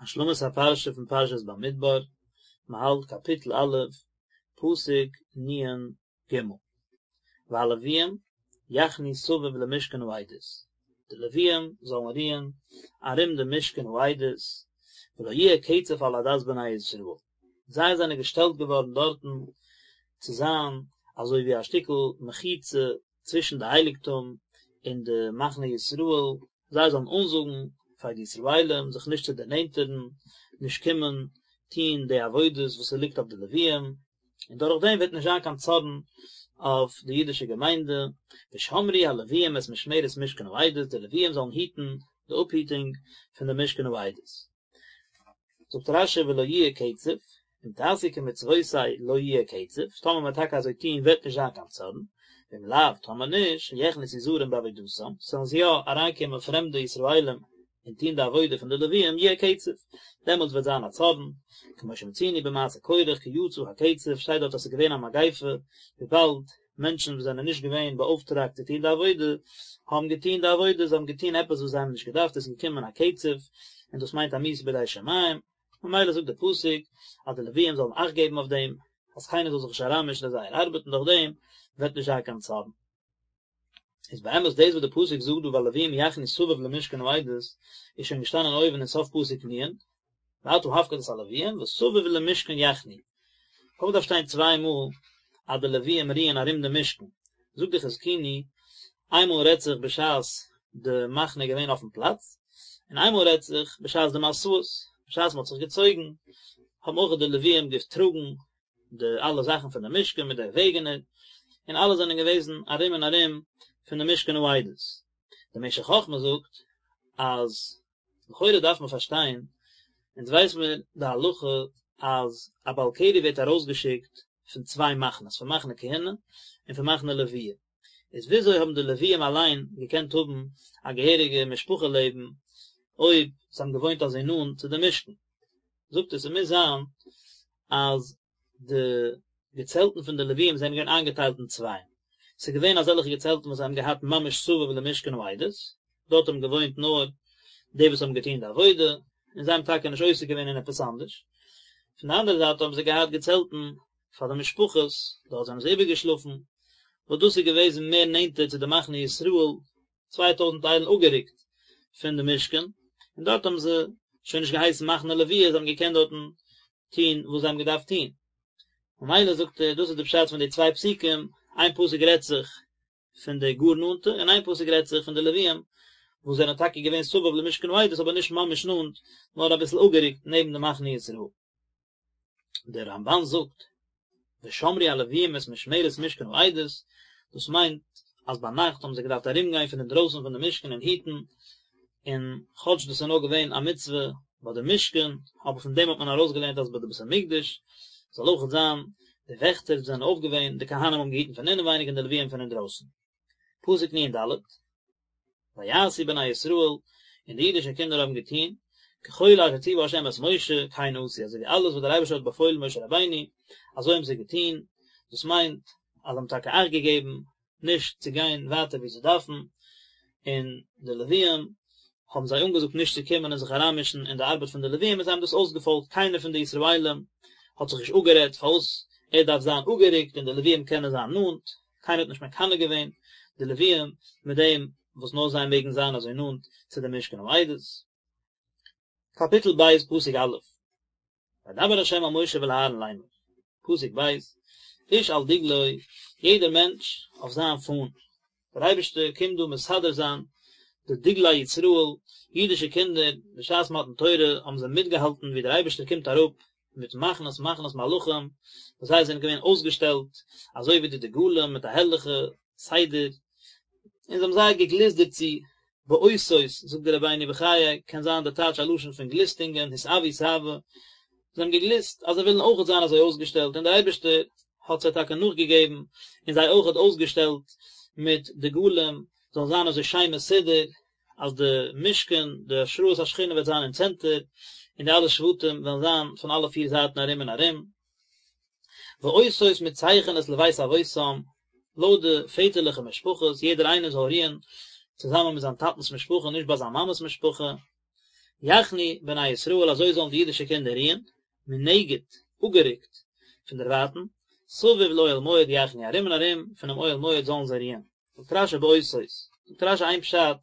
השלמת הפרשה פון פרשת במדבר, מען האלט קאפיטל א', פסוק נ"ג, והלוויים יחנו סביב למשכן העדות, די לוויים זאלן רוען ארום דעם משכן העדות, ולא יהיה קצף על עדת בני ישראל, זיי זענען געשטעלט געווארן דארטן צו זיין אזוי ווי א שטיקל מחיצה צווישן די הייליגטום און די מחנה ישראל, זיי זאלן אנזאגן פאר די ישראלים זיך נישט צו דערנענטערן, נישט קומען טון די עבודות וואס ס'ליגט אויף די לוויים, און דורך דעם וועט נישט זיין קיין צארן אויף די אידישע געמיינדע, ושמרו הלוויים את משמרת משכן העדות, די לוויים זאלן היטן די אפהיטונג פון די משכן העדות. זאגט רש"י ולא יהיה קצף, אם תעשו כמצוותי לא יהיה קצף, טאמער מען וועט טאקע אזוי טון וועט נישט זיין קיין צארן, ואם לאו, טאמער נישט, יכנסו זרים בעבודתם, ס'וועלן יא אריינקומען פרעמדע ישראלים און טון די עבודה פון די לוויים, יהיה קצף, דעמאלטס וועט זיין א צארן, כמו שמצינו במעשה קורח כי יצא הקצף, שטייט דארט אז ס'איז געווען א מגיפה, וויבאלד מענטשן וואס זענען נישט געווען באאויפטראגט צו טון די עבודה, האבן געטון די עבודה, זיי האבן געטון עפעס וואס זיי האבן נישט געדארפט, עס איז געקומען א קצף, און דאס מיינט א מיתה בידי שמים, ממילא זאגט דער פסוק אז די לוויים זאלן אכט געבן אויף דעם, אז קיינער זאל זיך נישט אריינמישן אין זייער ארבעט און דורך דעם וועט נישט זיין קיין צארן. איז באמת דאס וואס דער פסוק זאגט דא והלוויים יחנו סביב למשכן העדות איז שוין געשטאנען אויבן אין סוף פסוק נ', ואתה הפקד את הלוויים וסביב למשכן יחנו. פארוואס דארף שטיין צוויי מאל אז די לוויים רוען ארום די משכן? זאגט די חזקוני, איינמאל רעדט זיך בשעת די מחנה איז געווען אויפן פלאץ, און איינמאל רעדט זיך בשעת די מסעות, בשעת מען האט זיך געצויגן, האבן אויך די לוויים געטראגן די אלע זאכן פון די משכן מיט די וועגענער, און אלע זענען געוועזן ארום און ארום פון די משכן העדות. די משך חכמה זאגט אז לכאורה דארף מען פארשטיין, אונז ווייס מיר די הלכה אז א בעל קרי ווערט ארויסגעשיקט פון צוויי מחנות, פון מחנה כהונה און פון מחנה לוויה, איז וויאזוי האבן די לוויים אליין געקענט האבן א געהעריגע משפחה לעבן אויב זיי האבן געוואוינט אזוי נאנט צו די משכן? זאגט ער ס'מוז זיין אז די געצעלטן פון די לוויים זענען געווען איינגעטיילט אין צווייען, ס'איז געווען אזעלכע געצעלטן וואס זיי האבן געהאט ממש סביב למשכן העדות, דארט האבן געוואוינט נאר די וואס האבן געטון די עבודה, און זיי האבן טאקע נישט עוסק געווען אין עפעס אנדערש, פון די אנדערע זייט האבן זיי געהאט געצעלטן פאר די משפחות, דארט זענען זיי איבערגעשלאפן, וואס דאס איז געוועזן מער נענטער צו די מחנה ישראל, 2000 איילן אפגערוקט פון די משכן, און דארט האבן זיי שוין נישט געהייסן מחנה לוויה, זיי האבן געקענט דארטן טון וואס זיי האבן געדארפט טון. ממילא זאגט ער, דאס איז די פשט פון די צוויי פסוקים, איין פסוק רעדט זיך פון די גאר נאנטע, און איין פסוק רעדט זיך פון די לוויים, וואס זענען טאקע געווען סביב למשכן העדות אבער נישט ממש נאנט, נאר אביסל אפגערוקט נעבן די מחנה ישראל. דער רמב"ן זאגט, ושמרו הלוויים את משמרת משכן העדות, דאס מיינט אז ביינאכט האבן זיי געדארפט ארומגיין פון אינדרויסן פון די משכן און היטן, און כאטש דאס איז נאר געווען א מצוה ביי די משכן, אבער פון דעם האט מען ארויסגעלערנט אז ביי די בית המקדש זאל אויכעט זיין די וועכטער זענען אויף געווען, די כהנים האבן געהיטן פון אינעווייניג און די לוויים פון אינדרויסן. פסוק נ"ד, ויעשו בני ישראל, און די אידישע קינדער האבן געטון, ככל אשר ציווה ה' את משה, כן עשו, אזוי ווי אלעס וואס דער אייבערשטער האט באפוילן משה רבינו, אזוי האבן זיי געטון, דאס מיינט, אז זיי האבן טאקע אכט געגעבן, נישט צו גיין ווייטער ווי זיי דארפן, און די לוויים האבן זיי אנגעזאגט נישט צו קומען און זיך אריינמישן אין די ארבעט פון די לוויים און זיי האבן דאס אויסגעפאלגט, קיינער פון די ישראלים האט זיך נישט אפגערעדט פארוואס ער דארף זיין אפגערוקט און די לוויים קענען זיין נאנט, קיינער האט נישט מקנא געווען די לוויים מיט דעם וואס נאר זיי מעגן זיין אזוי נאנט צו די משכן העדות. קאפיטל ב' פסוק א', וידבר ה' אל משה ואל אהרן לאמר, פסוק ב', איש על דגלו, יעדער מענטש אויף זיין פאן, דער אייבערשטער קומט דא מסדר זיין די דגלי ישראל, אידישע קינדער, בשעת מתן תורה האבן זיי מיטגעהאלטן ווי דער אייבערשטער קומט אראפ מיט מחנות מחנות מלאכים, וואס זיי זענען געווען אויסגעשטעלט אזוי ווי די דגלים מיט א הערליכע סדר, און זיי האבן זייער געגליסט דערצו, באותות, זאגט דער רבינו בחיי, קען זיין די טייטש א לשון פון גליסטונגען, התאוו תאוה, זיי האבן געגליסט אז זיי ווילן אויכעט זיין אזוי אויסגעשטעלט, און דער אייבערשטער האט זיי טאקע נאכגעגעבן, און זיי אויכעט אויסגעשטעלט מיט דגלים, זאלן זיין אזוי שיין מסודר, אז די משכן, די השראת השכינה וועט זיין אין צענטער, און די אלע שבטים וועלן זיין פון אלע פיר זייטן ארום און ארום. ואותות מצייכנות לבית אבותם, לויט די פעטערליכע משפחות, יעדער איינער זאל רוען צוזאמען מיט זיין טאטנ'ס משפחה, נישט ביי זיין מאמע'ס משפחה. יחנו בני ישראל אזוי זאלן די אידישע קינדער רוען, מנגד, אפגערוקט, פון דערווייטן, סביב לאוהל מועד יחנו ארום און ארום פונעם אוהל מועד זאלן זיי רוען. זאגט רשי באותות, זאגט רשי איין פשט,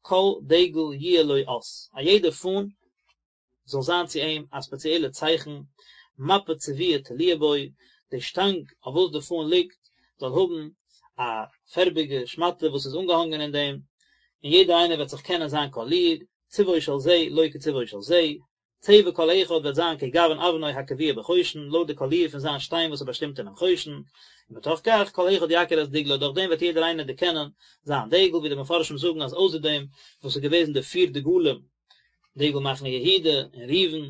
כל דגל יהיה לו אות, א יעדע פאן זאל זיין צו אים א ספעציעלע צייכן, מפה צבועה תלויה בו, די שטאנג אויף וואס די פאן ליגט זאל האבן א פערביגע שמאטע וואס איז אנגעהאנגען אין דעם, און יעדער איינער וועט זיך קענען זיין קאליר, צבעו של זה לא כצבעו של זה, צבע כל אחד וועט זיין כגוון אבנו הקבועה בחושן, לויט די קאליר פון זיין שטיין וואס איז באשטימט אינעם חושן, ומתוך כך כל אחד יכיר את דגלו, דורך דעם וועט יעדער איינער דערקענען זיין דגל, ווי די מפרשים זאגן אז אויסער דעם וואס איז געוועזן די פיר דגלים, דגל מחנה יהודה און ראובן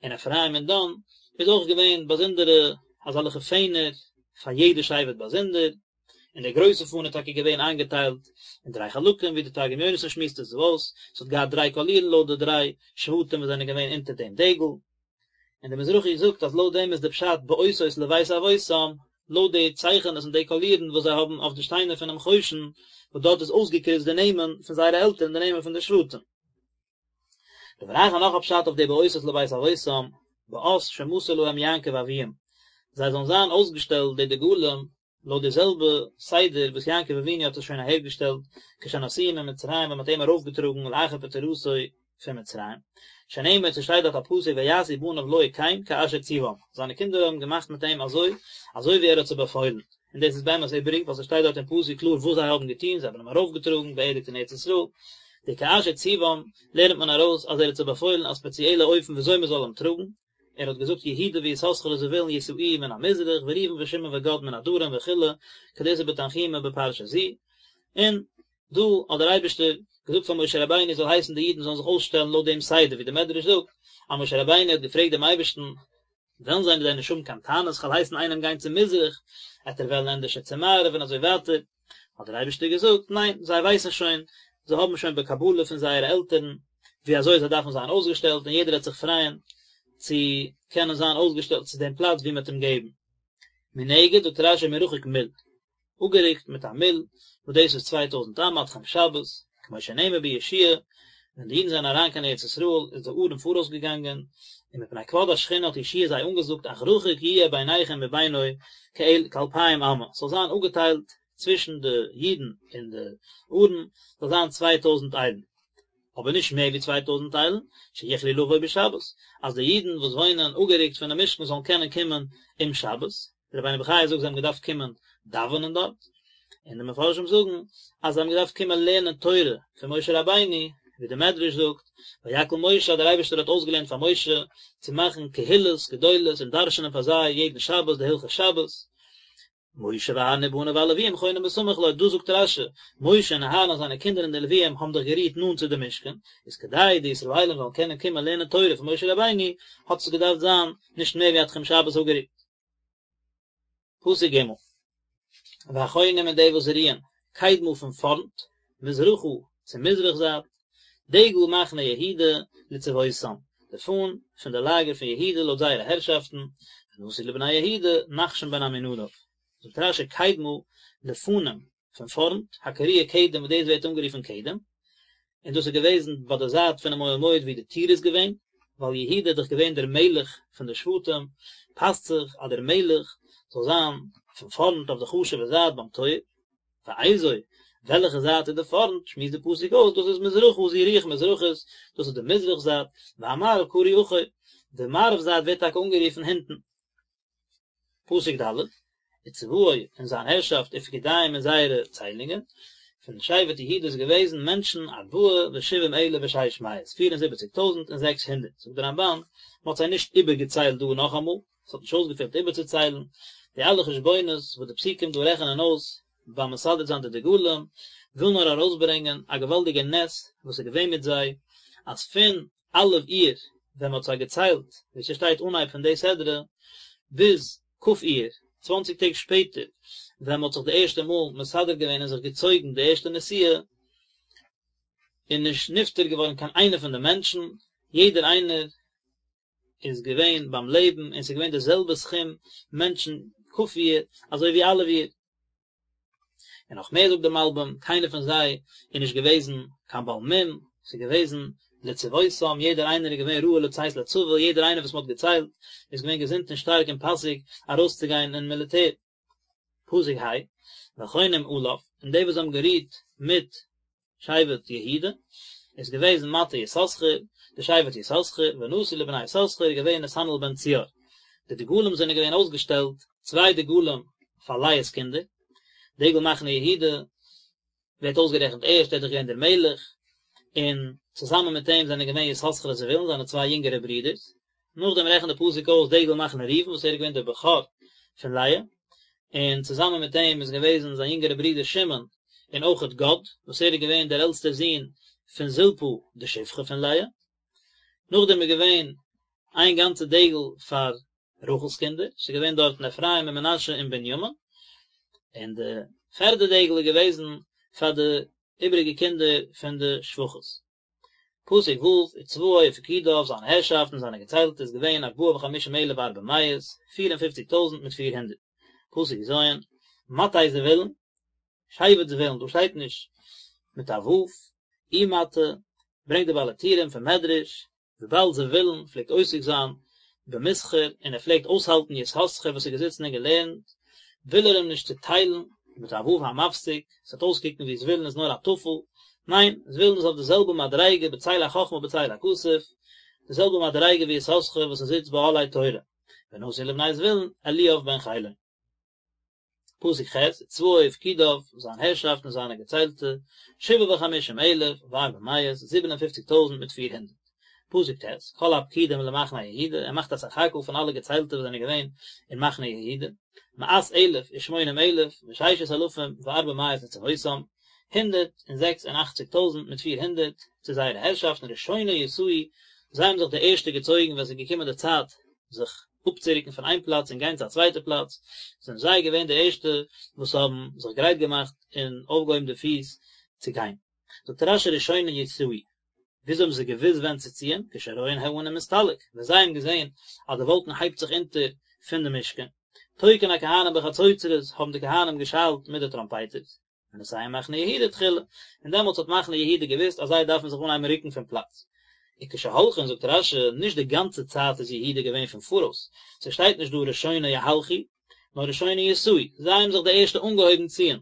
און אפרים און דן, איז אויך געווען באזונדערע אזעלכע פענער פאר יעדע שבט באזונדער, און דער גרויסע פאן איז טאקע געווען איינגעטיילט אין דריי חלקים ווי די תרגום יונתן שמועסט עס אויס, עס האט געהאט דריי קאלירן לויט די דריי שבטים וואס זענען געווען אונטער דעם דגל, און דער מזרחי זאגט אז לויט דעם איז די פשט באותות לבית אבותם, לויט די צייכענעס און די קאלירן וואס זיי האבן אויף די שטיינער פונעם חושן, וואס דארט איז אויסגעקריצט די נעמען פון זייערע עלטערן די נעמען פון די שבטים. דבר אחר נאך א פשט אויף די באותות לבית אבותם, באות שמסר להם יעקב אביהם, זיי זאלן זיין אויסגעשטעלט די דגלים לויט די זעלבע סדר וואס יעקב אבינו האט עס שוין אהערגעשטעלט כשנשאוהו ממצרים ווען מען האט אים ארויפגעטראגן לאחר פטירתו פון מצרים, שנאמר ס'שטייט דארט א פסוק ויעשו בניו לו כן כאשר ציוום, זיינע קינדער האבן געמאכט מיט אים אזוי אזוי ווי ער האט זיי באפוילן, און דאס איז באמת איבעריג ווייל ס'שטייט דארט אין פסוק קלאר וואס זיי האבן געטון, זיי האבן אים ארויפגעטראגן, באערדיגט אין ארץ ישראל, די כאשר ציוום לערנט מען ארויס אז ער האט זיי באפוילן א ספעציעלע אופן וויאזוי מען זאל אים טראגן, ער האט געזאגט יהודה ויששכר וזבולון ישאוהו מן המזרח וראובן ושמעון וגד מן הדרום וכו' כדאיתא בתנחומא בפרשה זו, און דא האט דער אייבערשטער געזאגט פאר משה רבינו זאל הייסן די אידן זאלן זיך אויסשטעלן לויט דעם סדר ווי דער מדרש זאגט אז משה רבינו האט געפרעגט דעם אייבערשטן וועלן זיי דען נישט האבן קיין טענות כ'וועל הייסן איינעם גיין צו מזרח עט ער וועלן ענדערשער צו מערב און אזוי ווייטער האט דער אייבערשטער געזאגט ניין זיי ווייסן שוין זיי האבן שוין בקבלה פון זייערע עלטערן ווי אזוי זיי דארפן זיין אויסגעשטעלט און יעדער וועט זיך פרייען צו קענען זיין אויסגעשטעלט צו דעם פלאץ ווי מען האט אים געבן. מנגד זאגט רשי מרחוק מיל, אפגערוקט מיט א מיל, וואס דאס איז 2000 אמה א תחום שבת, כמו שנאמר ביהושע ווען די אידן זענען אריין קיין ארץ ישראל איז די ארון פאראויס געגאנגען, און מפני כבוד השכינה האט יהושע זיי אנגעזאגט אך רחוק יהיה ביניכם ובינו כאלפיים אמה, ס'זאל זיין אפגעטיילט צווישן די אידן און די ארון זאל זיין 2000 איילן. אבער נישט מער ווי 2000 איילן, שיוכלו לבוא בשבת, אז די אידן וואס וואוינען אפגערוקט פונעם משכן זאלן קענען קומען אום שבת, דער רבינו בחיי זאגט זיי האבן געדארפט קומען דאווענען דארט, און די מפרשים זאגן אז זיי האבן געדארפט קומען לערנען תורה פון משה רבינו, ווי דער מדרש זאגט, ויקהל משה אז דער אייבערשטער האט אויסגעלערנט פאר משה צו מאכן קהילות גדולות און דרש'נען פאר זיי יעדן שבת די הלכות שבת, משה ואהרן ובניו והלוויים חונים בסמוך לו, דא זאגט רשי, משה און אהרן און זיינע קינדער און די לוויים האבן דאך גערוהט נאנט צו די משכן, איז כדי די ישראלים זאלן קענען קומען לערנען תורה פון משה רבינו, האט עס געדארפט זיין נישט מער ווי א תחום שבת אפגערוקט. פסוק ג' והחונים און די וואס רוען, קדמה פון פארנט, מזרחה, צו מזרח זייט, דגל מחנה יהודה לצבאותם, די פאן פון די לאגער פון יהודה לויט זייערע הערשאפטן, ונשיא לבני יהודה, נחשון בן עמינדב. זאגט רשי קדמה לפנים, פון פארנט, הקרויה קדם וואס דאס ווערט אנגערופן קדם, און דאס איז געוועזן ביי די זייט פונעם אוהל מועד ווי די טיר איז געווען, ווייל יהודה איז דאך געווען דער מלך פון די שבטים, פאסט זיך אז דער מלך זאל זיין פון פארנט אויף די חשוב'ע זייט ביים טויער. ואיזו, וועלכע זייט איז די פארנט, שמועסט די פסוק אויס, דאס איז מזרחה זו רוח מזרחית, דאס איז די מזרח זייט, והמערב קרוי אחור, די מערב זייט ווערט טאקע אנגערופן הינטן. פסוק ד', וצבאו און זיין הערשאפט ופקודיהם און זייערע ציילונגען, פון שבט יהודה איז געוועזן מענטשן ארבעה ושבעים אלף ושש מאות, פיר און זיבעציג טויזנט און זעקס הונדערט, זאגט דער רמבן, מען האט זיי נישט איבערגעציילט דא נאכאמאל, עס האט נישט אויסגעפעלט איבערצוציילן, די אלע חשבונות וואס די פסוקים דא רעכענען אויס ביים מסדר זיין די דגלים, וויל נאר ארויסברענגען א געוואלדיגע נס וואס איז געווען מיט זיי, אז פון א' אייר ווען מען האט זיי געציילט, ווי ס'שטייט אנהייב פון די סדרה, ביז כ' אייר, צוואנציג טעג שפעטער, ווען מען האט זיך די ערשטע מאל מסדר געווען און זיך געצויגן די ערשטע נסיעה, איז נישט נפטר געווארן קיין איינער פון די מענטשן, יעדער איינער איז געווען ביים לעבן און ס'איז געווען די זעלבע סכום מענטשן כ' אייר אזוי ווי א' אייר. און נאך מער זאגט דער מלבים, קיינער פון זיי איז נישט געוועזן קיין בעל מום, ס'איז געוועזן לצבאותם, יעדער איינער איז געווען ראוי לצאת לצבא, יעדער איינער וואס מען האט געציילט איז געווען געזונט און שטארק און פאסיג ארויסצוגיין אין מיליטער. פסוק ה', והחונים עליו, און די וואס האבן גערוהט מיט שבט יהודה, איז געוועזן מטה יששכר, די שבט יששכר, ונשיא לבני יששכר איז געווען נתנאל בן צוער. די דגלים זענען געווען אויסגעשטעלט, צוויי דגלים פאר לאה'ס קינדער, דגל מחנה יהודה ווערט אויסגערעכנט ערשט, ער איז דאך געווען דער מלך, און צוזאמען מיט אים זענען געווען יששכר און זבולון, זיינע צוויי יונגערע ברידערס. נאכדעם רעכנט דער פסוק אויס דגל מחנה ראובן וואס ער איז געווען דער בכור פון לאה, און צוזאמען מיט אים איז געוועזן זיין יונגערע ברודער שמעון, און אויכעט גד, וואס ער איז געווען דער עלטסטער זון פון זלפה די שפחה פון לאה. נאכדעם איז געווען איין גאנצע דגל פאר רחל'ס קינדער, ס'איז געווען דארטן אפרים און מנשה און בנימין, און די פערדע דגל איז געוועזן פאר די איבעריגע קינדער פון די שפחות. פסוק ו', וצבאו ופקודיו, זיין הערשאפט און זיינע געציילטע איז געווען ארבעה וחמישים אלף וארבע מאות, פיר און פופציג טויזנט מיט פיר הונדערט. פסוק ז', מטה זבולון, שבט זבולון, דא שטייט נישט מיט א ו', ומטה, ברענגט די בעל הטורים פון מדרש, וויבאלד זבולון פלעגט עוסק זיין במסחר און ער פלעגט אויסהאלטן יששכר וואס איז געזיצן און געלערנט, וויל ער אים נישט צוטיילן מיט א ו' המפסיק, עס וועט אויסקוקן ווי זבולון איז נאר א טפל, ניין, זבולון איז אויף די זעלבע מדריגה בצל החכמה בצל הכסף, די זעלבע מדריגה ווי יששכר וואס ער זיצט באהלי תורה, ונשיא לבני זבולון אליאב בן חילון. פסוק ח', וצבאו ופקודיו, זיין הערשאפט און זיינע געציילטע, שבעה וחמישים אלף וארבע מאות, זיבן און פופציג טויזנט מיט פיר הונדערט. פסוק ט', כל הפקודים למחנה יהודה, ער מאכט א סך הכל פון אלע געציילטע וואס זענען געווען אין מחנה יהודה, מאת אלף ושמונים אלף וששת אלפים וארבע מאות לצבאותם, הונדערט און זעקס און אכציג טויזנט מיט פיר הונדערט, צו זייערע הערשאפטן, ראשונה יסעו, זיי האבן זיך די ערשטע געצויגן ווען עס איז געקומען די צייט זיך אפצורוקן פון איין פלאץ און גיין צו א צווייטע פלאץ, זענען זיי געווען די ערשטע וואס האבן זיך גרייט געמאכט און אויפגעהויבן די פיס צו גיין. זאגט רש"י ראשונה יסעו, וויאזוי האבן זיי געוואוסט ווען צו ציען, כשרואין הענן מסתלק, ווען זיי האבן געזען אז די וואלקן הייבט זיך אונטער פון די משכן, תוקעין הכהנים בחצוצרות, האבן די כהנים געשאלט מיט די טראמפייטערס, ונוסע מחנה יהודה תחילה, און דעמאלטס האט מחנה יהודה געוואוסט אז זיי דארפן זיך אנהייבן רוקן פון פלאץ. וכשהולכין זאגט רש"י, נישט די גאנצע צייט איז יהודה געווען פון פאראויס, ס'שטייט נישט דא ראשונה יהלכו, נאר ראשונה יסעו, זיי האבן זיך די ערשטע אנגעהויבן ציען,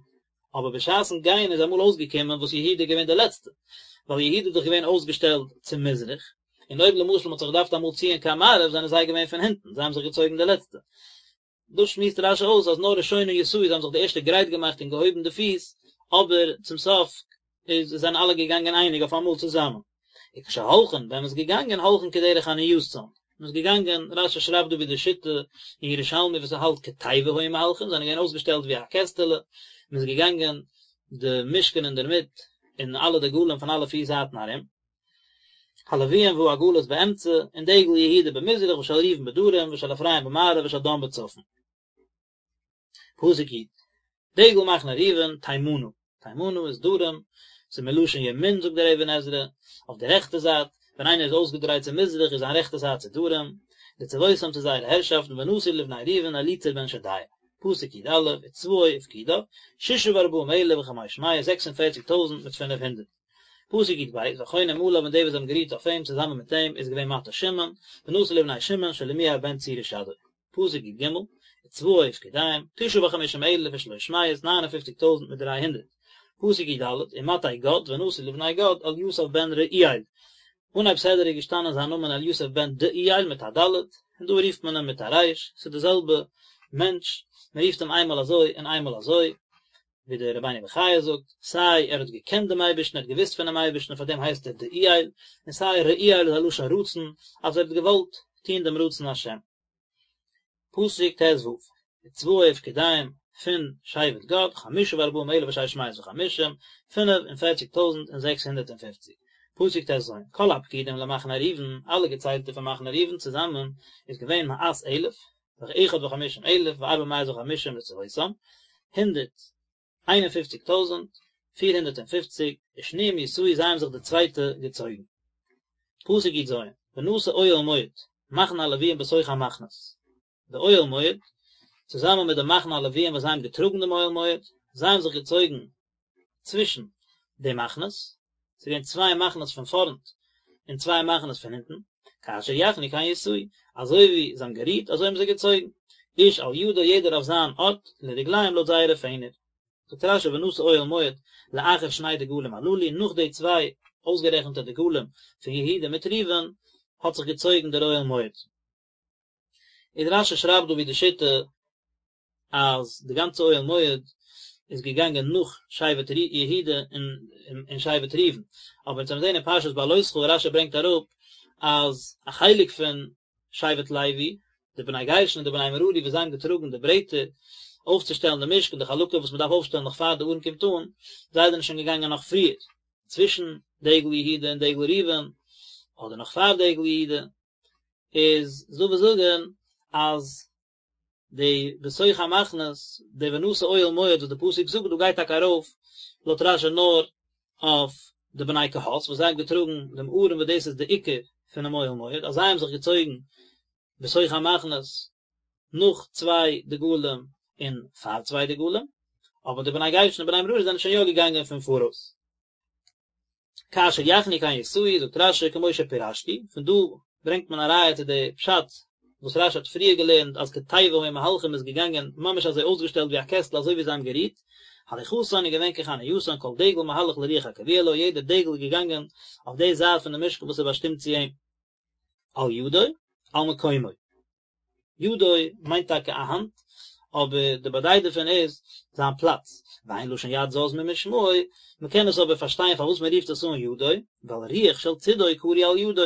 אבער בשעת'ן גיין איז אמאל אויסגעקומען וואס יהודה איז געווען די לעצטע, ווייל יהודה איז דאך געווען אויסגעשטעלט צו מזרח, און אויב למשל מ'האט זיך געדארפט אמאל ציען קיין מערב זענען זיי געווען פון הינטן, זיי האבן זיך געצויגן די לעצטע. דאס שמועסט רש"י אויס אז נאר ראשונה יסעו זיי האבן זיך די ערשטע גרייט געמאכט און געהויבן די פיס, אבער צום סוף איז זענען אלע געגאנגען אייניג אויף אמאל צוזאמען. וכשהולכין, ווען מען איז געגאנגען הולכין כדרך עניתן, מען איז געגאנגען, רש"י שרייבט דא ווי די שיטה אין ירושלמי וואס ער האלט כתיבה היו מהלכין, זענען געווען אויסגעשטעלט ווי א קעסטעלע, מען איז געגאנגען די משכן אינדערמיט און אלע דגלים פון אלע פיר זייטן ארום. הלוויים והעגלות באמצע, און דגל יהודה במזרח ושל ראובן בדרום ושל אפרים במערב ושל דן בצפון. פסוק י', דגל מחנה ראובן תימנה, תימנה איז דרום, ס'איז מלשון ימין זאגט דער אבן עזרא, אויף די רעכטע זייט, ווען איינער איז אויסגעדרייט צו מזרח איז זיין רעכטע זייט צו דרום, לצבאותם צו זייערע הערשאפטן ונשיא לבני ראובן אליצור בן שדיאור. פסוק י"א, וצבאו ופקודיו, ששה וארבעים אלף וחמש מאות, זעקס און פערציג טויזנט מיט פינף הונדערט. פסוק י"ב, והחונים עליו און די וואס האבן גערוהט אויף אים צוזאמען מיט אים איז געווען מטה שמעון, ונשיא לבני שמעון שלומיאל בן צורישדי. פסוק י"ג, וצבאו ופקודיהם, תשעה וחמישים אלף ושלוש מאות, ניין און פופציג טויזנט מיט דריי הונדערט. פסוק י"ד, ומטה גד, ונשיא לבני גד, אליסף בן רעואל. אנהייב סדרה איז געשטאנען זיין נאמען אליסף בן דעואל מיט א ד', און דא רופט מען אים מיט א ר', ס'איז די זעלבע מענטש, מען רופט אים איינמאל אזוי און איינמאל אזוי. ווי דער רבינו בחיי זאגט, סיי ער האט געקענט דעם אייבערשטן, ער האט געוואוסט פונעם אייבערשטן און פאר דעם הייסט ער דעואל, און סיי רעואל איז א לשון רצון, אז ער האט געוואלט טון דעם רצון השם. פסוק ט"ו, וצבאו ופקודיהם פון שבט גד, חמשה וארבעים אלף ושש מאות וחמישים, פינף און פערציג טויזנט און זעקס הונדערט און פופציג. פסוק ט"ז, כל הפקודים למחנה ראובן, אלע געציילטע פון מחנה ראובן צוזאמען איז געווען מאת אלף, ואחד וחמישים אלף וארבע מאות וחמישים לצבאותם, הונדערט איין און פופציג טויזנט, פיר הונדערט און פופציג, ושניים יסעו זיי האבן זיך די צווייטע געצויגן. פסוק י"ז, ונסע אוהל מועד, מחנה הלוויים בתוך המחנות. די אוהל מועד, צוזאמען מיט די מחנה הלוויים וואס זיי האבן געטראגן דעם אוהל מועד, זיי האבן זיך געצויגן צווישן די מחנות, ס'איז געווען צוויי מחנות פון פארנט. און צוויי מחנות פון הינטן, כאשר יחנו כן יסעו, אזוי ווי זיי האבן גערוהט אזוי האבן זיי געצויגן, איש על ידו יעדער אויף זיין ארט, לדגליהם לויט זייערע פענער. זאגט רשי ונסע אוהל מועד לאחר שני דגלים הללו, נאך די צוויי אויסגערעכנטע דגלים פון יהודה מיט ראובן האט זיך געצויגן דער אוהל מועד. איז רשי שרייבט דא ווי די שיטה אז די גאנצע אוהל מועד איז געגאנגען נאך שבט יהודה און שבט ראובן, אבער אונז האבן געזען אין פרשת בהעלותך רשי ברענגט אראפ אז א חלק פון שבט לוי, די בני גרשון און די בני מררי וואס זיי האבן געטראגן די ברעטער אויפצושטעלן די משכן, די חלקים וואס מען דארף אויפשטעלן נאך פאר די ארון קומט אן, זיי זענען שוין געגאנגען נאך פריער, צווישן דגל יהודה און דגל ראובן, אדער נאך פאר דגל יהודה, איז דא וואס זאגן אז די בתוך המחנות, די ונסע אוהל מועד וואס די פסוק זאגט דא גייט טאקע ארויף לויט רשי נאר אויף די בני קהת וואס זיי האבן געטראגן דעם ארון וואס דאס איז די עיקר פונעם אוהל מועד, אז זיי האבן זיך געצויגן בתוך המחנות נאך צוויי דגלים און פאר צוויי דגלים, אבער די בני גרשון און בני מררי זענען שוין יא געגאנגען פון פאראויס. כאשר יחנו כן יסעו, זאגט רשי כמו שפירשתי, פון דא ברענגט מען א ראיה צו די פשט וואס רשי האט פריער געלערנט אז כתיבה היו מהלכים איז געגאנגען ממש אזוי אויסגעשטעלט ווי א קעסטל אזוי ווי זיי האבן גערוהט, הליכתן איז געווען כחנייתן כל דגל מהלך לרוח הקבועה לו יעדער דגל איז געגאנגען אויף די זייט פון די משכן וואס איז באשטימט צו אים. על ידו, על מקומו. ידו מיינט טאקע א האנט, אבער די באדייט דערפון איז זיין פלאץ, ואין לשון יד זז ממשמעו, מען קען עס אבער פארשטיין פארוואס מען רופט עס אן ידו, ווייל רוח של צידו קרוי על ידו,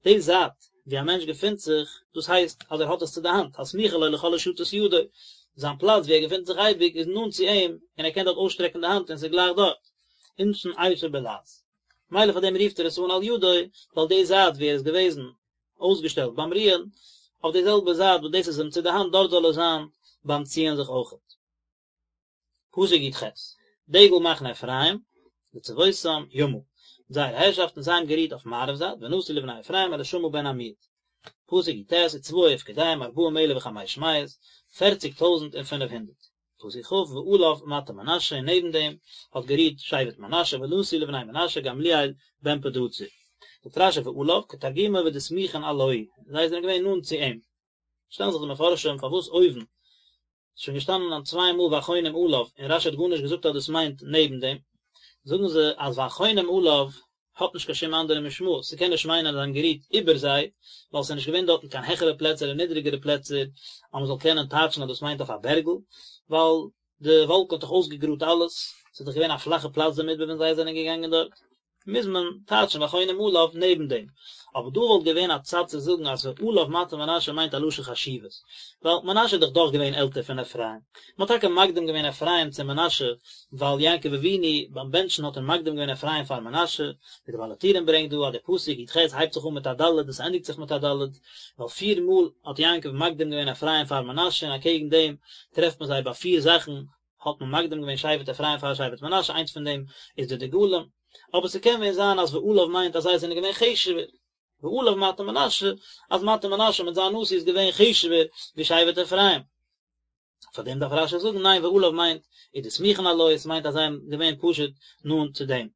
די זייט ווי א מענטש געפינט זיך, דאס הייסט אז ער האט עס צו די האנט, הסמוכה לו לכל הושטת ידו, זיין פלאץ ווי ער געפינט זיך אייביג איז נאנט צו אים און ער קען דארט אויסשטרעקן די האנט און ס'איז גלייך דארט. אינשין אייתי בלעז. מילא פאר דעם רופט ער עס אן על ידו, ווייל די זייט ווי ער איז געוועזן אויסגעשטעלט ביים רוען, אויף די זעלבע זייט וואס דאס איז אים צו די האנט דארט זאל ער זיין ביים ציען זיך אויכעט. פסוק י"ח, דגל מחנה אפרים, לצבאותם, ימה, מיט זייערע הערשאפטן, זיי האבן גערוהט אויף מערב זייט, ונשיא לבני אפרים אלישמע בן עמיהוד. פסוק י"ט, וצבאו ופקודיהם ארבעים אלף וחמש מאות, פערציג טויזנט און פינף הונדערט. פסוק כ, ועליו מטה מנשה, און נעבן דעם האט גערוהט שבט מנשה, ונשיא לבני מנשה גמליאל בן פדהצור. זאגט רשי ועליו, כתרגומו ודסמיכין עלוהי, זיי זענען געווען נאנט צו אים. שטעלן זיך די מפרשים פארוואס אויבן איז שוין געשטאנען אן צוויי מאל והחונים עליו און רשי האט גארנישט געזאגט אז דאס מיינט נעבן דעם, זאגן זיי אז והחונים עליו האט נישט קיין שום אנדערע משמעות, ס'קען נישט מיינען אז זיי האבן גערוהט איבער זיי, ווייל ס'איז נישט געווען דארטן קיין העכערע פלעצער און נידריגערע פלעצער אז מ'זאל קענען טייטשן אז דאס מיינט אויף א בערגל, ווייל די וואלקן האט דאך אויסגעגראדט אלעס, ס'איז דאך געווען א פלאכע פלאץ די מדבר ווען זיי זענען געגאנגען דארט. מוז מען טייטשן והחונים עליו נעבן דעם. אבער דא וואלט געווען א צד צו זאגן אז ועליו מטה מנשה מיינט א לשון חשיבות, ווייל מנשה איז דאך דאך געווען עלטער פון אפרים. מען האט טאקע מקדים געווען אפרים צו מנשה, ווייל יעקב אבינו ביים בענטשן האט ער מקדים געווען אפרים פאר מנשה, ווי דער בעל הטורים ברענגט דא אז דער פסוק י"ח הייבט זיך אן מיט א ד' און ס'ענדיגט זיך מיט א ד', ווייל פיר מאל האט יעקב מקדים געווען אפרים פאר מנשה און אקעגן דעם טרעפט מען זיי ביי פיר זאכן האט מען מקדים געווען שבט אפרים פאר שבט מנשה, איינס פון דעם איז די דגלים, אבער ס'קען ווען זיין אז ועליו מיינט אז זיי זענען געווען חשוב'ער, ועליו מטה מנשה, אז מטה מנשה מיט זיין נשיא איז געווען חשוב'ער ווי שבט אפרים. פאר דעם דארף רשי זאגן ניין ועליו מיינט ודסמיכין עלויה, עס מיינט אז זיי זענען געווען פשוט נאנט צו דעם.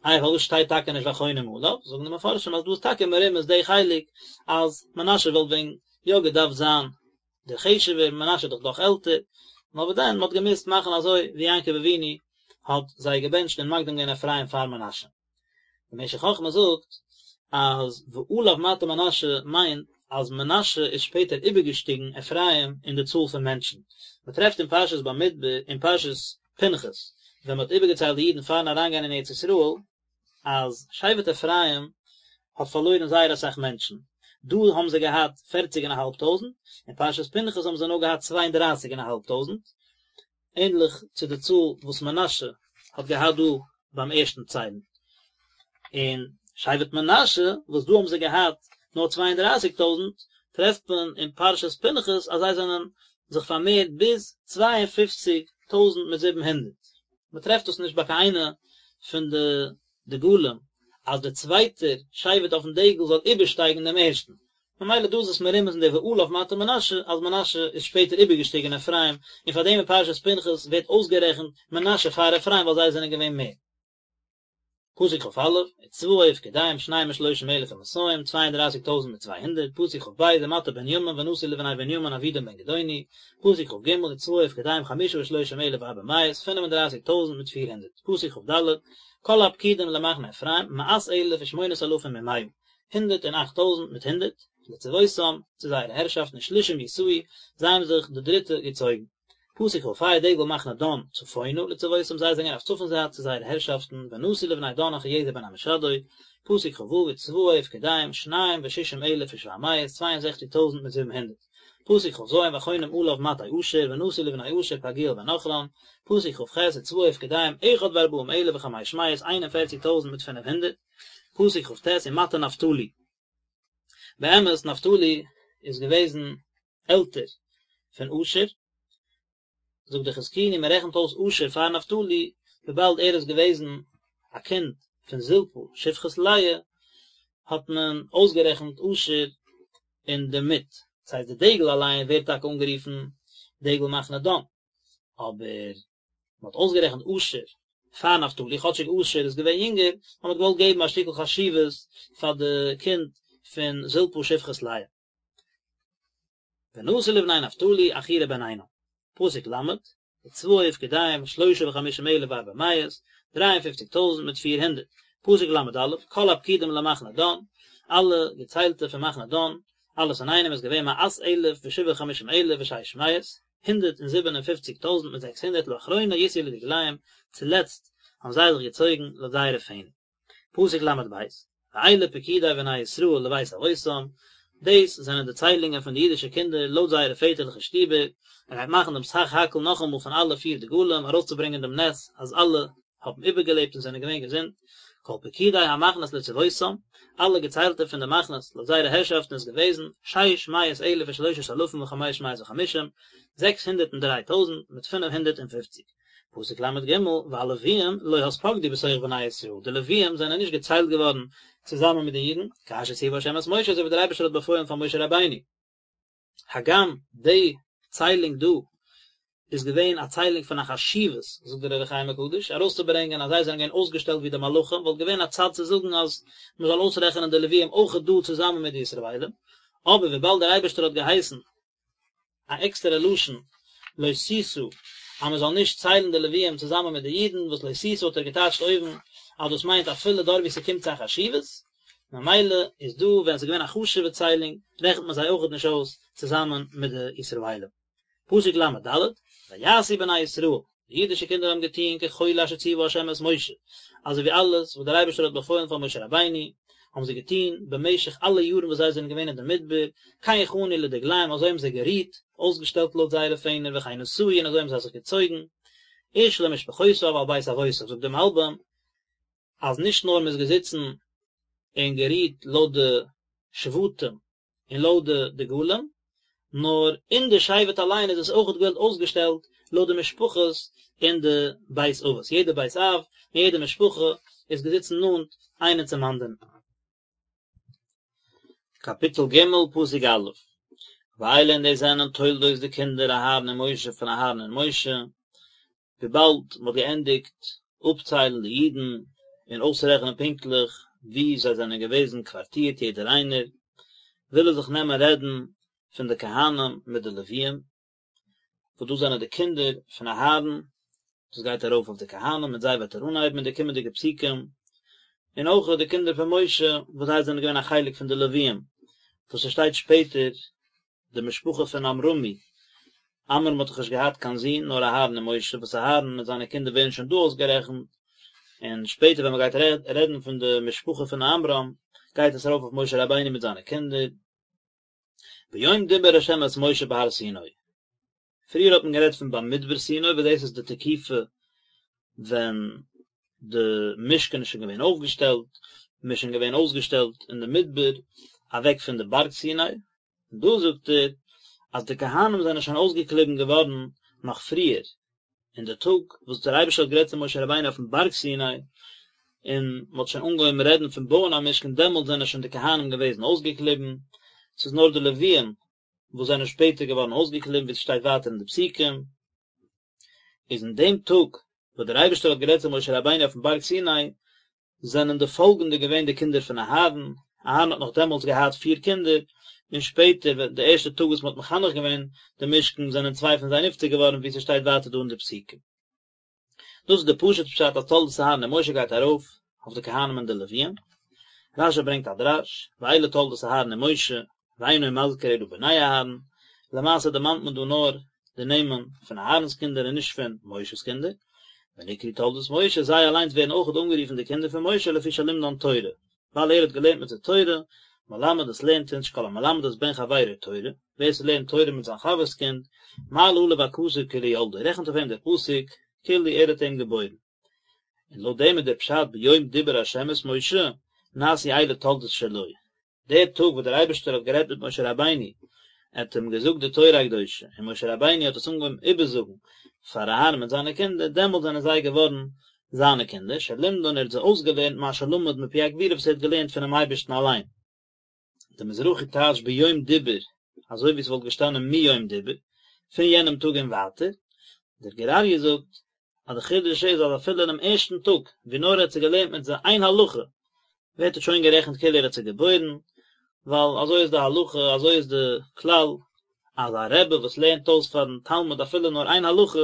איי פארוואס שטייט טאקע נישט והחונים עליו, זאגן די מפרשים אז דא איז טאקע מרומז די חלק אז מנשה וואלט ווען יא געדארפט זיין דער חשוב'ער, מנשה איז דאך דאך עלטער, נאר וואס דען, מען האט געמוזט מאכן אזוי ווי יעקב אבינו האט זיי געבענטשט און מקדים געווען אפרים פאר מנשה. דער משך חכמה זאגט אז ועליו מטה מנשה מיינט אז מנשה איז שפעטער איבערגעשטיגן אפרים אין די צאל פון מענטשן. מען טרעפט אין פרשת במדבר אין פרשת פנחס ווען מען האט איבערגעציילט די אידן פארן אריינגיין אין ארץ ישראל, אז שבט אפרים האט פארלוירן זייער אסאך מענטשן, דא האבן זיי געהאט פערציג און א האלב טויזנט, אין פרשת פנחס האבן זיי נאר געהאט צוויי און דרייסיג און א האלב טויזנט, ענדליך צו די צאל וואס מנשה האט געהאט דא ביים ערשטן ציילן. און שבט מנשה, וואס דא האבן זיי געהאט נאר צוויי און דרייסיג טויזנט, טרעפט מען אין פרשת פנחס אז זיי זענען זיך פארמערט ביז צוויי און פופציג טויזנט מיט זיבן הונדערט. מען טרעפט דאס נישט ביי קיין איינע פון די דגלים אז דער צווייטער שבט אויפן דגל זאל איבערשטייגן דעם ערשטן, ממילא דא איז עס מרומז אין די ועליו מטה מנשה אז מנשה איז שפעטער איבערגעשטיגן אפרים, און פאר דעם אין פרשת פנחס ווערט אויסגערעכנט מנשה פאר אפרים ווייל זיי זענען געווען מער. פסוק כ א, וצבאו ופקודיהם שנים ושלושים אלף ומאתים, צוויי און דרייסיג טויזנט מיט 200, פסוק כ ב, ומטה בנימין ונשיא לבני בנימין אבידן בן גדעוני, פסוק כ ג, וצבאו ופקודיהם חמשה ושלושים אלף וארבע מאות, פינף און דרייסיג טויזנט מיט 400, פסוק כ ד, כל הפקודים למחנה אפרים, מאת אלף ושמונת אלפים ומאה, הונדערט און אכט טויזנט מיט הונדערט, לצבאותם, צו זייערע הערשאפטן ושלישים יסעו, זיי האבן זיך די דריטע געצויגן. פסוק כ ה דגל מחנה דן צפונה לצבאותם זיי זענען אויף צפון זייט צו זייערע הערשאפטן ונשיא לבני דן אחיעזר בן עמישדי, פסוק כ ו וצבאו ופקודיהם שניים ושישים אלף ושבע מאות צוויי און זעכציג טויזנט מיט זיבן הונדערט, פסוק כ ז והחונים עליו מטה אשר ונשיא לבני אשר פגעיאל בן עכרן, פסוק כ ח וצבאו ופקודיהם אחד וארבעים אלף וחמש מאות איין און פערציג טויזנט מיט פינף הונדערט, פסוק כ ט ומטה נפתלי. באמת נפתלי איז געוועזן עלטער פון אשר, זאגט דער חזקוני מען רעכנט אויס אשר פאר נפתלי וויבאלד ער איז געוועזן א קינד פון זלפה שפחת לאה האט מען אויסגערעכנט אשר אינדערמיט, דאס הייסט די דגל אליין ווערט טאקע אנגערופן דגל מחנה דן, אבער מען האט אויסגערעכנט אשר פאר נפתלי, כאטשיג אשר איז געווען יונגער, נאר מען האט געוואלט געבן א שטיקל חשיבות פאר די קינד פון זלפה שפחת לאה. ונשיא לבני נפתלי אחירע בן עינן. פסוק ל', וצבאו ופקודיהם שלשה וחמישים אלף וארבע מאות, דריי און פופציג טויזנט מיט פיר הונדערט. פסוק ל' א', כל הפקודים למחנה דן, אלע געציילטע פון מחנה דן, אלעס אינאיינעם איז געווען מאת אלף ושבעה וחמישים אלף ושש מאות, הונדערט און זיבן און פופציג טויזנט מיט זעקס הונדערט לאחרונה יסעו לדגליהם, צולעצט האבן זיי זיך געצויגן לויט זייערע פענער. פסוק ל' ב', ואלה פקודי בני ישראל לבית אבותם, דאס זענען די ציילונגען פון די אידישע קינדער לויט זייערע פעטערליכע שטיבער, ער גייט מאכן דעם סך הכל נאכאמאל פון אלע פיר דגלים ארויסצוברענגען דעם נס אז אלע האבן איבערגעלעבט און זענען געווען געזונט, כל פקודי המחנות לצבאותם, אלע געציילטע פון די מחנות לויט זייערע הערשאפטן איז געוועזן, שש מאות אלף ושלושת אלפים וחמש מאות וחמישים, 603 טויזנט מיט 550. פסוק ל' ג', והלוויים לא התפקדו בתוך בני ישראל, די לוויים זענען נישט געציילט געווארן צוזאמען מיט די אידן, כאשר ציווה ה' את משה, אזוי ווי דער אייבערשטער האט באפוילן פאר משה רבינו. הגם די ציילונג דא איז געווען א ציילונג פון א חשיבות, זאגט דער אור החיים הקדוש, ארויסצוברענגען אז זיי זענען געווען אויסגעשטעלט ווי די מלאכים, וואלט געווען א צד צו זאגן אז מען זאל אויסרעכענען די לוויים אויכעט דא צוזאמען מיט די ישראלים, אבער וויבאלד דער אייבערשטער האט געהייסן א עקסטערע לשון לא תשא אז מען זאל נישט ציילן די לוויים צוזאמען מיט די אידן, וואס לא תשא האט ער געטייטשט אויבן אז דאס מיינט אפילו דארט וואו ס'קומט צו א חשיבות, ממילא איז דא ווען ס'איז געווען א חשוב'ע ציילונג רעכנט מען זיי אויכעט נישט אויס צוזאמען מיט די ישראלים. פסוק ל' ד', ויעשו בני ישראל, די אידישע קינדער האבן געטון ככל אשר ציווה ה' את משה, אזוי ווי אלעס וואס דער אייבערשטער האט באפוילן פאר משה רבינו, האבן זיי געטון במשך אלע יארן וואס זיי זענען געווען אין די מדבר, כן חנו לדגליהם, אזוי האבן זיי גערוהט, אויסגעשטעלט לויט זייערע פענער, וכן נסעו, און אזוי האבן זיי זיך געצויגן, איש למשפחותיו על בית אבותיו, זאגט דער מלבים, אז נישט נאר מען איז געזיצן און גערוהט לויט די שבטים און לויט די דגלים, נאר אין די שבט אליין איז עס אויכעט געווען אויסגעשטעלט לויט די משפחות און די בית אבות, יעדע בית אב און יעדע משפחה איז געזיצן נאנט איינער צום אנדערן. קאפיטל ג' פסוק א', ואלה און דאס זענען תולדות די קינדער אהרן ומשה פון אהרן און משה, וויבאלד מען האט געענדיגט אפציילן די אידן און אויסרעכענען פונקטליך וואו זיי זענען געוועזן קווארטירט יעדער איינער, וויל ער זיך נעמען רעדן פון די כהנים מיט די לוויים, וואס דאס זענען די קינדער פון אהרן, דאס גייט ארויף אויף די כהנים, מיט זיי וועט ער אנהייבן אין די קומענדיגע פסוקים, און אויך די קינדער פון משה, וואס זיי זענען געווען א חלק פון די לוויים, וואס עס שטייט שפעטער די משפחה פון עמרמי, עמרם האט דאך נישט געהאט קיין זון נאר אהרן און משה, וואס אהרן מיט זיינע קינדער ווערן שוין דא אויסגערעכנט, און שפעטער ווען מען גייט רעדן פון די משפחה פון עמרם, גייט עס ארויף אויף משה רבינו מיט זיינע קינדער. ביום דיבר ה' את משה בהר סיני. פריער האט מען גערעדט פון במדבר סיני וואס דאס איז די תקופה ווען די משכן איז שוין געווען אויפגעשטעלט, מען איז שוין געווען אויסגעשטעלט אין די מדבר, אוועק פון די בארג סיני, און דא זאגט ער אז די כהנים זענען שוין אויסגעקליבן געווארן נאך פריער, אין די טאג וואס דער אייבערשטער האט גערעדט צו משה רבינו אויפן בארג סיני, און מען האט שוין אנגעהויבן רעדן פון בויען א משכן, דעמאלט זענען שוין די כהנים געוועזן אויסגעקליבן, ס'איז נאר די לוויים וואס זענען שפעטער געווארן אויסגעקליבן ווי עס שטייט ווייטער אין די פסוקים, איז אין דעם טאג וואס דער אייבערשטער האט גערעדט צו משה רבינו אויפן בארג סיני, זענען די פאלגענדע געווען די קינדער פון אהרן, אהרן האט נאך דעמאלטס געהאט פיר קינדער, און שפעטער ווען די ערשטע טאג וואס מען האט מחנך געווען די משכן זענען צוויי פון זיי נפטר געווארן ווי ס'שטייט ווייטער דא אין די פסוקים. דאס איז די פשוט פשט אז תולדות אהרן ומשה גייט ארויף אויף די כהנים און די לוויים. רש"י ברענגט א דרש, ואלה תולדות אהרן ומשה, ואינו מזכיר אלא בני אהרן, למעשה דערמאנט מען דא נאר די נעמען פון אהרן'ס קינדער און נישט פון משה'ס קינדער, ונקראו תולדות משה, זיי אליינס ווערן אויכעט אנגערופן די קינדער פון משה לפי שלימדן תורה, ווייל ער האט געלערנט מיט זיי תורה, מלמד עס לערנט אונז שכל המלמד את בן חברו תורה, ווער ס'לערנט תורה מיט זיין חבר'ס קינד, מעלה עליו הכתוב כאילו ילדו, רעכנט אויף אים דער פסוק כאילו ער האט אים געבוירן. און לויט דעם איז דער פשט ביום דיבר ה' את משה, נעשו אלה תולדות שלו, דער טאג וואס דער אייבערשטער האט גערעדט מיט משה רבינו, ער האט אים געזאגט די תורה הקדושה, און משה רבינו האט עס אנגעהויבן איבערזאגן פאר אהרן מיט זיינע קינדער, דעמאלט זענען זיי געווארן זיינע קינדער, שלימדן ער האט זיי אויסגעלערנט מה שלמד מפי הגבורה וואס ער האט געלערנט פונעם אייבערשטן אליין. דער מזרחי טייטשט ביום דיבר אזוי ווי עס וואלט געשטאנען מיום דיבר, פון יענעם טאג און ווייטער, דער גור אריה זאגט אז די חידוש איז אז אפילו אינעם ערשטן טאג ווי נאר ער האט זיי געלערנט מיט זיי איין הלכה ווערט עס שוין גערעכנט כאילו ער האט זיי געבוירן, ווייל אזוי איז די הלכה אזוי איז די כלל אז א רבי וואס לערנט אויס פארן תלמיד אפילו נאר איין הלכה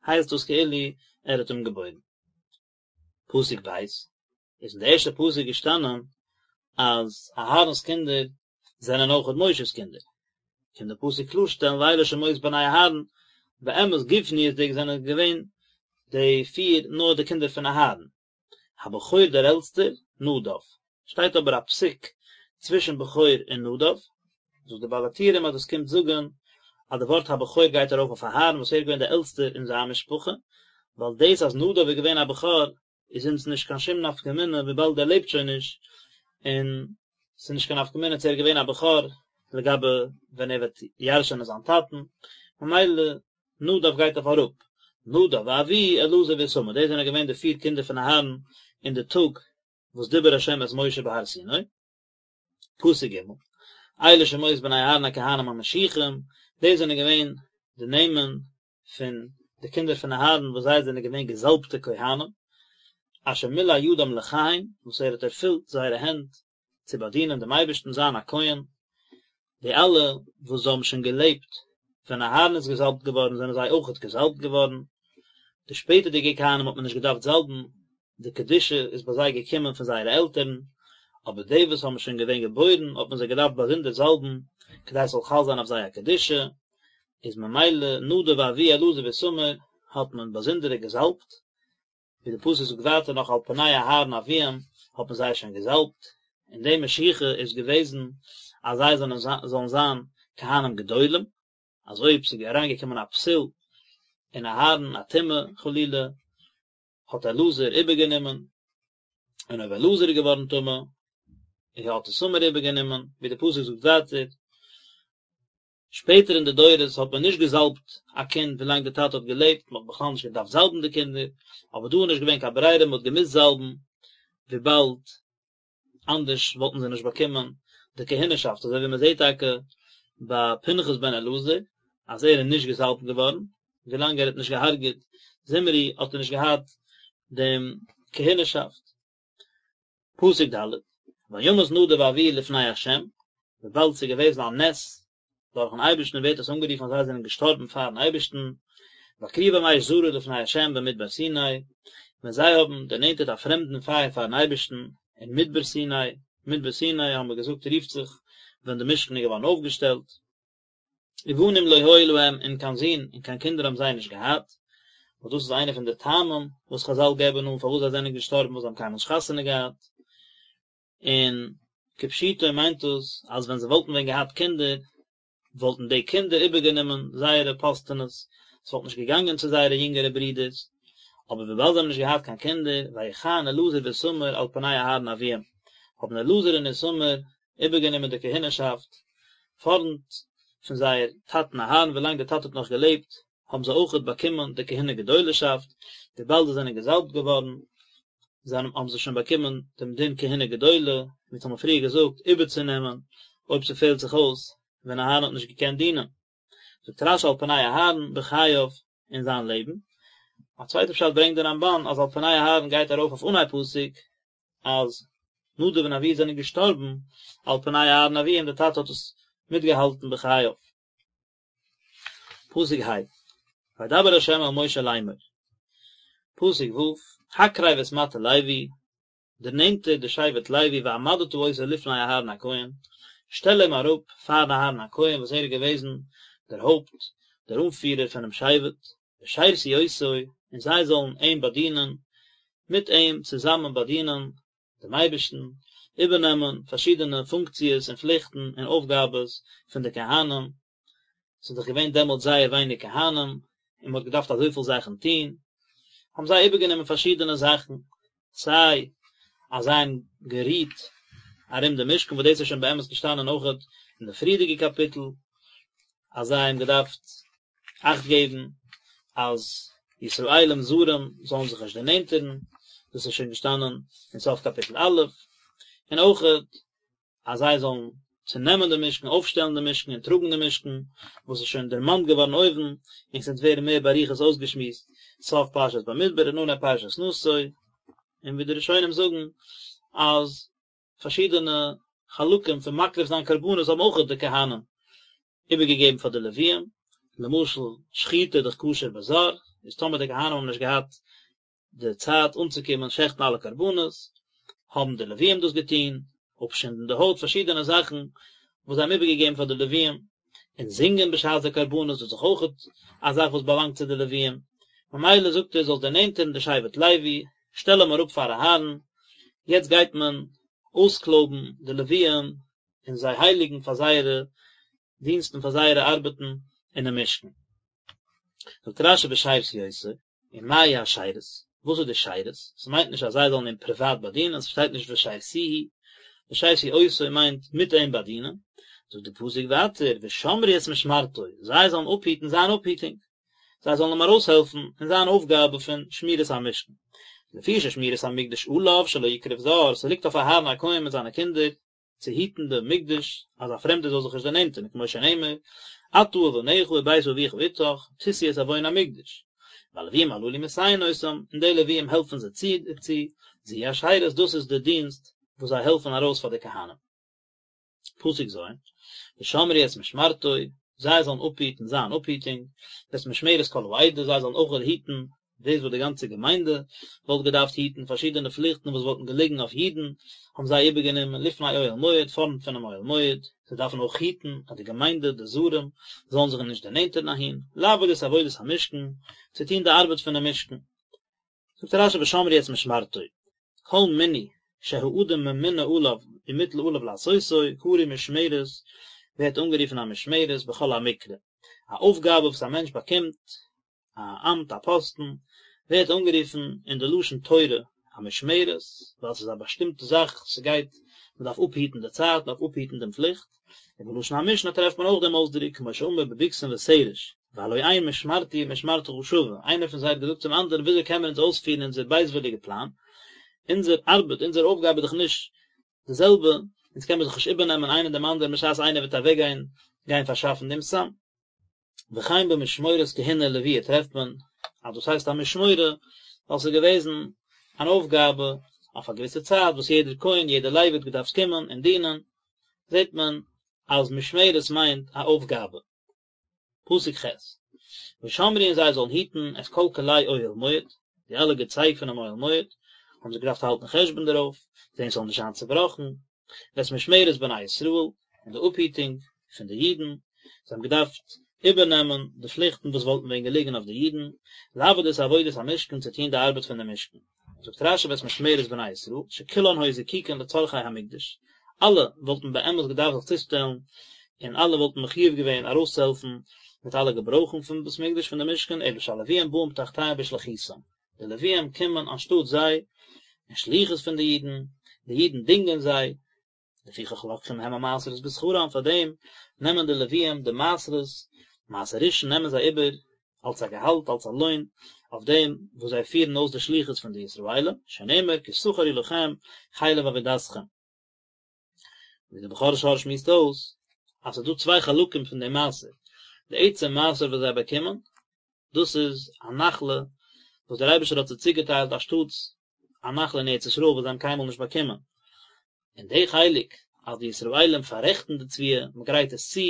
הייסט דאס כאילו ער האט אים געבוירן. פסוק ב', איז אין די ערשטע פסוק געשטאנען אז אהרן'ס קינדער זענען אויכעט משה'ס קינדער, קומט די פסוק קלארשטעלן ואלה שמות בני אהרן, באמת גופניות'דיג זענען געווען די פיר נאר די קינדער פון אהרן, הבכור דער עלטסטער, נדב, שטייט אבער א פסיק צווישן בכור און נדב, זאגט די בעל הטורים אז דאס קומט זאגן אז די ווארט הבכור גייט ארויף אויף אהרן וואס ער איז געווען דער עלטסטער אין זיין משפחה, ווייל דאס אז נדב איז געווען א בכור איז אונז נישט קיין שום נפקא מינה וויבאלד ער לעבט שוין נישט, און ס'איז נישט קיין נפקא מינה צו ער איז געווען א בכור לגבי ווען ער וועט ירש'ענען זיין טאטן, ממילא נדב גייט אויף אראפ, נדב ואביהוא אלעזר ואיתמר, דאס זענען געווען די פיר קינדער פון אהרן אין די טאג וואס דיבר השם את משה בהר סיני. פסוק ג', אלה שמות בני אהרן הכהנים המשיחים, דאס זענען געווען די נעמען פון די קינדער פון אהרן וואס זיי זענען געווען געזאלבטע כהנים, אשר מילא ידם לכהן, וואס ער האט ערפילט זייערע הענט צו באדינען דעם אייבערשטן זיין א כהן, די אלע וואס האבן שוין געלעבט ווען אהרן איז געזאלבט געווארן זענען זיי אויכעט געזאלבט געווארן, די שפעטערדיגע כהנים האט מען נישט געדארפט זאלבן, די קדושה איז ביי זיי געקומען פון זייערע עלטערן, אבער די וואס האבן שוין געווען געבוירן האט מען זיי געדארפט באזונדער זאלבן, כדי עס זאל חל זיין אויף זיי א קדושה, איז ממילא נדב ואביהוא אלעזר ואיתמר האט מען באזונדערע געזאלבט, ווי די פסוק זאגט ווייטער נאך על פני אהרן אביהם האט מען זיי שוין געזאלבט, און די משיחה איז געוועזן אז זיי זאלן זיין כהנים גדולים, אז אויב ס'איז אריינגעקומען א פסול אין אהרן א טומאה חלילה, האט אלעזר איבערגענומען, און אויב אלעזר איז געווארן טמא, האט איתמר איבערגענומען, ווי די פסוק זאגט ווייטער, שפעטער אין די דורות האט מען נישט געזאלבט א קינד ווילאנג די טאטע האט געלעבט, מען האט בכלל נישט געדארפט זאלבן די קינדער, אבער דא איז נישט געווען קיין ברירה מען האט געמוזט זאלבן, וויבאלד אנדערש וואלטן זיי נישט באקומען די כהונה'שאפט, אזוי ווי מען זעט טאקע ביי פנחס בן אלעזר אז ער איז נישט געזאלבט געווארן, ווילאנג ער האט נישט געהארגעט זמרי האט ער נישט געהאט דעם כהונה'שאפט. פסוק ד', וימת נדב ואביהוא לפני ה', וויבאלד ס'איז געוועזן א נס דורכן אייבערשטן ווערט עס אנגערופן אז זיי זענען געשטארבן פארן אייבערשטן, בהקריבם אש זרה לפני ה' במדבר סיני, ווען זיי האבן דערנענטערט א פרעמדן פייער פארן אייבערשטן אין מדבר סיני, מדבר סיני האבן מיר געזאגט רופט זיך ווען די משכן איז געווארן אויפגעשטעלט. ובנים לא היו להם און קיין זין און קיין קינדער האבן זיי נישט געהאט, וואס דאס איז איינע פון די טעמים וואס חזל געבן אן פארוואס זיי זענען געשטארבן ווייל זיי האבן קיינמאל נישט חתונה געהאט, און כפשוטו מיינט דאס אז ווען זיי וואלטן ווען געהאט קינדער וואלטן די קינדער איבערגענומען זייערע פאסטענעס, עס וואלט נישט געגאנגען צו זייערע יונגערע ברידערס, אבער וויבאלד זיי האבן נישט געהאט קיין קינדער, ויכהן אלעזר ואיתמר על פני אהרן אביהם, האבן אלעזר און איתמר איבערגענומען די כהונה'שאפט פארנט פון זייער טאטן אהרן, ווילאנג דער טאטע האט נאך געלעבט האבן זיי אויכעט באקומען די כהונה גדולה'שאפט, וויבאלד זיי זענען געזאלבט געווארן זענען האבן זיי שוין באקומען דעם דין כהונה גדולה, ווי אונז האבן פריער געזאגט, איבערצונעמען אויב ס'פעלט זיך אויס ווען אהרן האט נישט געקענט דינען. זאגט רש"י על פני אהרן בחייו אין זיין לעבן. א צווייטע פשט ברענגט דער רמב"ן אז על פני אהרן גייט ארויף אויף אנהייב פסוק. אז נדב און אביהוא זענען געשטארבן על פני אהרן אביהם, דער טאטע האט עס מיטגעהאלטן בחייו. פסוק ה', וידבר ה' אל משה לאמור, פסוק ו', הקרב את מטה לוי, דערנענטער די שבט לוי והעמדת אותו לפני אהרן הכהן, שטעל אים אראפ פאר אהרן הכהן וואס ער איז געוועזן דער הויפט, דער אנפירער פונעם שבט, ושרתו אותו, און זיי זאלן אים באדינען, מיט אים צוזאמען באדינען דעם אייבערשטן, איבערנעמען פארשידענע פונקציעס און פליכטן און אויפגאבעס פון די כהנים, ס'איז דאך געווען דעמאלט זייער ווייניג כהנים, און מ'האט געדארפט אזויפיל זאכן טון, האבן זיי איבערגענומען פארשידענע זאכן, סיי אז זיי האבן גערוהט ארום די משכן, וואס דאס איז שוין באמת געשטאנען אויכעט אין די פריערדיגע קאפיטל, אז זיי האבן געדארפט אכט געבן אז ישראלים זרים זאלן זיך נישט דערנענטערן, דאס איז שוין געשטאנען אין סוף קאפיטל א', און אויכעט אז זיי זאלן צונעמען די משכן, אויפשטעלן די משכן און טראגן די משכן, וואס איז שוין דערמאנט געווארן אויבן, און ס'וועט ווערן מער באריכות אויסגעשמועסט סוף פרשת במדבר און אנהייב פרשת נשא, און ווי די ראשונים זאגן אז פארשידענע חלקים פון מקריב זיין קרבנות האבן אויך די כהנים איבערגעגעבן פאר די לוויים, למשל שחיטה איז דאך כשר בזר, איז טאמער די כהנים האבן נישט געהאט די צייט אנצוקומען שעכטן אלע קרבנות, האבן די לוויים דאס געטון, אפשינדן די הויט, פארשידענע זאכן וואס זיי האבן איבערגעגעבן פאר די לוויים, און זינגען בשעת די קרבנות, דאס איז דאך אויך א זאך וואס באלאנגט צו די לוויים, ממילא זאגט ער זאלסט דערנענטערן די שבט לוי, שטעל אים אראפ פאר אהרן, יעצט גייט מען אויסקלויבן די לוויים און זיי הייליגן פאר זייערע דינסטן פאר זייערע ארבעטן אינעם משכן. זאגט רשי ושרתו אותו, ומהו השירות, וואס איז די שירות? ס'מיינט נישט אז זיי זאלן אים פריוואט באדינען, ס'שטייט נישט ושרתוהו, ושרתו אותו מיינט מיט אים באדינען, זאגט די פסוק ווייטער ושמרו את משמרתו, זיי זאלן אפהיטן זיין אפהיטונג, זיי זאלן אים ארויסהעלפן אין זיין אויפגאבע פון שמירת המשכן. לפי ששמירת המקדש עליו שלא יקרב זר, ס'ליגט אויף אהרן הכהן מיט זיינע קינדער צו היטן די מקדש אז א פרעמדער זאל זיך נישט דערנענטערן כמו שנאמר אתה ובניך ובית אביך אתך תשאו את עון המקדש והלוויים הללו מסייעין אותם און די לוויים העלפן זיי צו דערצו זו היא השירות דאס איז די דינסט וואס זיי העלפן ארויס פאר די כהנים. פסוק ז', ושמרו את משמרתו, זיי זאלן אפהיטן זיין אפהיטונג, ואת משמרת כל העדה, זיי זאלן אויך היטן דאס וואס די גאנצע געמיינדע וואלט געדארפט היטן, פארשידענע פליכטן וואס וואלטן געליגן אויף אידן, האבן זיי איבערגענומען לפני אוהל מועד, פארנט פונעם אוהל מועד, זיי דארפן אויך היטן אז די געמיינדע, די זרים, זאלן זיך נישט דערנענטערן אהין, לעבוד את עבודת המשכן, צו טון די ארבעט פונעם משכן. זאגט רשי ושמרו את משמרתו, כל מינוי שהאדם ממונה עליו ומוטל עליו לעשותו, קרוי משמרת, ווערט אנגערופן א משמרת בכל המקרא, א אויפגאבע וואס א מענטש באקומט, א אמט א פאסטן, ווערט אנגערופן אין די לשון תורה א משמרת, ווייל ס'איז א באשטימטע זאך, ס'גייט, מ'דארף אפהיטן די צייט, מ'דארף אפהיטן דעם פליכט, און בלשון המשנה טרעפט מען אויך דעם אויסדרוק, כמו שאמר בבגתן ותרש, והלא אין משמרתי ומשמרתך שווה, איינער פון זיי האט געזאגט צום אנדערן וויאזוי קען מען אונז אויספירן אונזער בייזוויליגע פלאן, אונזער ארבעט, אונזער אויפגאבע איז דאך נישט די זעלבע, אונז קען מען זיך נישט איבערנעמען איינער דעם אנדערן בשעת איינער וועט אוועקגיין גיין פארשאפן דעם סם. וכן במשמורת כהונה ולוויה טרעפט מען אז דאס הייסט א משמורה ווייל ס'איז געוועזן אן אויפגאבע אויף א געוויסע צייט וואס יעדער כהן יעדער לוי האט געדארפט קומען און דינען, זעט מען אז משמרת מיינט א אויפגאבע. פסוק ח' ושמרו און זיי זאלן היטן את כל כלי אוהל מועד, די אלע געצייג פונעם אוהל מועד, האבן זיי געדארפט האלטן חשבון דערויף, זען ס'זאל נישט זיין צעבראכן, ואת משמרת בני ישראל, און די אפהיטונג פון די אידן, זיי האבן געדארפט איבערנעמען די פליכטן וואס וואלטן ווען געליגן אויף די אידן, לעבוד את עבודת המשכן, צו טון די ארבעט פון דעם משכן. זאגט רשי ואת משמרת בני ישראל, שכולן היו זקוקין לצרכי המקדש, אלע וואלטן באמת געדארפט זיך צושטעלן, און אלע וואלטן מחיוב געווען ארויסצוהעלפן מיט אלע געברויכן פון בית מקדש פון די משכן, אלא שהלוויים באים תחתיהם בשליחותם, די לוויים קומען אנשטאט זיי, אין שליחות פון די אידן, די אידן דינגען זיי, לפיכך לוקחים הם המעשרות בשכרם, פאר דעם נעמען די לוויים די מעשרות, מעשר ראשון נעמען זיי איבער אלס א געהאלט, אלס א לוין, אויף דעם וואס זיי פירן אויס די שליחות פון די ישראלים, שנאמר כי שכר הוא לכם חלף עבודתכם. ווי דער בכור שור שמועסט אויס, אז ס'איז דא צוויי חלקים פון דעם מעשר, די עצם מעשר וואס זיי באקומען, דאס איז א נחלה וואס דער אייבערשטער האט זיי צוגעטיילט אנשטאטס. א נחלה אין ארץ ישראל וואס זיי האבן קיינמאל נישט באקומען. און די חלק אז די ישראלים פאררעכטן די תבואה, מען גרייט עס צו,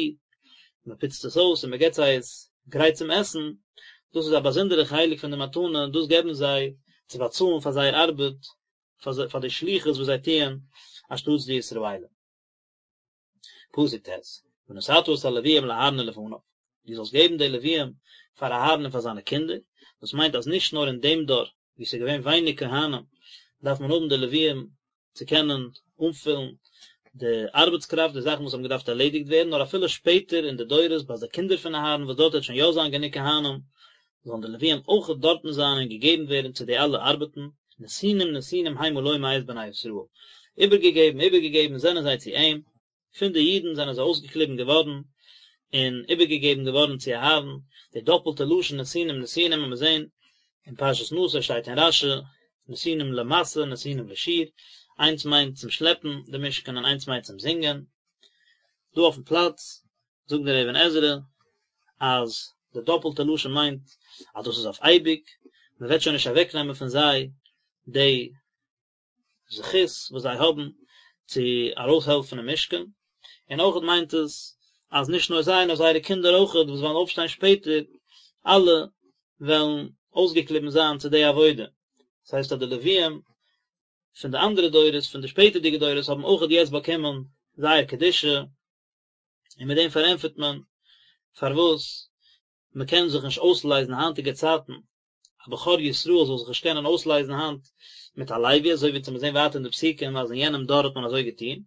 מען פוצט עס אויס און מען געבט זיי עס גרייט צום עסן, דאס איז א באזונדערע חלק פון די מתנה, דאס געבן זיי צו באצאלן פאר זייער ארבעט, פאר די שליחות וואס זיי טוען אנשטאטס די ישראלים. פסוק ט', ונתתה את הלוויים לאהרן ולבניו, דו זאלסט געבן די לוויים פאר אהרן און פאר זיינע קינדער, דאס מיינט אז נישט נאר אין דעם דור וואו ס'איז געווען ווייניג כהנים דארף מען האבן די לוויים צו קענען אנפילן די ארבעטס קראפט, די זאכן וואס האבן געדארפט ערלעדיגט ווערן, נאר אפילו שפעטער אין די דורות ביי די קינדער פון אהרן וואס דארט וועט שוין יא זיין גענוג כהנים, זאלן די לוויים אויך דארטן זיין און געגעבן ווערן צו די אלע ארבעטן, נתונים נתונים המה לו מאת בני ישראל, איבערגעגעבן איבערגעגעבן זענען זיי צו אים, פון די אידן זענען זיי אויסגעקליבן געווארן און איבערגעגעבן געווארן צו אהרן, די דאפלטע לשון נתונים נתונים וועט מען זען אין פרשת נשא שטייט אין רשי, נתונים למשא נתונים לשיר, איינס מיינט צום שלעפן די משכן און איינס מיינט צום זינגען, דא אויפן פלאץ זאגט דער אבן עזרא אז די דאפלטע לשון מיינט אז דאס איז אויף אייביג, מען וועט שוין נישט אוועקנעמען פון זיי די זכות וואס זיי האבן צו ארויסהעלפן אין משכן, און אויכעט מיינט עס אז נישט נאר זיי נאר זייערע קינדער אויכעט וואס וועלן אויפשטיין שפעטער, אלע וועלן אויסגעקליבן זיין צו די עבודה, דאס הייסט אז די לוויים פון די אנדערע דורות, פון די שפעטערדיגע דורות האבן אויכעט יעצט באקומען זייער קדושה, און מיט דעם פארענטפערט מען פארוואס מען קען זיך נישט אויסלייזן היינטיגע צייטן, א בכור ישראל זאל זיך נישט קענען אויסלייזן היינט מיט א לוי, אזוי ווי מיר זעהן ווייטער אין די פסוקים אז אין יענעם דור האט מען אזוי געטון,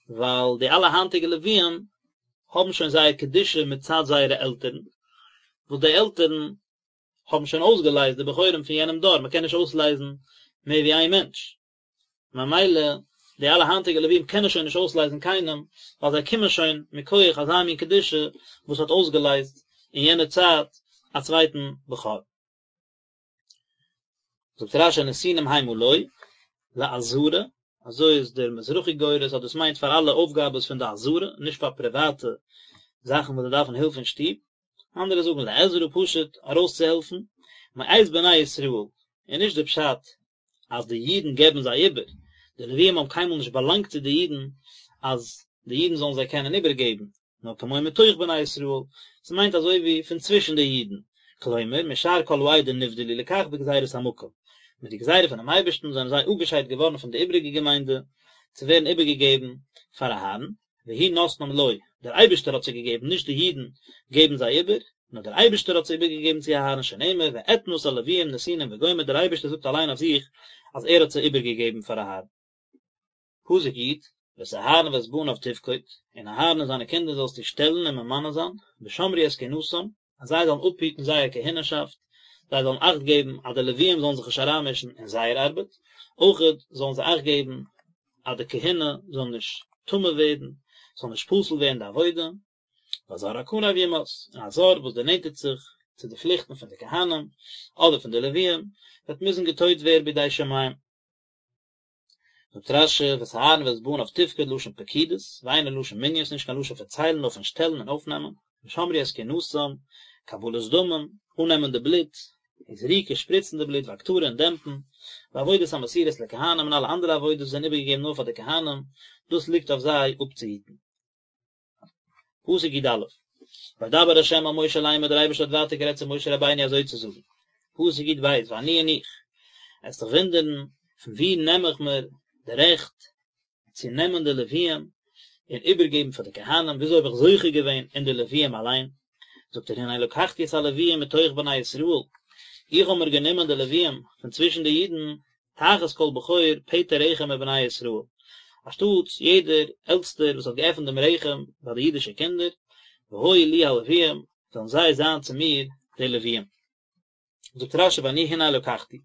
ווייל די אלע היינטיגע לוויים האבן שוין זייער קדושה מצד זייערע עלטערן, וואס די עלטערן האבן שוין אויסגעלייזט די בכורים פון יענעם דור, מען קען נישט אויסלייזן מער ווי איין מענטש. ממילא די אלע היינטיגע לווים קענען שוין נישט אויסלייזן קיינעם, ווייל זיי קומען שוין מכח אזא מין קדושה וואס האט אויסגעלייזט אין יענער צייט א צווייטן בכור. זאגט רשי נתונים המה לו, לעזרה, אזוי איז דער מזרחי גורס אז דאס מיינט פאר אלע אויפגאבעס פון די עזרה, נישט פאר פריוואטע זאכן וואס זיי דארפן הילף אין שטוב, אנדערע זאגן לעזרה פשוט ארויסצוהעלפן, מאת בני ישראל, און נישט די פשט אז די אידן געבן זיי איבער, די לוויים האבן קיינמאל נישט באלאנגט צו די אידן אז די אידן זאלן זיי קענען איבערגעבן, נאר כמו מתוך בני ישראל, ס'מיינט אזוי ווי פון צווישן די אידן, כלומר, משאר כל העדה נבדלו לכך בגזירת המקום, מיט די גזירה פונעם אייבערשטן זענען זיי אפגעשיידט געווארן פון די איבעריגע געמיינדע, צו ווערן איבערגעגעבן פאר אהרן, והוא נתנם לו, דער אייבערשטער האט זיי געגעבן, נישט די אידן געבן זיי איבער, נאר דער אייבערשטער האט זיי איבערגעגעבן צו אהרן שנאמר ואתנה את הלוויים נתינים וגומר, דער אייבערשטער זאגט אליין אויף זיך אז ער האט זיי איבערגעגעבן פאר אהרן. פסוק י', ואת אהרן ואת בניו תפקוד, און אהרן און זיינע קינדער זאלסטו שטעלן און ממנה זיין, ושמרו את כהונתם, אז זיי זאלן אפהיטן זייער כהונה'שאפט, זיי זאלן אכט געבן אז די לוויים זאלן זיך נישט אריינמישן אין זייער ארבעט, אויכעט זאלן זיי אכט געבן אז די כהונה זאל נישט טמא ווערן, ס'זאל נישט פסול ווערן די עבודה, והזר הקרב יומת, און א זר וואס דערנענטערט זיך צו די פליכטן פון די כהנים, אדער פון די לוויים, וועט מוזן געטויט ווערן בידי שמים. זאגט רשי, ואת אהרן ואת בניו תפקוד לשון פקידות, ואינו לשון מנין, ס'נישט קיין לשון פון ציילן נאר פון שטעלן און אויפנעמען, ושמרו את כהונתם, קבלת דמים, אננעמען די בלוט, וזריקה, שפריצן די בלוט, והקטרה און דעמפן, ועבודות המסורות לכהנים און אלע אנדערע עבודות וואס זענען איבערגעגעבן נאר פאר די כהנים, דאס ליגט אויף זיי אפצוהיטן. פסוק י א, וידבר ה' אל משה לאמר דער אייבערשטער האט ווייטער גערעדט צו משה רבינו אזוי צו זאגן, פסוק י ב, ואני און איך, עסט דיך וואונדערן, פון וואו נעם איך מיר די רעכט צו נעמען די לוויים און איבערגעבן פאר די כהנים, וויאזוי האב איך זוכה געווען אין די לוויים אליין? זאגט ער, הנה לקחתי את הלוויים מתוך בני ישראל, איך האב מיר גענומען די לוויים פון צווישן די אידן, תחת כל בכור פטר רחם מבני ישראל, אנשטאטס יעדער עלטסטער וואס האט געעפנט דעם רחם ביי די אידישע קינדער, והיו לי הלוויים, זאלן זיי זיין צו מיר די לוויים. זאגט רשי ואני הנה לקחתי,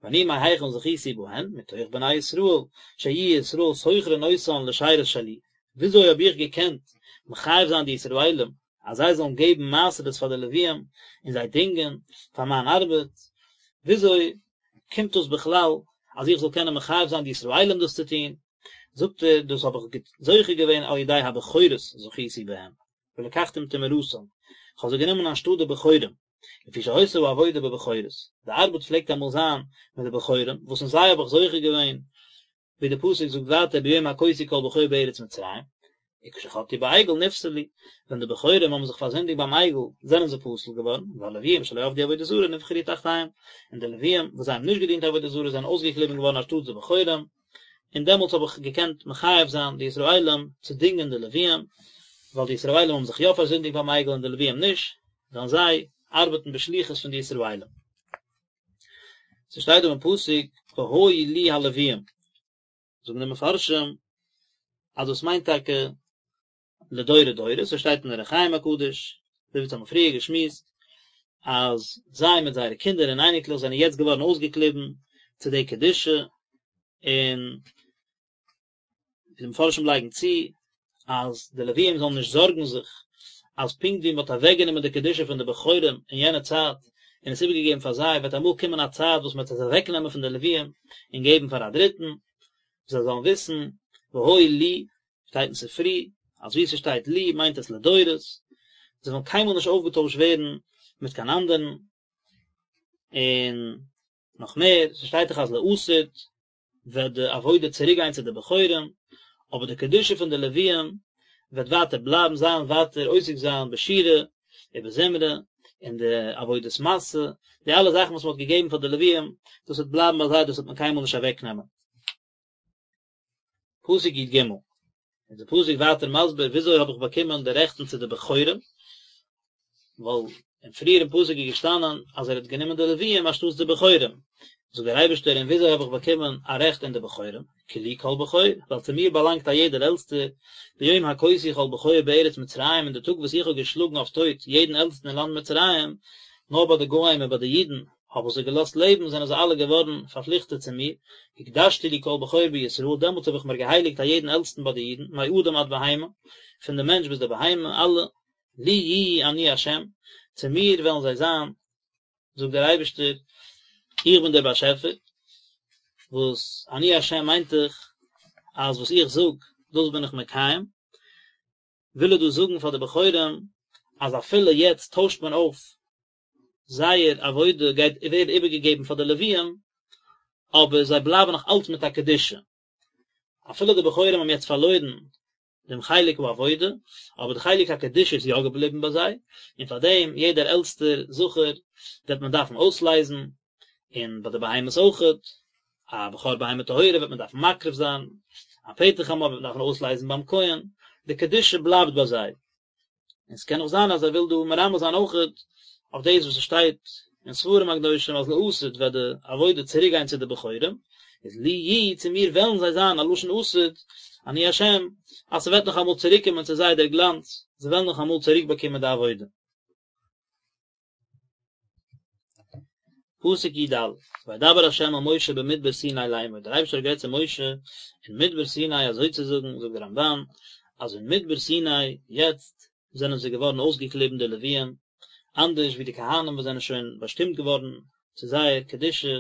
ואני מהיכן זכיתי בהן, מתוך בני ישראל, שיהיו ישראל שוכרין אותן לשירות שלי, וויאזוי האב איך געקענט מחייב זיין די ישראלים אז זיי זאלן געבן מעשרות פאר די לוויים און זיי דינגען פאר מיין ארבעט, וויאזוי קומט דאס בכלל אז איך זאל קענען מחייב זיין די ישראלים דאס צו טון, זאגט ער, דאס האב איך זוכה געווען על ידי הבכורות זכיתי בהם, ולקחתים תמורתם, איך האב זיי גענומען אנשטאט די בכורים. לפי שהיתה העבודה בבכורות, די ארבעט פלעגט אמאל זיין מיט די בכורים, וואס אין זיי האב איך זוכה געווען, ווי די פסוק זאגט ווייטער ביום הכותי כל בכור בארץ מצרים, וכשחטאו בעגל נפסלו, ווען די בכורים האבן זיך פארזינדיגט ביים עגל זענען זיי פסול געווארן, והלוויים שלא עבדו עבודה זרה נבחרו תחתיהם, און די לוויים וואס זיי האבן נישט געדינט עבודה זרה זענען אויסגעקליבן געווארן אנשטאטס די בכורים, און דעמאלטס האב איך געקענט מחייב זיין די ישראלים צו דינגען די לוויים, ווייל די ישראלים האבן זיך יא פארזינדיגט ביים עגל און די לוויים נישט, זאלן זיי ארבעטן בשליחות פון די ישראלים. ס'שטייט דא אין פסוק והיו לי הלוויים, זאגן די מפרשים אז דאס מיינט טאקע לדורי דורות, אזוי שטייט אין אור החיים הקדוש, אזוי ווי אונז האבן פריער געשמועסט, אז זיי מיט זייערע קינדער און אייניקלעך זענען יעצט געווארן אויסגעקליבן צו די קדושה, און ווי די מפרשים לייגן צו, אז די לוויים זאלן נישט זארגן זיך אז פונקט ווי מען האט אוועקגענומען די קדושה פון די בכורים אין יענע צייט און עס איבערגעגעבן פאר זיי, וועט אמאל קומען א צייט וואס מען וועט עס אוועקנעמען פון די לוויים און געבן פאר א דריטן, זיי זאלן וויסן, והיו לי, שטייט אין ספרי, אז וואו ס'שטייט לי מיינט עס לדורות, זיי וועלן קיינמאל נישט אויפגעטוישט ווערן מיט קיין אנדערן, און נאך מער, ס'שטייט דאך אז לעתיד וועט די עבודה צוריק גיין צו די בכורים, אבער די קדושה פון די לוויים וועט ווייטער בלייבן, זיי וועלן ווייטער עוסק זיין בשירה ובזמרה, און די עבודת משא, די אלע זאכן וואס מען האט געגעבן פאר די לוויים, דאס וועט בלייבן ביי זיי, דאס וועט מען קיינמאל נישט אוועקנעמען. פסוק י ג, איז די פסוק ווייטער מסביר וויאזוי האב איך באקומען די רעכטן צו די בכורים, ווייל אין פריערן פסוק איז געשטאנען אז ער האט גענומען די לוויים אנשטאטס די בכורים, זאגט דער אייבערשטער און וויאזוי האב איך באקומען א רעכט אין די בכורים, כי לי כל בכור, ווייל צו מיר באלאנגט א יעדער עלטסטער, ביום הכותי כל בכור בארץ מצרים אין די טאג וואס איך האב געשלאגן אויף טויט יעדן עלטסטן אין לאנד מצרים, נאר ביי די גוים און ביי די אידן האב איך זיי געלאזט לעבן, זענען זיי אלע געווארן פארפליכטעט צו מיר, הקדשתי לי כל בכור בישראל, דעמאלטס האב איך מיר געהייליגט א יעדן עלטסטן ביי די אידן, מאדם עד בהמה, פון די מענטש ביז די בהמה, אלע, לי יהיו אני ה', צו מיר וועלן זיי זיין, זאגט דער אייבערשטער, איך בין דער באשעפער, וואס אני ה' מיינט דאך אז וואס איך זאג, דאס בין איך מקיים, וויל ער דא זאגן פאר די בכורים, אז אפילו יעצט טוישט מען אויף זייער עבודה גייט ווערן איבערגעגעבן פאר די לוויים, אבער זיי בלייבן נאך אלץ מיט א קדושה. אפילו די בכורים האבן יעצט פארלוירן דעם חלק העבודה, אבער די חלק הקדושה איז יא געבליבן ביי זיי, און פאר דעם יעדער עלטסטער זכר וועט מען דארפן אויסלייזן, און ביי די בהמות אויכעט, א בכור בהמה טהורה וועט מען דארפן מקריב זיין, א פטר חמור וועט מען דארפן אויסלייזן ביים כהן, די קדושה בלייבט ביי זיי. און ס'קען אויך זיין אז ער וויל דא מרמז זיין אויכעט אויף דאס וואס ס'שטייט אין ספרים הקדושים אז לעתיד וועט די עבודה צוריק גיין צו די בכורים, איז לי יהיו צו מיר וועלן זיי זיין א לשון עתיד, אני השם, אז ס'וועט נאך אמאל צוריק קומען צו זיי דער גלאנץ, זיי וועלן נאך אמאל צוריק באקומען די עבודה. פסוק י ד, וידבר ה' אל משה במדבר סיני לאמור, דער אייבערשטער האט גערעדט צו משה אין מדבר סיני אזוי צו זאגן, זאגט דער רמבן, אז אין מדבר סיני, יעצט זענען זיי געווארן אויסגעקליבן די לוויים, אנדערש ווי די כהנים וואס זענען שוין באשטימט געווארן צו זייער קדושה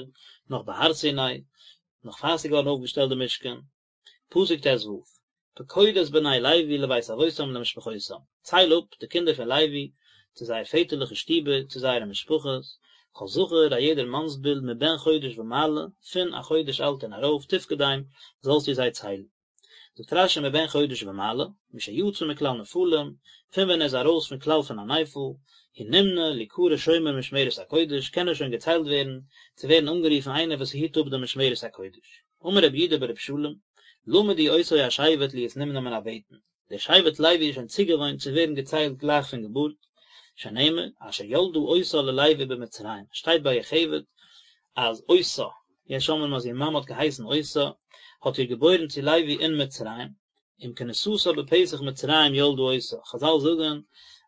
נאך בהר סיני, נאך פאר ס'איז געווארן אויפגעשטעלט די משכן. פסוק ט ו, פקוד את בני לוי לבית אבותם למשפחותם, צייל אפ די קינדער פון לוי צו זייער פעטערליכע שטיבער, צו זייערע משפחות, כל זכר א יעדער מאנסביל מבן חודש ומעלה, פון א חודש אלט און ארויף, תפקדם, זאלסטו זיי ציילן. זאגט רש י מבן חודש ומעלה, משיצא מכלל נפלים, פון ווען ער איז ארויס פון כלל פון א נפל, הוא נמנה ליקרא שומר משמרת הקודש, קען ער שוין געציילט ווערן, צו ווערן אנגערופן איינער וואס היט אפ די משמרת הקודש. אמר רב יהודה ברב שלום, למדו אותו השבט להיות נמנה מן הבטן, דער שבט לוי איז שוין צוגעוואוינט צו ווערן געציילט גלייך פון געבורט, שנאמר, אשר ילדה אותה ללוי במצרים, שטייט ביי יוכבד אז אותה, יש אומרים אז איר מאמע האט געהייסן אותה, האט איר געבוירן צו לוי אין מצרים, עם כניסתה בפתח מצרים ילדה אותה, חזל זאגן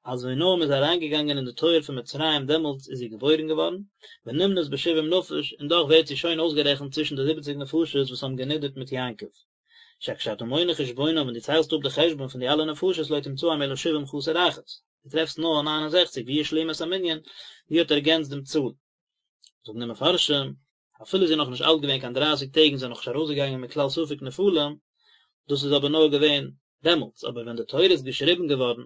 אז ווי נאר מען איז אריינגעגאנגען אין די טויער פון מצרים דעמאלטס איז זי געבוירן געווארן, ונמנית בשבעים נפש, און דאך ווערט זי שוין אויסגערעכנט צווישן די זיבעציג נפשות וואס האבן גענידערט מיט יעקב. שכשאתה מונה חשבונם ווען דו ציילסט אפ די חשבון פון די אלע נפשות לא תמצאם אלא שבעים חסר אחת, דו טרעפסט נאר ניין און זעכציג והיא השלימה את המנין, זי האט ערגענצט דעם צאל. זאגן די מפרשים, אפילו זי איז נאכנישט אלט געווען קיין דרייסיג טעג און זי איז נאכנישט ארויסגעגאנגען מכלל ספק נפלים, דאס איז אבער נאר געווען דעמאלטס, אבער ווען די תורה איז געשריבן געווארן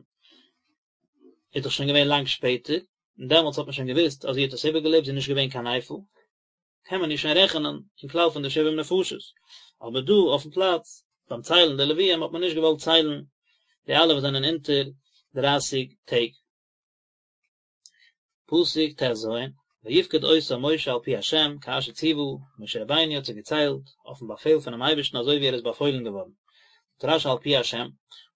איז דאך שוין געווען לאנג שפעטער, און דעמאלטס האט מען שוין געוואוסט אז זי האט עס איבערגעלעבט, זי איז נישט געווען קיין נפל, קען מען איר שוין רעכענען אין כלל פון די שבעים נפשות, אבער דא אויפן פלאץ ביים ציילן די לוויים האט מען נישט געוואלט ציילן די אלע וואס זענען אונטער דרייסיג טעג. פסוק טז, ויפקד אותם משה על פי ה' כאשר צוה, משה רבינו האט זיי געציילט אויפן באפעל פונעם אייבערשטן אזוי ווי ער איז באפוילן געווארן. זאגט רשי על פי ה',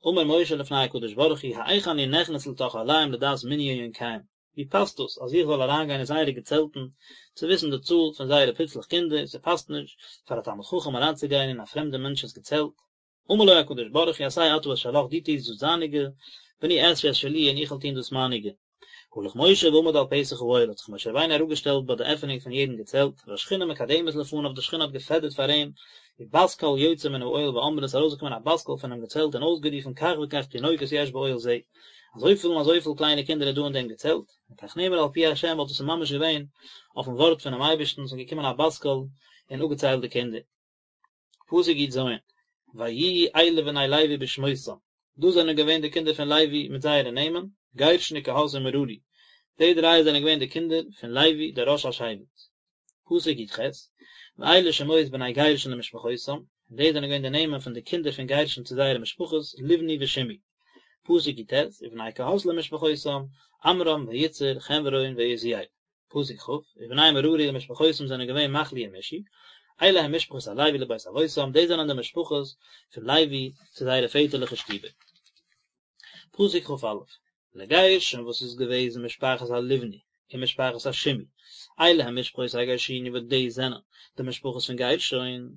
אמר משה לפני הקדוש ברוך הוא האיך אני נכנס לתוך אהליהם לדעת מנין יונקיהם, ווי פאסט דאס אז איך זאל אריינגיין אין זייערע געצעלטן צו וויסן די צאל פון זייערע פיצלעך קינדער, ס'פאסט נישט פאר א תלמיד חכם אריינצוגיין אין א פרעמדע מענטש'ס געצעלט. אמר לו הקדוש ברוך הוא עשה אתה את שלך דו טוסט דאס דייניגע, ואני אעשה את שלי און איך וועל טון דאס מייניגע. הלך משה ועמד על פתח האוהל האט זיך משה רבינו אראפגעשטעלט ביי די עפענונג פון יעדן געצעלט, והשכינה מקדמת לפניו די שכינה האט געפעדערט פאר אים, ובת קול יוצאה מן האוהל ואומרת איז ארויסגעקומען א בת קול פונעם געצעלט און אויסגערופן כך וכך תינוקות יש באוהל זה, אזויפיל און אזויפיל קליינע קינדער איז דא אין דעם געצעלט, וכך נאמר על פי ה' ווייל דאס איז ממש געווען אויפן ווארט פונעם אייבערשטן, ס'איז געקומען א בת קול און אפגעציילט די קינדער. פסוק יז, ויהיו אלה בני לוי בשמותם, דאס זענען געווען די קינדער פון לוי מיט זייערע נעמען, גרשון וקהת ומררי, די דריי זענען געווען די קינדער פון לוי דער ראש השבט. פסוק יח, ואלה שמות בני גרשון למשפחותם, און די זענען געווען די נעמען פון די קינדער פון גרשון צו זייערע משפחות, לבני ושמעי. פסוק יט, ובני קהת למשפחותם, עמרם ויצהר, חברון ועוזיאל. פסוק כ, ובני מררי למשפחותם זענען געווען מחלי ומשי, אלה הם משפחות הלוי לבית אבותם, דאס זענען די משפחות פון לוי צו זייערע פעטערליכע שטיבער. פסוק כא, לגרשון וואס איז געוועזן משפחת הלבני און משפחת השמעי, אלה הם משפחות הגרשוני וואס דאס זענען די משפחות פון גרשון.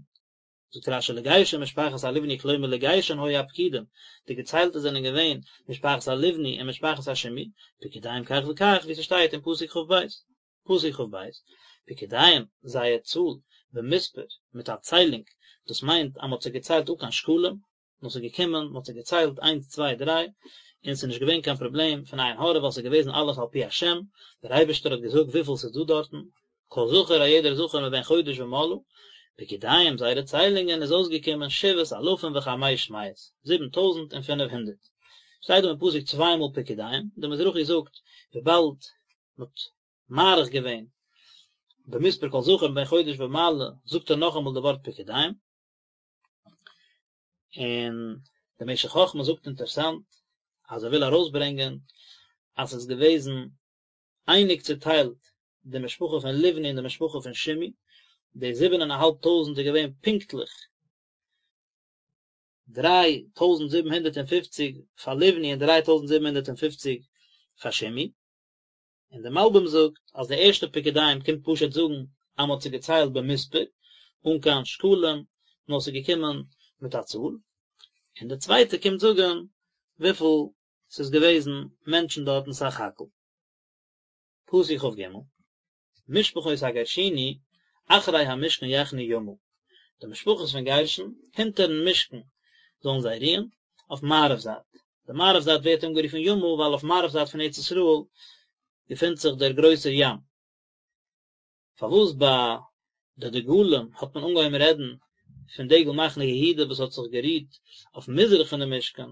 זאגט רשי לגרשון משפחת הלבני כלומר לגרשון היו הפקודים, די געציילטע זענען געווען משפחת הלבני און משפחת השמעי, פקודיהם כך וכך ווי ס'שטייט אין פסוק כב, פסוק כב, פקודיהם, זייער צאל, במספר, מיט א ציילונג, דאס מיינט אז מ'האט זיי געציילט אן קיין שקלים, נאר ס'איז געקומען, מ'האט זיי געציילט איינס צוויי דריי, און ס'איז נישט געווען קיין פראבלעם פון עין הרע ווייל ס'איז געוועזן אלעס על פי השם, דער אייבערשטער האט געזאגט וויפיל ס'איז דא דארטן, כל זכר א יעדער זכר מבן חודש ומעלה, פקודיהם זייערע ציילונגען איז אויסגעקומען שבעת אלפים וחמש מאות, 7500. שטייט דא אין פסוק צוויי מאל פקודיהם, דער מזרחי זאגט וויבאלד מ'האט מאריך געווען במספר כל זכר מבן חודש ומעלה זאגט ער נאכאמאל די ווארט פקודיהם, און דער משך חכמה זאגט אינטערסאנט אז ער וויל ארויסברענגען אז ס'איז געוועזן אייניג צוטיילט די משפחה פון לבני און די משפחה פון שמעי, די זיבן און א האלב טויזנט איז געווען פונקטליך 3750 פאר לבני און 3750 פאר שמעי. און דער מלבים זאגט אז די ערשטע פקודיהם קומט פשוט זאגן אז מען האט זיי געציילט במספר, אן קיין שקלים, נאר ס'איז געקומען מיט א צאל, און די צווייטע קומט זאגן וויפיל ס'איז געוועזן מענטשן דארטן סך הכל. פסוק כג, משפחות הגרשוני אחרי המשכן יחנו ימה, די משפחות פון גרשון, הינטערן משכן זאלן זיי רוען, אויף מערב זייט. די מערב זייט ווערט אנגערופן ימה ווייל אויף מערב זייט פון ארץ ישראל געפינט זיך דער גרויסער ים. פארוואס ביי די דגלים האט מען אנגעהויבן רעדן פון דגל מחנה יהודה וואס האט זיך גערוהט אויף מזרח פון די משכן,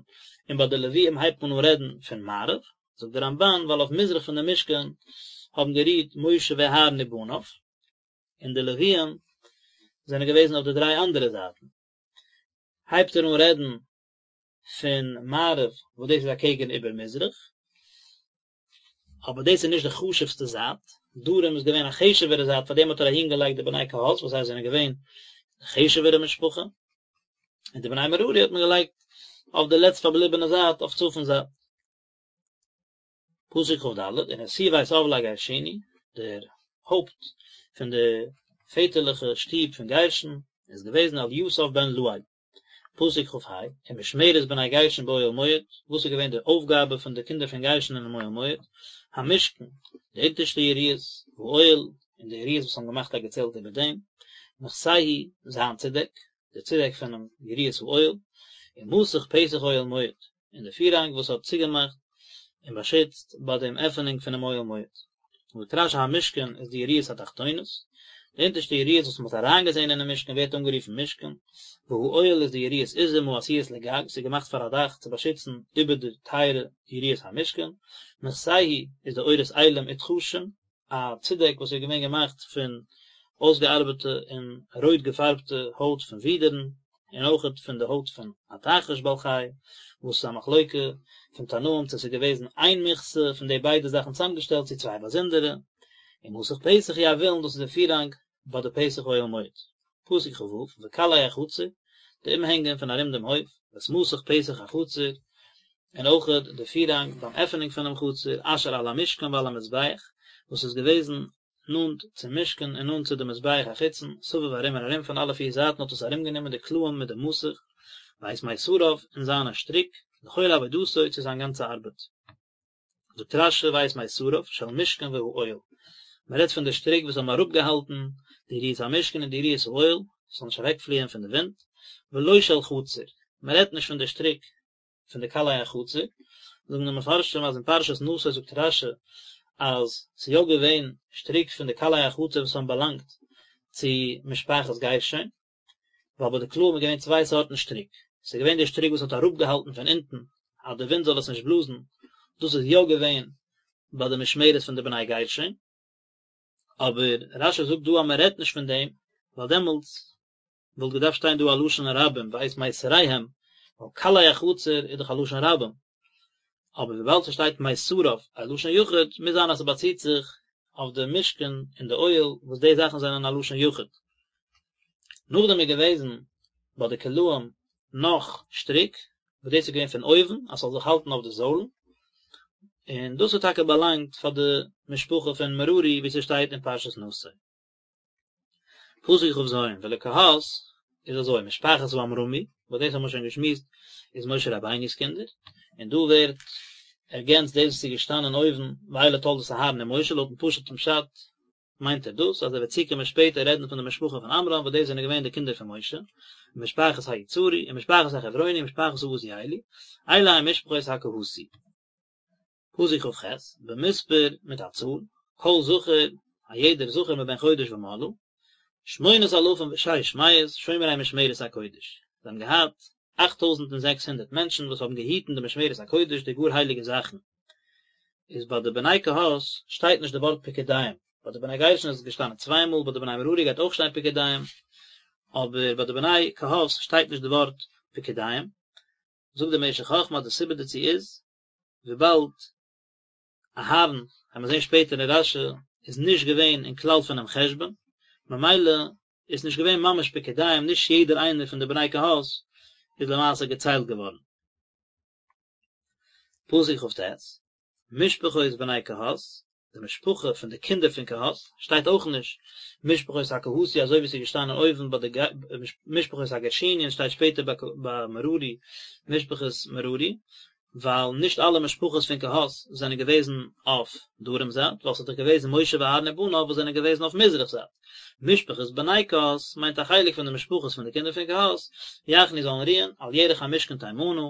און ביי די לוויים הייבט מען אן רעדן פון מערב? זאגט דער רמבן ווייל אויף מזרח פון די משכן האבן גערוהט משה ואהרן ובניו, און די לוויים זענען געוועזן אויף די דריי אנדערע זייטן. הייבט ער אן רעדן פון מערב וואס דאס איז אקעגן איבער מזרח, אבער דאס איז נישט די חשוב'סטע זייט, דרום איז געווען א חשוב'ערע זייט פאר דעם האט ער אהין געלייגט די בני קהת וואס זיי זענען געווען די חשוב'ערע משפחה, און די בני מררי האט מען געלייגט אויף די לעצט פארבליבענע זייט אויף צפון זייט. פסוק כד, ונשיא בית אב לגרשוני, דער הויפט פון די פעטערליכע שטוב פון גרשון איז געוועזן אליסף בן לאל. פסוק כה, ומשמרת בני גרשון באוהל מועד, וואס איז געווען די אויפגאבע פון די קינדער פון גרשון אינעם אוהל מועד, המשכן, די אונטערשטע יריעות, והאוהל, און די יריעות וואס האבן געמאכט א געצעלט איבער דעם, מכסהו, זיין צודעק, די צודעק פונעם יריעות האוהל, ומסך פתח אוהל מועד, און די פירהאנג וואס האט צוגעמאכט און באשיצט ביי דעם עפענונג פונעם אוהל מועד. זאגט רשי המשכן איז די יריעות התחתונות. די אונטערשטע יריעות וואס מען האט אריינגעזען אינעם משכן ווערט אנגערופן משכן, והאוהל איז די יריעות עזים העשויות לגג, ס'איז געמאכט פאר א דאך צו באשיצן איבער די טייערע יריעות המשכן, מכסהו איז די עורות אילים ותחשים, א צודעק וואס איז געווען געמאכט פון אויסגעארבעטע און רויט געפארבטע הויט פון ווידערן, און אויכעט פון די הויט פון א תחש בעל חי, וואס איז א מחלוקה פון תנאים צו עס איז געוועזן איין מכסה פון די ביידע זאכן צוזאמגעשטעלט צו צוויי באזונדערע, ומסך פתח הוא הוילון דאס איז די פירהאנג ביי די פתח אוהל מועד. פסוק כ"ו, וקלעי החצר, די אומהענגען פון ארום דעם הויף, ואת מסך פתח החצר, און אויכעט די פירהאנג ביים עפענונג פונעם חצר, אשר על המשכן ועל המזבח, וואס איז געוועזן נאנט צום משכן און נאנט צו די מזבח החיצון, סביב ארום און ארום פון אלע פיר זייטן האט עס ארומגענומען די קלעים מיט די מסך, ואת מיתריו און זיינע שטריק, לכל עבודתו צו זיין גאנצע ארבעט. זאגט רש"י ואת מיתריו של משכן והאוהל, מען רעדט פון די שטריק וואס האבן אראפגעהאלטן די יריעות המשכן און די יריעות האוהל, ס'זאל נישט אוועקפליען פון די ווינט, ולא של חצר, מען רעדט נישט פון די שטריק פון די קלעי החצר, זאגן די מפרשים אז אין פרשת נשא זאגט רש"י אז ס'איז יא געווען שטריק פון די קלעי החצר וואס האבן באלאנגט צו משפחת גרשון, ווייל ביי די קלעים איז געווען צוויי סארטן שטריק, ס'איז געווען די שטריק וואס האט אראפגעהאלטן פון אונטן אז די ווינט זאל עס נישט בלאזן, דאס איז יא געווען ביי די משמרת פון די בני גרשון, אבער רש"י זאגט דא אז מען רעדט נישט פון דעם, ווייל דעמאלטס וואלט געדארפט שטיין דא א לשון רבים ואת מיתריהם, ווייל קלעי החצר איז דאך א לשון רבים, אבער וויבאלד ס'שטייט מיתריו א לשון יחיד, מוז זיין אז ס'באציט זיך אויף די משכן און די אוהל וואס די זאכן זענען א לשון יחיד. נאכדעם איז געוועזן ביי די קלעים נאך שטריק, וואס דאס איז געווען פון אויבן אז ס'זאל זיך האלטן אויף די זוילן, און דאס האט טאקע באלאנגט פאר די משפחה פון מררי ווי ס'שטייט אין פרשת נשא. פסוק כ"ז, ולקהת איז אזוי, משפחת העמרמי, וואס דאס האבן מיר שוין געשמועסט, איז משה רבינו'ס קינדער, און דא ווערט ערגענצט דאס וואס איז געשטאנען אויבן, ואלה תולדות אהרן ומשה, לויטן פשוט'ן פשט מיינט ער דאס, אז ער וועט צוקומען שפעטער רעדן פון די משפחה פון עמרם, וואס דאס זענען געווען די קינדער פון משה, ומשפחת היצהרי, ומשפחת החברוני, ומשפחת העוזיאלי, אלה הם משפחות הקהתי. פסוק כ"ח, במספר מיט א צאל, כל זכר, א יעדער זכר מבן חודש ומעלה, שמונת אלפים ושש מאות, שומרי משמרת הקודש. זיי האבן געהאט 8600 מענטשן וואס האבן געהיטן די משמרת הקודש, די גאר הייליגע זאכן. איז ביי די בני קהת שטייט נישט די ווארט פקודיהם, ביי די בני גרשון איז עס געשטאנען צוויי מאל, ביי די בני מררי גייט אויך שטיין פקודיהם, אבער ביי די בני קהת שטייט נישט די ווארט פקודיהם. זאגט דער משך חכמה אז די סיבה דערצו איז, וויבאלד אהרן, וועט מען זען שפעטער אין רש"י, איז נישט געווען אין כלל פונעם חשבון, ממילא איז נישט געווען ממש פקודיהם, נישט יעדער איינער פון די בני קהת איז למעשה געציילט געווארן. פסוק כ"ט, משפחות בני קהת, די משפחה פון די קינדער פון קהת, שטייט אויך נישט משפחות הקהתי אזוי ווי עס איז געשטאנען אויבן ביי די משפחות הגרשוני און שטייט שפעטער ביי מררי משפחות מררי, ווייל נישט אלע משפחות פון קהת זענען געוועזן אויף דרום זייט, ווייל ס'איז דאך געוועזן משה ואהרן ובניו וואס זענען געוועזן אויף מזרח זייט. משפחות בני קהת מיינט א חלק פון די משפחות פון די קינדער פון קהת, יחנו זאלן רוען על ירך המשכן תימנה,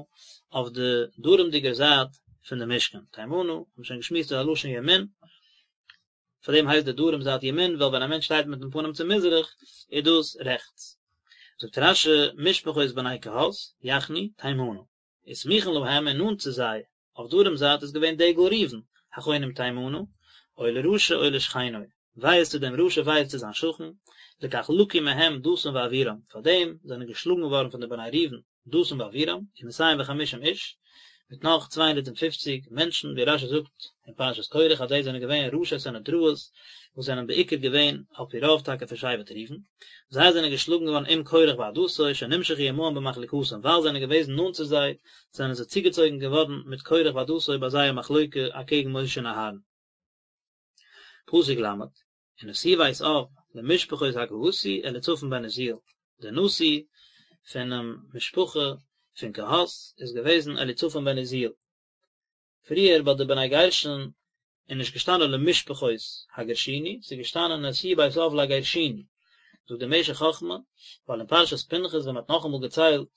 אויף די דרומדיגער זייט פון די משכן, תימנה, האבן מיר שוין געשמועסט איז א לשון ימין, פאר דעם הייסט די דרום זייט ימין, ווייל ווען א מענטש שטייט מיטן פנים צו מזרח, איז דאס רעכטס. זאגט רש"י, משפחות בני קהת, יחנו, תימנה. וסמוכין להם און נאנט צו זיי, אויף דרום זייט איז געווען דגל ראובן, החונים תימנה, אוי לרשע אוי לשכנו, וויי איז צו דעם רשע וויי איז צו זיין שכן, לכך לקו מהם דתן ואבירם, פאר דעם זענען געשלאגן געווארן פון די בני ראובן, דתן ואבירם, ומאתים וחמישים איש, מיט נאך 250 מענטשן, ווי רש"י זאגט אין פרשת קרח אז די זענען געווען ראשי סנהדראות, וואס זענען בעיקר געווען על פי רוב טאקע פון שבט ראובן, זיי זענען געשלאגן געווארן עם קרח ועדתו, שנמשכו עמהם במחלוקתם, ווייל זיי זענען געוועזן נאנט צו זיי, זענען זיי צוגעצויגן געווארן מיט קרח ועדתו ביי זייער מחלוקה אקעגן משה און אהרן. פסוק ל', ונשיא בית אב למשפחות הקהתי אליצפן בן עוזיאל, דער נשיא פונעם משפחה פון קהת איז געוועזן אליצפן בן עוזיאל. פריער ביי די בני גרשון איז נישט געשטאנען למשפחות הגרשוני, ס'איז געשטאנען נשיא בית אב לגרשוני, זאגט דער משך חכמה, ווייל אין פרשת פנחס ווען מ'האט נאכאמאל געציילט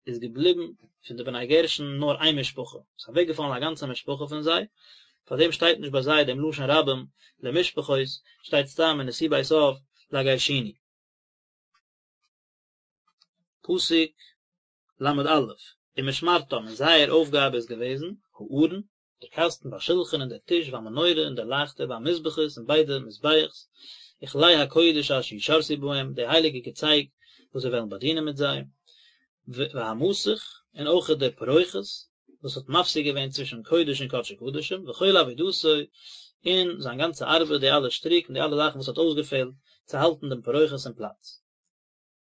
איז געבליבן פון די בני גרשון נאר איין משפחה, ס'איז אוועקגעפאלן א גאנצע משפחה פון זיי, פארדעם שטייט נישט ביי זיי דעם לשון רבים למשפחות, שטייט סתם ונשיא בית אב. לגרשוני. פסוק ל' א', ומשמרתם, און זייער אויפגאבע איז געוועזן, הארון, דער קאסטן, והשלחן און דער טיש, והמנורה און דער לייכטער, והמזבחות און ביידע מזבח'ס, וכלי הקודש אשר ישרתו בהם, די הייליגע געצייג וואס זיי וועלן באדינען מיט זיי, והמסך, און אויכעט דער פרוכת, וואס האט מפסיק געווען צווישן קודש און קדשי קדשים, וכל עבודתו, און זיין גאנצע ארבעט, די אלע שטריק און די אלע זאכן וואס האט אויסגעפעלט צו האלטן דעם פרוכת אין פלאץ.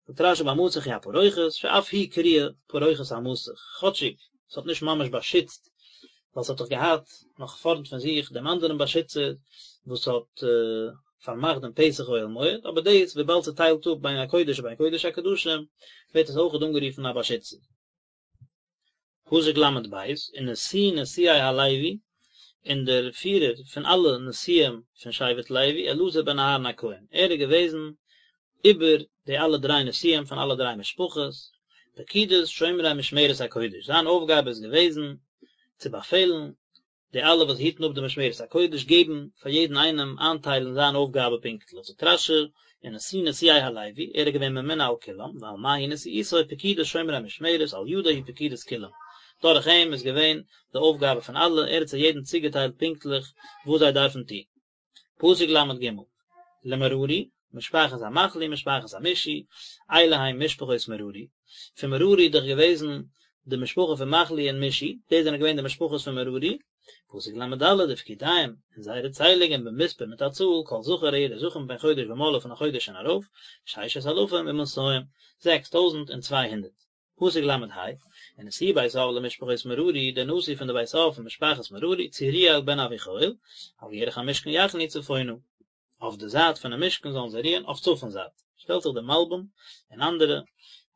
זאגט רשי והמסך הוא הפרוכת, שאף היא קרויה פרוכת המסך, כאטשיג ס'האט נישט ממש באשיצט, ווייל ס'האט דאך געהאט נאך פארנט פון זיך דעם אנדערן באשיצער וואס האט פארמאכט דעם פתח אוהל מועד, אבער דאס וויבאלד ס'טיילט אפ בין הקודש ובין קודש הקדשים, ווערט עס אויכעט אנגערופן א באשיצער. פסוק ל' ב', ונשיא נשיאי הלוי, און דער פירער פון אלע נשיאים פון שבט לוי, אלעזר בן אהרן הכהן, ער איז געוועזן איבער די אלע דריי נשיאים פון אלע דריי משפחות, פקודת שומרי משמרת הקודש, זיין אויפגאבע איז געוועזן צו באפעלן די אלע וואס היטן אפ די משמרת הקודש געבן פאר יעדן איינעם איינטיילן זיין אויפגאבע פונקטליך, זאגט רשי, ונשיא נשיאי הלוי, ער איז געווען ממונה על כולם, ועל מה היא נשיאותו פקודת שומרי המשמרת, על ידו היא פקודת כולם, דורך אים איז געווען די אויפגאבע פון אלע, ער האט זיי יעדן צוגעטיילט פונקטליך וואס זיי דארפן טון. פסוק ל' ג', למררי, משפחת המחלי משפחת המשי, אלה הם משפחות מררי, פון מררי איז דאך געוועזן די משפחה פון מחלי און משי, די זענען געווען די משפחות פון מררי, פסוק ל' ד' ופקודיהם, און זייערע ציילונגען במספר מיט א צאל, כל זכר א יעדער זכר מבן חודש ומעלה פון א חודש און ארויף, ששת אלפים ומאתים, 6200. פסוק ל' ה', ונשיא בית אב למשפחות מררי, דער נשיא פון די בית אב פון משפחת מררי, צוריאל בן אביחיל, על ירך המשכן יחנו צפונה, אויף די זייט פונעם משכן זאלן זיי רוען אויף צפון זייט. שטעלט זיך דער מלבים און אנדערע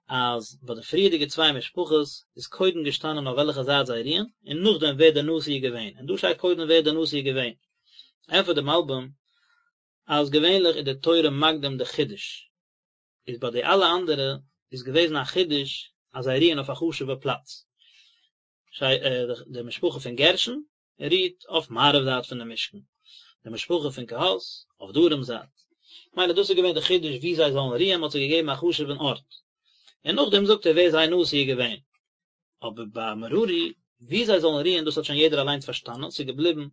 אז ביי די פריערדיגע צוויי משפחות איז קודם געשטאנען אויף וועלכע זייט זיי רוען, און נאכדעם ווער דער נשיא איז געווען, און דא שטייט קודם ווער דער נשיא איז געווען. ענטפערט דער מלבים אז געווענליך איז די תורה מקדים די חידוש, איז ביי די אלע אנדערע איז געוועזן א חידוש אז זיי רוען אויף א חשובע פלאץ, די משפחה פון גרשון רוהט אויף מערב זייט פון די משכן, די משפחה פון קהת אויף דרום זייט, מילא דאס איז געווען די חידוש וואו זיי זאלן רוען, מען האט זיי געגעבן א חשוב'ן ארט, און נאכדעם זאגט ער ווער זייער נשיא איז געווען. אבער ביי מררי, וואו זיי זאלן רוען דאס האט שוין יעדער אליינס פארשטאנען, ס'איז געבליבן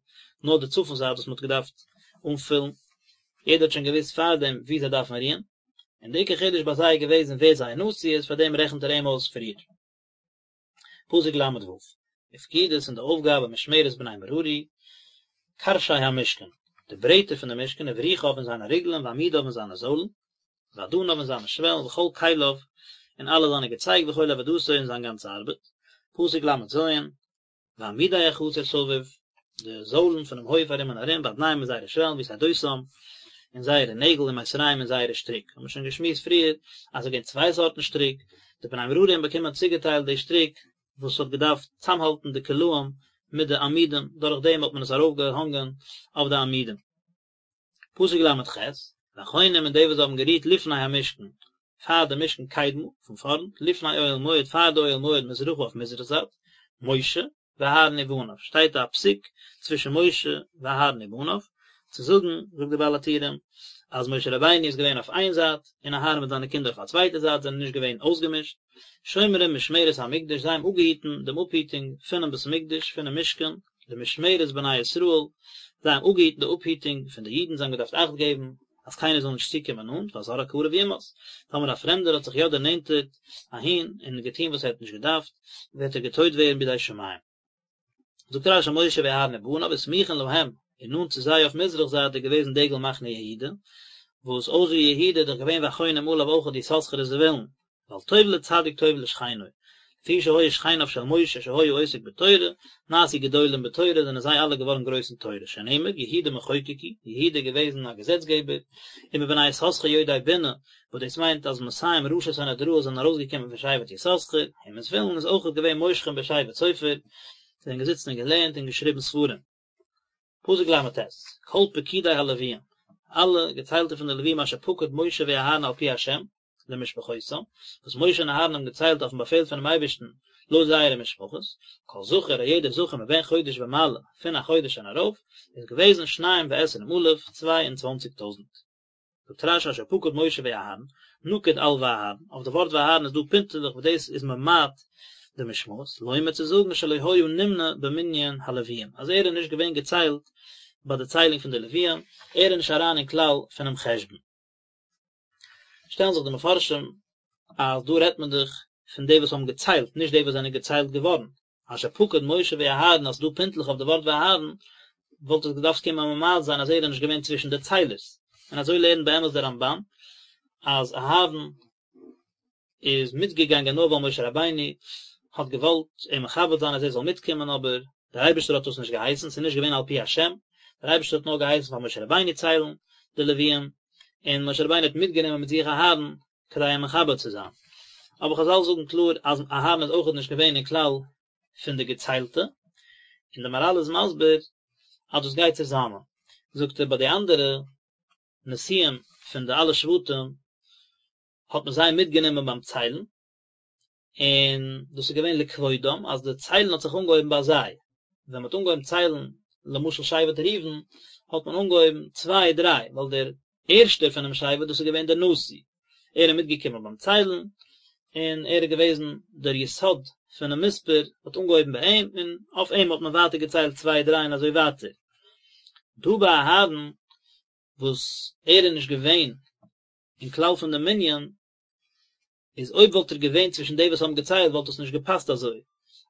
נאר די צפון זייט וואס מ'האט געדארפט אנפילן, יעדער האט שוין געוואוסט פארדעם וואו זיי דארפן רוען, און די עיקר חידוש ביי זיי איז געוועזן ווער זייער נשיא איז, פארדעם רעכנט ער אים אויס פריער. פסוק ל' ו', ופקודת און די אויפגאבע משמרת בני מררי, קרשי המשכן, די ברעטער פון די משכן, ובריחיו און זיינע ריגלען, ועמודיו און זיינע זוילן, ואדניו און זיינע שוועלן וכל כליו און אלע זיינע געצייג וכל עבודתו און זיין גאנצע ארבעט, פסוק ל' ז', ועמודי החצר סביב, די זוילן פונעם הויף ארום און ארום, ואדניהם און זייערע שוועלן ויתדותם, און זייערע נעגל ומיתריהם און זייערע שטריק, האבן מיר שוין געשמועסט פריער אז עס איז געווען צוויי סארטן שטריק, די בני מררי האבן באקומען צוגעטיילט די שטריק וואס האט געדארפט צאמהאלטן די קלעים מיט די עמודים, דורך דעם האט מען עס ארויפגעהאנגען אויף די עמודים. פסוק ל' ח', והחונים און די וואס האבן גערוהט לפני המשכן, פאר די משכן קדמה, פון פארנט, לפני אוהל מועד, פאר די אוהל מועד מזרחה אויף מזרח זייט, משה, ואהרן ובניו, שטייט א פסיק צווישן משה ואהרן ובניו, צו זאגן, זאגט די בעל הטורים, אז משה רבינו איז געווען אויף איין זייט, און אהרן מיט זיינע קינדער אויף א צווייטע זייט, זענען נישט געווען אויסגעמישט, שומרים משמרת המקדש, זיי האבן אפגעהיטן דעם אפהיטונג פונעם בית המקדש, פונעם משכן, למשמרת בני ישראל, זיי האבן אפגעהיטן די אפהיטונג פון די אידן, זיי האבן געדארפט אכט געבן אז קיינער זאל נישט צוקומען נאנט, והזר הקרב יומת, טאמער א פרעמדער האט זיך יא דערנענטערט אהין און געטון וואס ער האט נישט געדארפט, וועט ער געטויט ווערן בידי שמים. זאגט רשי משה ואהרן ובניו וסמוכין להם, און נאנט צו זיי אויף מזרח זייט איז געוועזן דגל מחנה יהודה, וואס אויסער יהודה איז דאך געווען והחונים עליו אויכעט יששכר און זבולון, ווייל טוב לצדיק טוב לשכנו, לפי שהיו שכניו של משה שהיה עוסק בתורה, נעשו גדולים בתורה זענען זיי אלע געווארן גרויס אין תורה, שנאמר יהודה מחוקק הוא, יהודה איז געוועזן א געזעצגעבער, ומבני יששכר יודעי בינה, וואס דאס מיינט אז מאתים ראשי סנהדראות זענען ארויסגעקומען פון שבט יששכר, ומזבולון איז אויכעט געווען מושכים בשבט סופר, זיי זענען געזיצן און געלערנט און געשריבן ספרים. פסוק ל"ט, כל פקודי הלוויים, אלע געציילטע פון די לוויים אשר פקד משה ואהרן על פי השם, למשפחותם, וואס משה און אהרן האבן געציילט אויפן באפעל פונעם אייבערשטן לויט זייערע משפחות, כל זכר א יעדער זכר מבן חודש ומעלה, פון א חודש און ארויף, איז געוועזן שניים ועשרים אלף, 22 טויזנט. זאגט רש"י אשר פקד משה ואהרן, נקוד על ואהרן, אויף די ווארט ואהרן איז דא פינטעלעך וואס דאס איז ממעט די משמעות, לומר צו זאגן שלא היה נמנה במנין הלוויים, אז ער איז נישט געווען געציילט ביי די ציילונג פון די לוויים, ער איז נישט אריין אין כלל פונעם חשבון. שטעלן זיך די מפרשים אז דא רעדט מען דאך פון די וואס האבן געציילט, נישט די וואס זענען געציילט געווארן, אשר פקד משה ואהרן אז ס'דא פינטלעך אויף די ווארט ואהרן, וואלט עס געדארפט קומען ממעט זיין אז ער איז נישט געווען צווישן די ציילערס, און אזוי לערנט באמת דער רמב"ן אז אהרן איז מיטגעגאנגען נאר ווייל משה רבינו האט געוואלט אים מכבד זיין אז ער זאל מיטקומען אבער דער אייבערשטער האט דאס נישט געהייסן, ס'איז נישט געווען על פי השם, דער אייבערשטער האט נאר געהייסן פאר משה רבינו ציילן די לוויים, און משה רבינו האט מיטגענומען מיט זיך אהרן כדי אים מכבד צו זיין. אבער חז"ל זאגן קלאר אז אהרן איז אויכעט נישט געווען אין כלל פון די געציילטע, און די מהר"ל איז מסביר אז דאס גייט צוזאמען, זאגט ער ביי די אנדערע נשיאים פון די אלע שבטים האט מען זיי מיטגענומען ביים ציילן, און דאס איז געווען לכבודם אז די ציילן האט זיך אנגעהויבן ביי זיי, ווען מען האט אנגעהויבן ציילן למשל שבט ראובן האט מען אנגעהויבן צוויי דריי ווייל דער ערשטער פונעם שבט דאס איז געווען דער נשיא, ער איז מיטגעקומען ביים ציילן, און ער איז געוועזן דער יסוד פונעם מספר, האט אנגעהויבן ביי אים, און אויף אים האט מען ווייטער געציילט צוויי דריי און אזוי ווייטער. דא ביי אהרן וואס ער איז נישט געווען אין כלל פון די מנין, איז אויב וואלט ער געווען צווישן די וואס האבן געציילט וואלט עס נישט געפאסט אזוי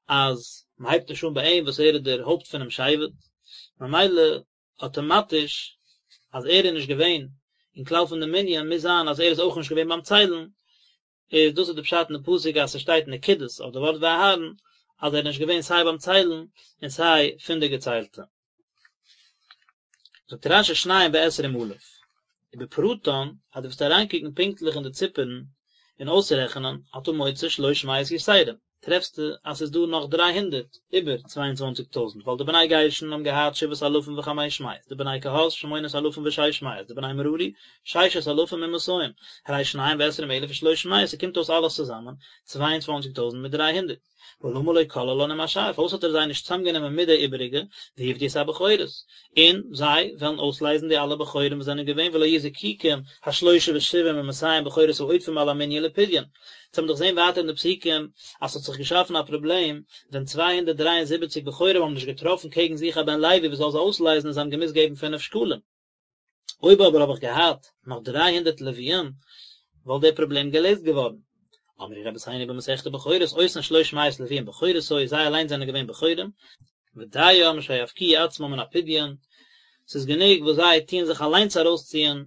אז מען הייבט נישט אן ביי אים וואס ער איז דער הויפט פונעם שבט, ממילא אטאמאטיש אז ער איז נישט געווען אין כלל פון די מנין מוז זיין אז ער איז אויך נישט געווען ביים ציילן, איז דאס איז די פשט אין די פסוק אז ס'שטייט נקודות אויף די ווארט ואהרן אז ער איז נישט געווען סיי ביים ציילן און סיי פון די געציילטע. זאגט רש"י שניים ועשרים אלף, ובפרטן, אז דו וועסט אריינקוקן פונקטליך אין די ציפערן און אויסרעכענען, אתה מוצא שלוש מאות יתרים, טרעפסטו אז ס'איז דא נאך דריי הונדערט איבער 22 טויזנט, ווייל די בני גרשון האבן געהאט שבעת אלפים וחמש מאות, די בני קהת שמונת אלפים ושש מאות, די בני מררי ששת אלפים ומאתים, הרי שניים ועשרים אלף ושלוש מאות, ס'קומט אויס אלעס צוזאמען 22 טויזנט מיט 300. ולמה לא כללן עם השאר, פארוואס האט ער זיי נישט צוזאמגענומען מיט די איבעריגע, ויפדו את הבכורות, און זיי וועלן אויסלייזן די אלע בכורים וואס זענען געווען ולא יהיו זקוקים השלושה ושבעים ומאתים בכורות העודפים על המנין לפדיון. אונז האבן דאך געזען ווייטער אין די פסוקים אז ס'האט זיך געשאפן א פראבלעם ווען 273 בכורים האבן נישט געטראפן קעגן זיך א בן לוי וואס זאל זיי אויסלייזן און זיי האבן געמוזט געבן פינף שקלים. אויב אבער האב איך געהאט נאך 300 לוויים, וואלט דער פראבלעם געלעזט געווארן. אמרו רבותינו במסכת בכורות, אותן שלוש מאות לוויים בכורות היו, זיי אליין זענען געווען בכורים, ודים שיפקיעו עצמם מן הפדיון, ס'איז גענוג וואס זיי טוען זיך אליינס ארויסציען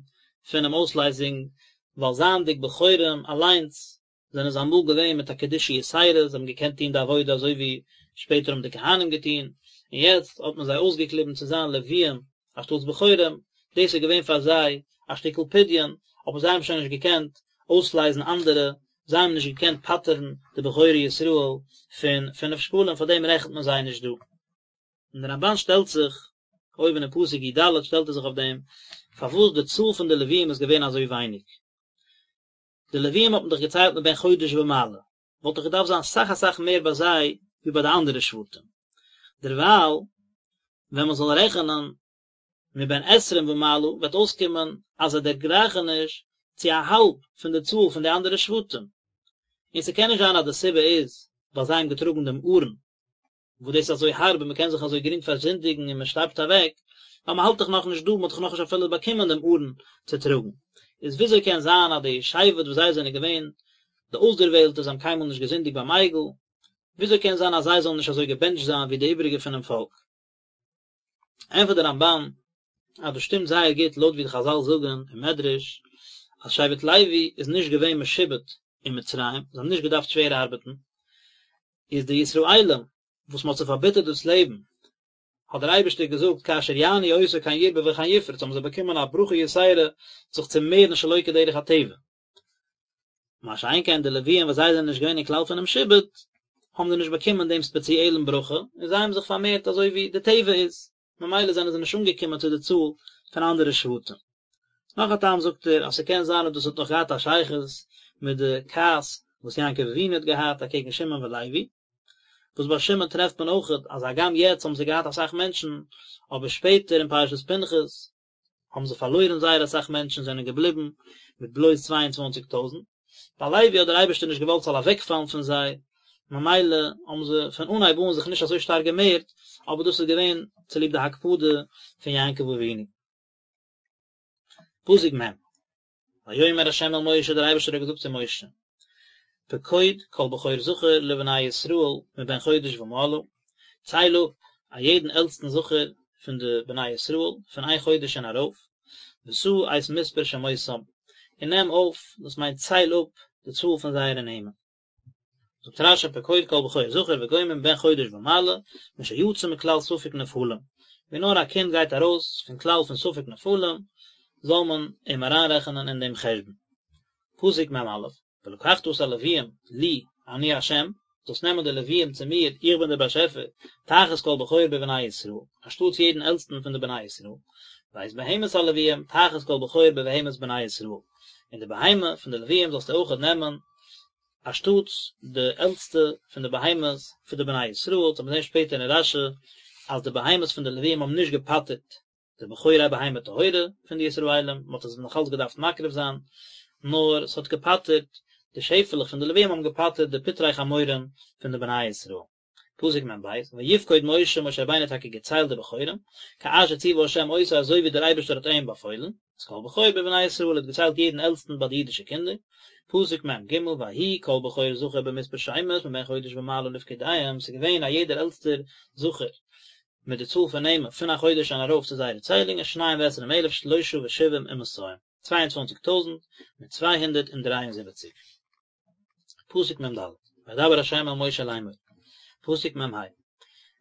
פונעם אויסלייזונג, ווייל זייענדיג בכורים אליינס זענען זיי אמאל געווען מיט א קדושה יתירה, זיי האבן געקענט טון די עבודה אזוי ווי שפעטער האבן די כהנים געטון, און יעצט האט מען זיי אויסגעקליבן צו זיין לוויים אנשטאטס בכורים, דאס איז געווען פאר זיי א שטיקל פדיון, אבער זיי האבן שוין נישט געקענט אויסלייזן אנדערע, זיי האבן נישט געקענט פטר'ן די בכורי ישראל פון פינף שקלים, פאר דעם רעכנט מען זיי נישט דא. און דער רמב"ן שטעלט זיך, אויבן אין פסוק י"ד שטעלט ער זיך אויף דעם, פארוואס די צאל פון די לוויים איז געווען אזוי ווייניג. די לוויים האט מען דאך געציילט מבן חודש ומעלה, וואלט דאך געדארפט זיין סאך אסאך מער ביי זיי ווי ביי די אנדערע שבטים. דערווייל ווען מען זאל רעכענען מבן עשרים ומעלה וועט אויסקומען אז זיי דערגרייכן נישט צו א האלב פון די צאל פון די אנדערע שבטים. און ס'קען נישט זיין אז די סיבה איז ווייל זיי האבן געטראגן דעם ארון וואס דאס איז אזוי הארב און מען קען זיך אזוי גרינג פארזינדיגן און מען שטארבט אוועק, ווייל מען האלט דאך נאכנישט דא, מען האט דאך נאכנישט אפילו באקומען דעם ארון צו טראגן. איז וויאזוי קען זיין אז די שבט וואס זיי זענען געווען די אויסדערוועלטע, זיי האבן קיינמאל נישט געזינדיגט ביים עגל, וויאזוי קען זיין אז זיי זאלן נישט אזוי געבענטשט זיין ווי די איבריגע פונעם פאלק? ענטפערט דער רמב"ן אז דאס שטימט זייער גוט לויט ווי די חז"ל זאגן אין מדרש אז שבט לוי איז נישט געווען משועבד אין מצרים, זיי האבן נישט געדארפט שווער ארבעטן, איז די ישראלים וואס מען האט זיי פארביטערט דאס לעבן, האט דער אייבערשטער געזאגט כאשר יענו אותו כן ירבה וכן יפרוץ, האבן זיי באקומען א ברכה יתירה זיך צו מערן שלא כדרך הטבע. מה שאין כן די לוויים וואס זיי זענען נישט געווען אין כלל פונעם שעבוד, האבן זיי נישט באקומען דעם ספעציעלן ברכה, און זיי האבן זיך פארמערט אזוי ווי די טבע איז, ממילא זענען זיי נישט אנגעקומען צו די צאל פון אנדערע שבטים. נאך א טעם זאגט ער אז ס'קען זיין אז דאס האט נאך געהאט א שייכות מיט די כעס וואס יעקב אבינו האט געהאט אקעגן שמעון ולוי, וואס ביי שמעון טרעפט מען אויכעט אז הגם יעצט האבן זיי געהאט אסאך מענטשן, אבער שפעטער אין פרשת פנחס. האבן זיי פארלוירן זייער אסאך מענטשן זענען געבליבן מיט בלויז 22 טויזענט, ביי לוי האט דער אייבערשטער נישט געוואלט ס'זאל אוועקפאלן פון זיי, ממילא האבן זיי פון אנהייב אן זיך נישט אזוי שטארק געמערט, אבער דאס איז געווען צוליב די הקפדה פון יעקב אבינו. פסוק מ', ויאמר ה' אל משה, דער אייבערשטער האט געזאגט צו משה, פקוד כל בכור זכר לבני ישראל מבן חודש ומעלה, צייל אפ א יעדן עלטסטן זכר פון די בני ישראל פון איין חודש און ארויף, ושא את מספר שמותם, און נעם אויף, דאס מיינט צייל אפ, די צאל פון זייערע נעמען. זאגט רש"י פקוד כל בכור זכר וגומר מבן חודש ומעלה, משיצא מכלל ספק נפלים, ווי נאר א קינד גייט ארויס פון כלל פון ספק נפלים, זאל מען אים אריינרעכענען אין דעם חשבון. פסוק מ"א, ולקחת את הלוויים לי אני ה', זאלסט נעמען די לוויים צו מיר, איך בין דער באשעפער, תחת כל בכור בבני ישראל, אנשטאטס יעדן עלטסטן פון די בני ישראל, ואת בהמת הלוויים תחת כל בכור בבהמת בני ישראל, און די בהמה פון די לוויים זאלסטו אויכעט נעמען, אנשטאטס די עלטסטע פון די בהמות פון די בני ישראל, וועט מען זען שפעטער אין רש"י אז די בהמות פון די לוויים האבן נישט געפטר'ט די בכורי בהמה טהורה פון די ישראלים, מען האט עס נאך אלץ געדארפט מקריב זיין, נאר עס האט געפטר'ט, די שעפעלעך פון די לוויים האבן געפטר'ט די פטרי חמורים פון די בני ישראל. פסוק מ"ב, ויפקוד משה, משה רבינו האט טאקע געציילט די בכורים, כאשר ציווה ה' אותו אזוי ווי דער אייבערשטער האט אים באפוילן, את כל בכור בבני ישראל האט געציילט יעדן עלטסטן ביי די אידישע קינדער, פסוק מ"ג, ויהי כל בכור זכר במספר שמות מבן חודש ומעלה לפקודיהם, ס'איז געווען א יעדער עלטסטער זכר מיט די צאל פון נעמען פון א חודש און ארויף צו זייערע ציילונגען שניים ועשרים אלף שלשה ושבעים ומאתים, צוויי און צוואנציג טויזנט מיט 273. פסוק מ"ד, וידבר ה' אל משה לאמור, פסוק מ"ה,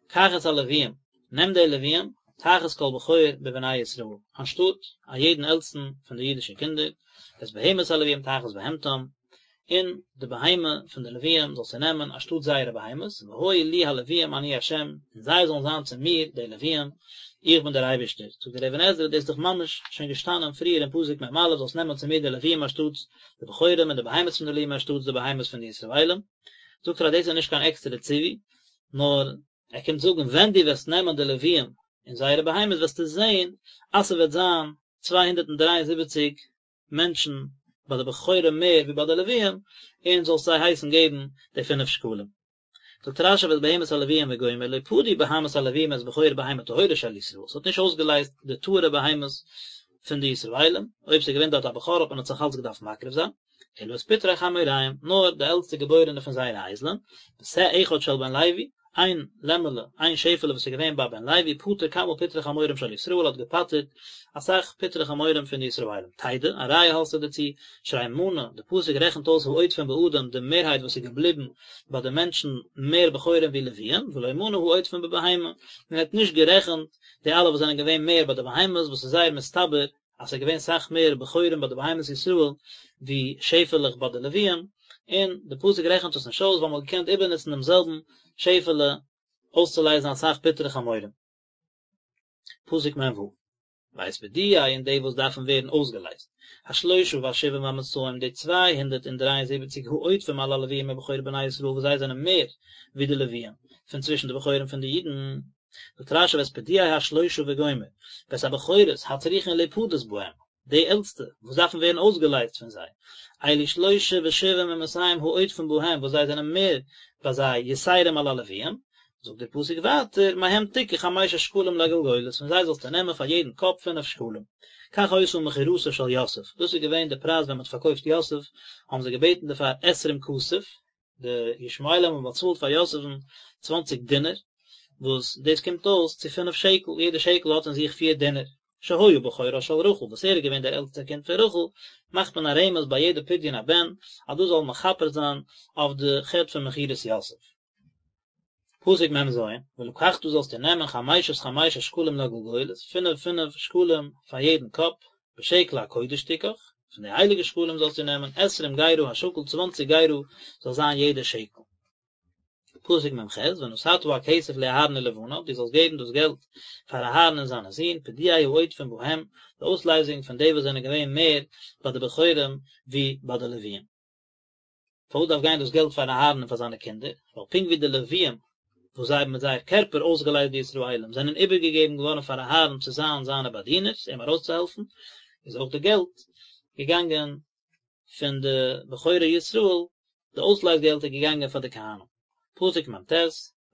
קח את הלוויים, נעם די לוויים, תחת כל בכור בבני ישראל, אנשטאט א יעדן עלטסטן פון די אידישע קינדער, ואת בהמת הלוויים תחת בהמתם, און די בהמה פון די לוויים זאלסטו נעמען אנשטאט זייערע בהמות, והיו לי הלוויים אני ה', און זיי זאלן זיין צו מיר, די לוויים, איך בין דער אייבערשטער. זאגט דער אבן עזרא, דאס איז דאך ממש שוין געשטאנען פריער אין פסוק מ"א, זאלסט נעמען צו מיר די לוויים אנשטאטס די בכורים און די בהמות פון די לוויים אנשטאטס די בהמות פון די ישראלים. זאגט ער אז דאס איז נישט קיין עקסטערע ציווי, נאר ער קומט זאגן ווען דו וועסט נעמען די לוויים און זייערע בהמות וועסטו זען אז ס'וועט זיין 273 מענטשן ביי די בכורים מער ווי ביי די לוויים, און זאלסט זיי הייסן געבן די פינף שקלים. זאגט רש"י ואת בהמת הלוויים וגומר לא פדו בהמות הלוויים את בכור בהמה טהורה של ישראל, ס'האט נישט אויסגעלייזט די טהור'ע בהמות פון די ישראלים, אויב ס'איז געווען דארט א בכור האט מען עס נאך אלץ געדארפט מקריב זיין, אלא את פטרי חמוריהם, נאר די עלטסטע געבוירענע פון זייערע אייזלען, ושה אחד של בן לוי, איין לעמעלע, איין שעפעלע וואס איז געווען ביי בן לוי, פטר כמה פטרי חמורים של ישראל האט געפטר'ט אסאך פטרי חמורים פון די ישראלים. תדע, א ראיה האסטו דערצו, שהרי מנה, די פסוק רעכנט אויס העודפים באדם, די מערהייט וואס איז געבליבן ביי די מענטשן מער בכורים ווי לוויים, ולא מנה העודפים בבהמה, מען האט נישט גערעכנט די אלע וואס זענען געווען מער ביי די בהמות, וואס איז זייער מסתבר אז ס'איז געווען סאך מער בכורים ביי די בהמות ישראל ווי שעפעלעך ביי די לוויים, און די פסוק רעכנט עס נישט אויס ווייל מ'האט געקענט איבערנוצן דעם זעלבן שעפעלע אויסצולייזן אסאך פטרי חמורים. פסוק מ"ו, ואת פדויי און די וואס דארפן ווערן אויסגעלייזט, השלושה והשבעים והמאתים די 273 העודפים על הלוויים מבכורי בני ישראל וואס זיי זענען מער ווי די לוויים פון צווישן די בכורים פון די אידן, זאגט רש"י ואת פדויי השלושה וגומר, ואת הבכורות הצריכין להפדות בהם, די עלטסטע וואס דארפן ווערן אויסגעלייזט פון זיי, אלו שלושה ושבעים ומאתים העודפים בהם וואס זיי זענען מער ביי זיי יתירים על הלוויים, זאגט דער פסוק ווייטער, מהם תקח חמשת שקלים לגלגולת, פון זיי זאלסטו נעמען פאר יעדן קאפ פינף שקלים. כך היתה מכירתו של יוסף, דאס איז געווען די פרייז ווען מען האט פארקויפט יוסף, האבן זיי געבעטן דערפאר עשרים כסף, די ישמעאלים האבן באצאלט פאר יוסף'ן צוואנציג דינר, וואס דאס קומט אויס צו פינף שקל, יעדע שקל האט אין זיך פיר דינר. שהיה בכורה של רחל, וואס ער איז געווען דער עלטסטער קינד פון רחל, מאכט מען א רמז ביי יעדע פדיון הבן, אז דאס זאל מכפר זיין אויף די חטא פון מכירת יוסף. פסוק מ"ז, ולקחת זאלסטו נעמען חמשת חמשת שקלים לגלגולת, פינף פינף שקלים פאר יעדן קאפ, בשקל הקודש תקח, פון די הייליגע שקלים זאלסטו נעמען, עשרים גרה השקל, צוואנציג גרה זאל זיין יעדע שקל. פסוק מ"ח, ונתתה הכסף לאהרן ולבניו, דו זאלסט געבן דאס געלט פאר אהרן און זיינע זין, פדויי העודפים בהם, די אויסלייזונג פון די וואס זענען געווען מער ביי די בכורים ווי ביי די לוויים. פארוואס דארף גיין דאס געלט פאר אהרן און פאר זיינע קינדער? ווייל פונקט ווי די לוויים. וואס זיי האבן מיט זייער קערפער אויסגעלייזט די ישראלים, זענען איבערגעגעבן געווארן פאר אהרן צו זיין זיינע באדינערס, אים ארויסצוהעלפן, איז אויך די געלט געגאנגען פון די בכורי ישראל, די אויסלייז געלט איז געגאנגען פאר די כהנים. פסוק מ"ט,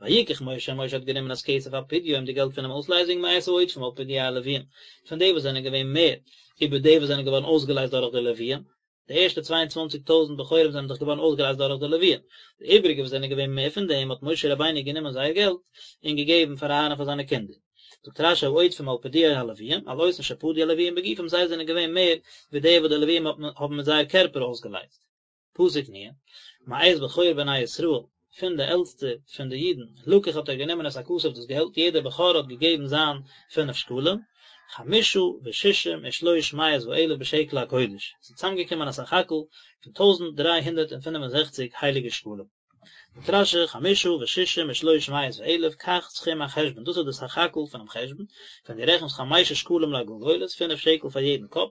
ויקח משה, משה האט גענומען את כסף הפדיון, די געלט פונעם אויסלייזונג מאת העודפים על פדויי הלוויים, פון די וואס זענען געווען מער איבער די וואס זענען געווארן אויסגעלייזט דורך די לוויים, די ערשטע צוויי און צוואנציג טויזנט בכורים זענען דאך געווארן אויסגעלייזט דורך די לוויים, די איבריגע וואס זענען געווען מער פון דעם האט משה רבינו גענומען זייער געלט און געגעבן פאר אהרן און פאר זיינע קינדער. זאגט רש"י העודפים על פדויי הלוויים, על אותן שפדו הלוויים בגופם זיי זענען געווען מער ווי די וואס די לוויים האבן מיט זייער קערפער אויסגעלייזט. פסוק נ', מאת בכור בני ישראל, פון די עלטסטע פון די אידן, לקח האט ער גענומען את הכסף דאס געלט, יעדער בכור האט געגעבן זיין פינף שקלים, חמשה וששים ושלוש מאות ואלף בשקל הקודש, עס איז צוזאמגעקומען א סך הכל פון טויזנט דריי הונדערט און פינף און זעכציק הייליגע שקלים. זאגט רש"י, חמשה וששים ושלוש מאות ואלף, כך סכום החשבון, דאס איז די סך הכל פונעם חשבון, ווען דו רעכנסט חמשה שקלים לגולגולת, פינף שקל פאר יעדן קאפ,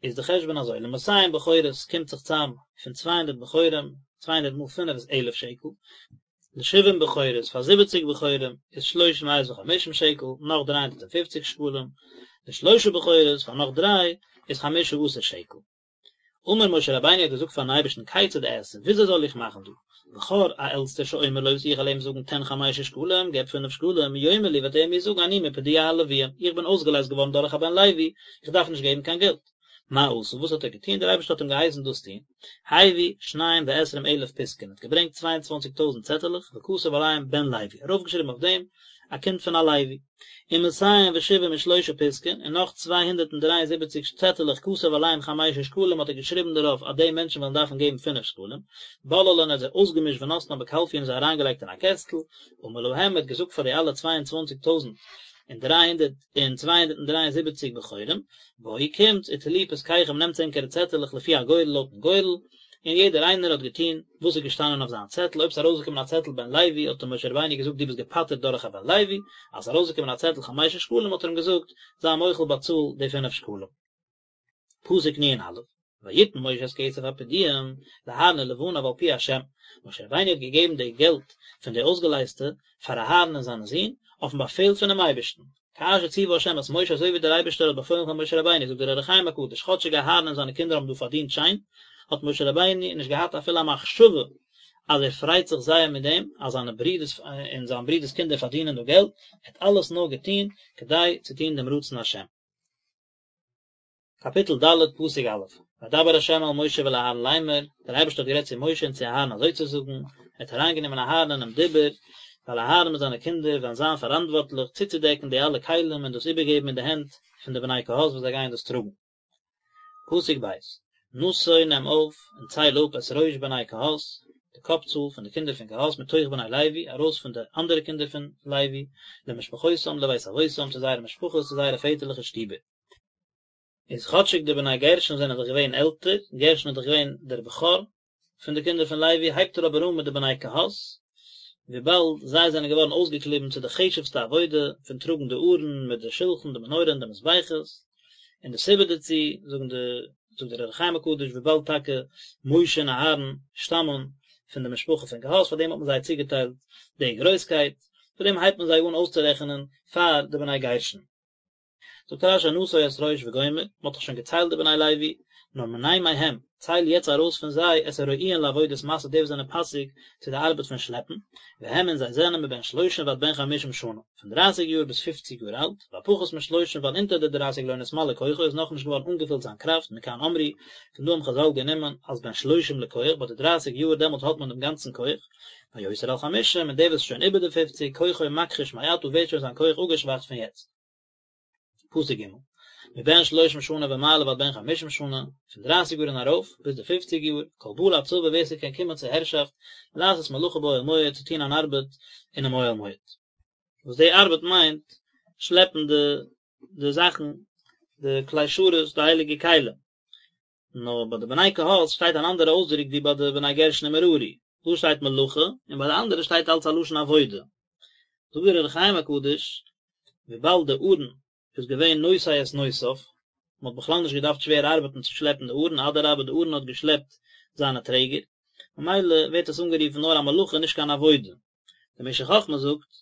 איז די חשבון אזוי, למאתים בכורות קומט זיך צאם פון צוויי הונדערט בכורים, צוויי הונדערט מאל פינף איז אלף שקל, לשבעים בכורות פאר זיבעציג בכורים איז שלוש מאות וחמישים שקל, נאך דריי הונדערט און פופציג שקלים, לשלושה בכורות פאר נאך דריי איז חמשה עשר שקל. אמר משה רבינו האט געזאגט פארן אייבערשטן כיצד אעשה, וויאזוי זאל איך מאכן דא, בכור א עלטסטער שאומר לו וואס איך וועל אים זאגן תן חמשה שקלים, געב פינף שקלים, יאמר לי וועט ער מיר זאגן אני מפדויי הלוויים, איך בין אויסגעלייזט געווארן דורך א בן לוי, איך דארף נישט געבן קיין געלט. מה עשה, וואס האט ער געטון, דער אייבערשטער האט אים געהייסן דאס טון, הביא שניים ועשרים אלף פתקין, האט געברענגט צוויי און צוואנציג טויזנט צעטעלעך, וכתב עליהם בן לוי, ארויפגעשריבן אויף דעם, א קינד פון א לוי. ומאתים ושבעים ושלושה פתקין, און נאך צוויי הונדערט און דריי און זיבעציק צעטעלעך כתב עליהם חמשה שקלים האט ער געשריבן דערויף אז די מענטשן וועלן דארפן געבן פינף שקלים, בללן ער האט זיי אויסגעמישט ונתנן בקלפי און זיי אריינגעלייגט אין א קעסטל, אמר להם ער האט געזאגט פאר די אלע צוויי און צוואנציג טויזנט און דריי הונדערט און צוויי הונדערט און דריי און זיבעציק בכורים, בואו קומטס וטלו פתקיכם נעמטס ענקערע צעטעלעך לפי הגורל לויטן גורל, און יעדער איינער האט געטון וואס איז געשטאנען אויף זיין צעטל, אויב ס'איז ארויסגעקומען א צעטל בן לוי האט אים משה רבינו געזאגט דו ביסט געפטר'ט דורך א בן לוי, אז ס'איז ארויסגעקומען א צעטל חמשה שקלים האט ער אים געזאגט זיי מוחל באצאל די פינף שקלים. פסוק נ"א, ויתן משה את כסף הפדוים לאהרן ולבניו על פי השם, משה רבינו האט געגעבן די געלט פון די אויסגעלייזטע פאר אהרן און זיינע זין, אויפן באפעל פונעם אייבערשטן, כאשר ציווה השם את משה אזוי ווי דער אייבערשטער האט באפוילן פאר משה רבינו, זאגט דער אור החיים הקדוש, כאטשיג אהרן און זיינע קינדער האבן דא פארדינט שיין, האט משה רבינו נישט געהאט אפילו א מחשבה אז ער פרייט זיך זייער מיט דעם אז זיינע ברידערס און זיין ברידערס קינדער פארדינען דא געלט, ער האט אלעס נאר געטון כדי צו טון דעם רצון השם. קאפיטל ד' פסוק א', וידבר ה' אל משה ואל אהרן לאמר, דער אייבערשטער האט גערעדט צו משה און צו אהרן אזוי צו זאגן, ער האט אריינגענומען אהרן אינעם דיבור, ווייל אהרן מיט זיינע קינדער וועלן זיין פאראנטווארטליך צוצודעקן די אלע כלים און דאס איבערגעבן אין די הענט פון די בני קהת וואס זיי גייען דאס טראגן. פסוק ב', נשא נעם אויף און צייל אפ את ראש בני קהת, די קאפ צאל פון די קינדער פון קהת מתוך בני לוי, ארויס פון די אנדערע קינדער פון לוי, למשפחותם לבית אבותם, צו זייערע משפחות, צו זייערע פעטערליכע שטיבער. איז כאטשיג די בני גרשון זענען דאך געווען עלטער, גרשון איז דאך געווען דער בכור פון די קינדער פון לוי, הייבט ער אבער אן מיט די בני קהת, וויבאלד זיי זענען געווארן אויסגעקליבן צו די חשוב'סטע עבודה פון טראגן די ארון מיט די שלחן, די מנורה און די מזבחות, און די סיבה דערצו, זאגן די, זאגט דער אור החיים הקדוש, וויבאלד טאקע משה און אהרן שטאמען פון די משפחה פון קהת, פאר דעם האט מען זיי צוגעטיילט די גרויסקייט, פאר דעם הייבט מען זיי אן אויסצורעכענען פאר די בני גרשון. זאגט רש"י נשא את ראש וגומר, מען האט דאך שוין געציילט די בני לוי, נאר מנה מהם, צייל יעצט ארויס פון זיי את הראויין לעבודת משא די וואס זענען פאסיג צו די ארבעט פון שלעפן, והם און זיי זענען מבן שלושים ועד בן חמישים שנה, פון דרייסיג יאר ביז פופציג יאר אלט, והפחות משלושים ווייל אונטער די דרייסיג לא נתמלא כוחו איז נאכנישט געווארן אנגעפילט זיין קראפט, מכאן אמרו, פון דא האבן חז"ל גענומען אז בן שלושים לכח, ביי די דרייסיג יאר דעמאלט האט מען דעם גאנצן כח, והיותר על חמישים, און דער וואס איז שוין איבער די פופציג, כוחו מכחיש מעתה ווערט שוין זיין כח אפגעשוואכט פון יעצט. פסוק ג' מבן שלושים שנה ומעלה ועד בן חמישים שנה, פון דרייסיג יאר און ארויף, ביז די פופציג יאר, כל בא לצבא ווער ס'קען קומען צו הערשאפט, לעשות מלאכה באוהל מועד, צו טון אן ארבעט אינעם אוהל מועד. וואס די ארבעט מיינט, שלעפן די די זאכן, די כלי שרת, די הייליגע כלים. נאר ביי די בני קהת שטייט אן אנדערע אויסדרוק ווי ביי די בני גרשון און מררי, דא שטייט מלאכה און ביי די אנדערע שטייט אלץ א לשון עבודה. זאגט דער אור החיים הקדוש, וויבאלד די ארון איז געווען נושא את נושאיו, מען האט בכלל נישט געדארפט שווער ארבעטן צו שלעפן די ארון, אדרבה די ארון האט געשלעפט זיינע טרעגער, ממילא ווערט עס אנגערופן נאר א מלאכה נישט קיין עבודה. דער משך חכמה זאגט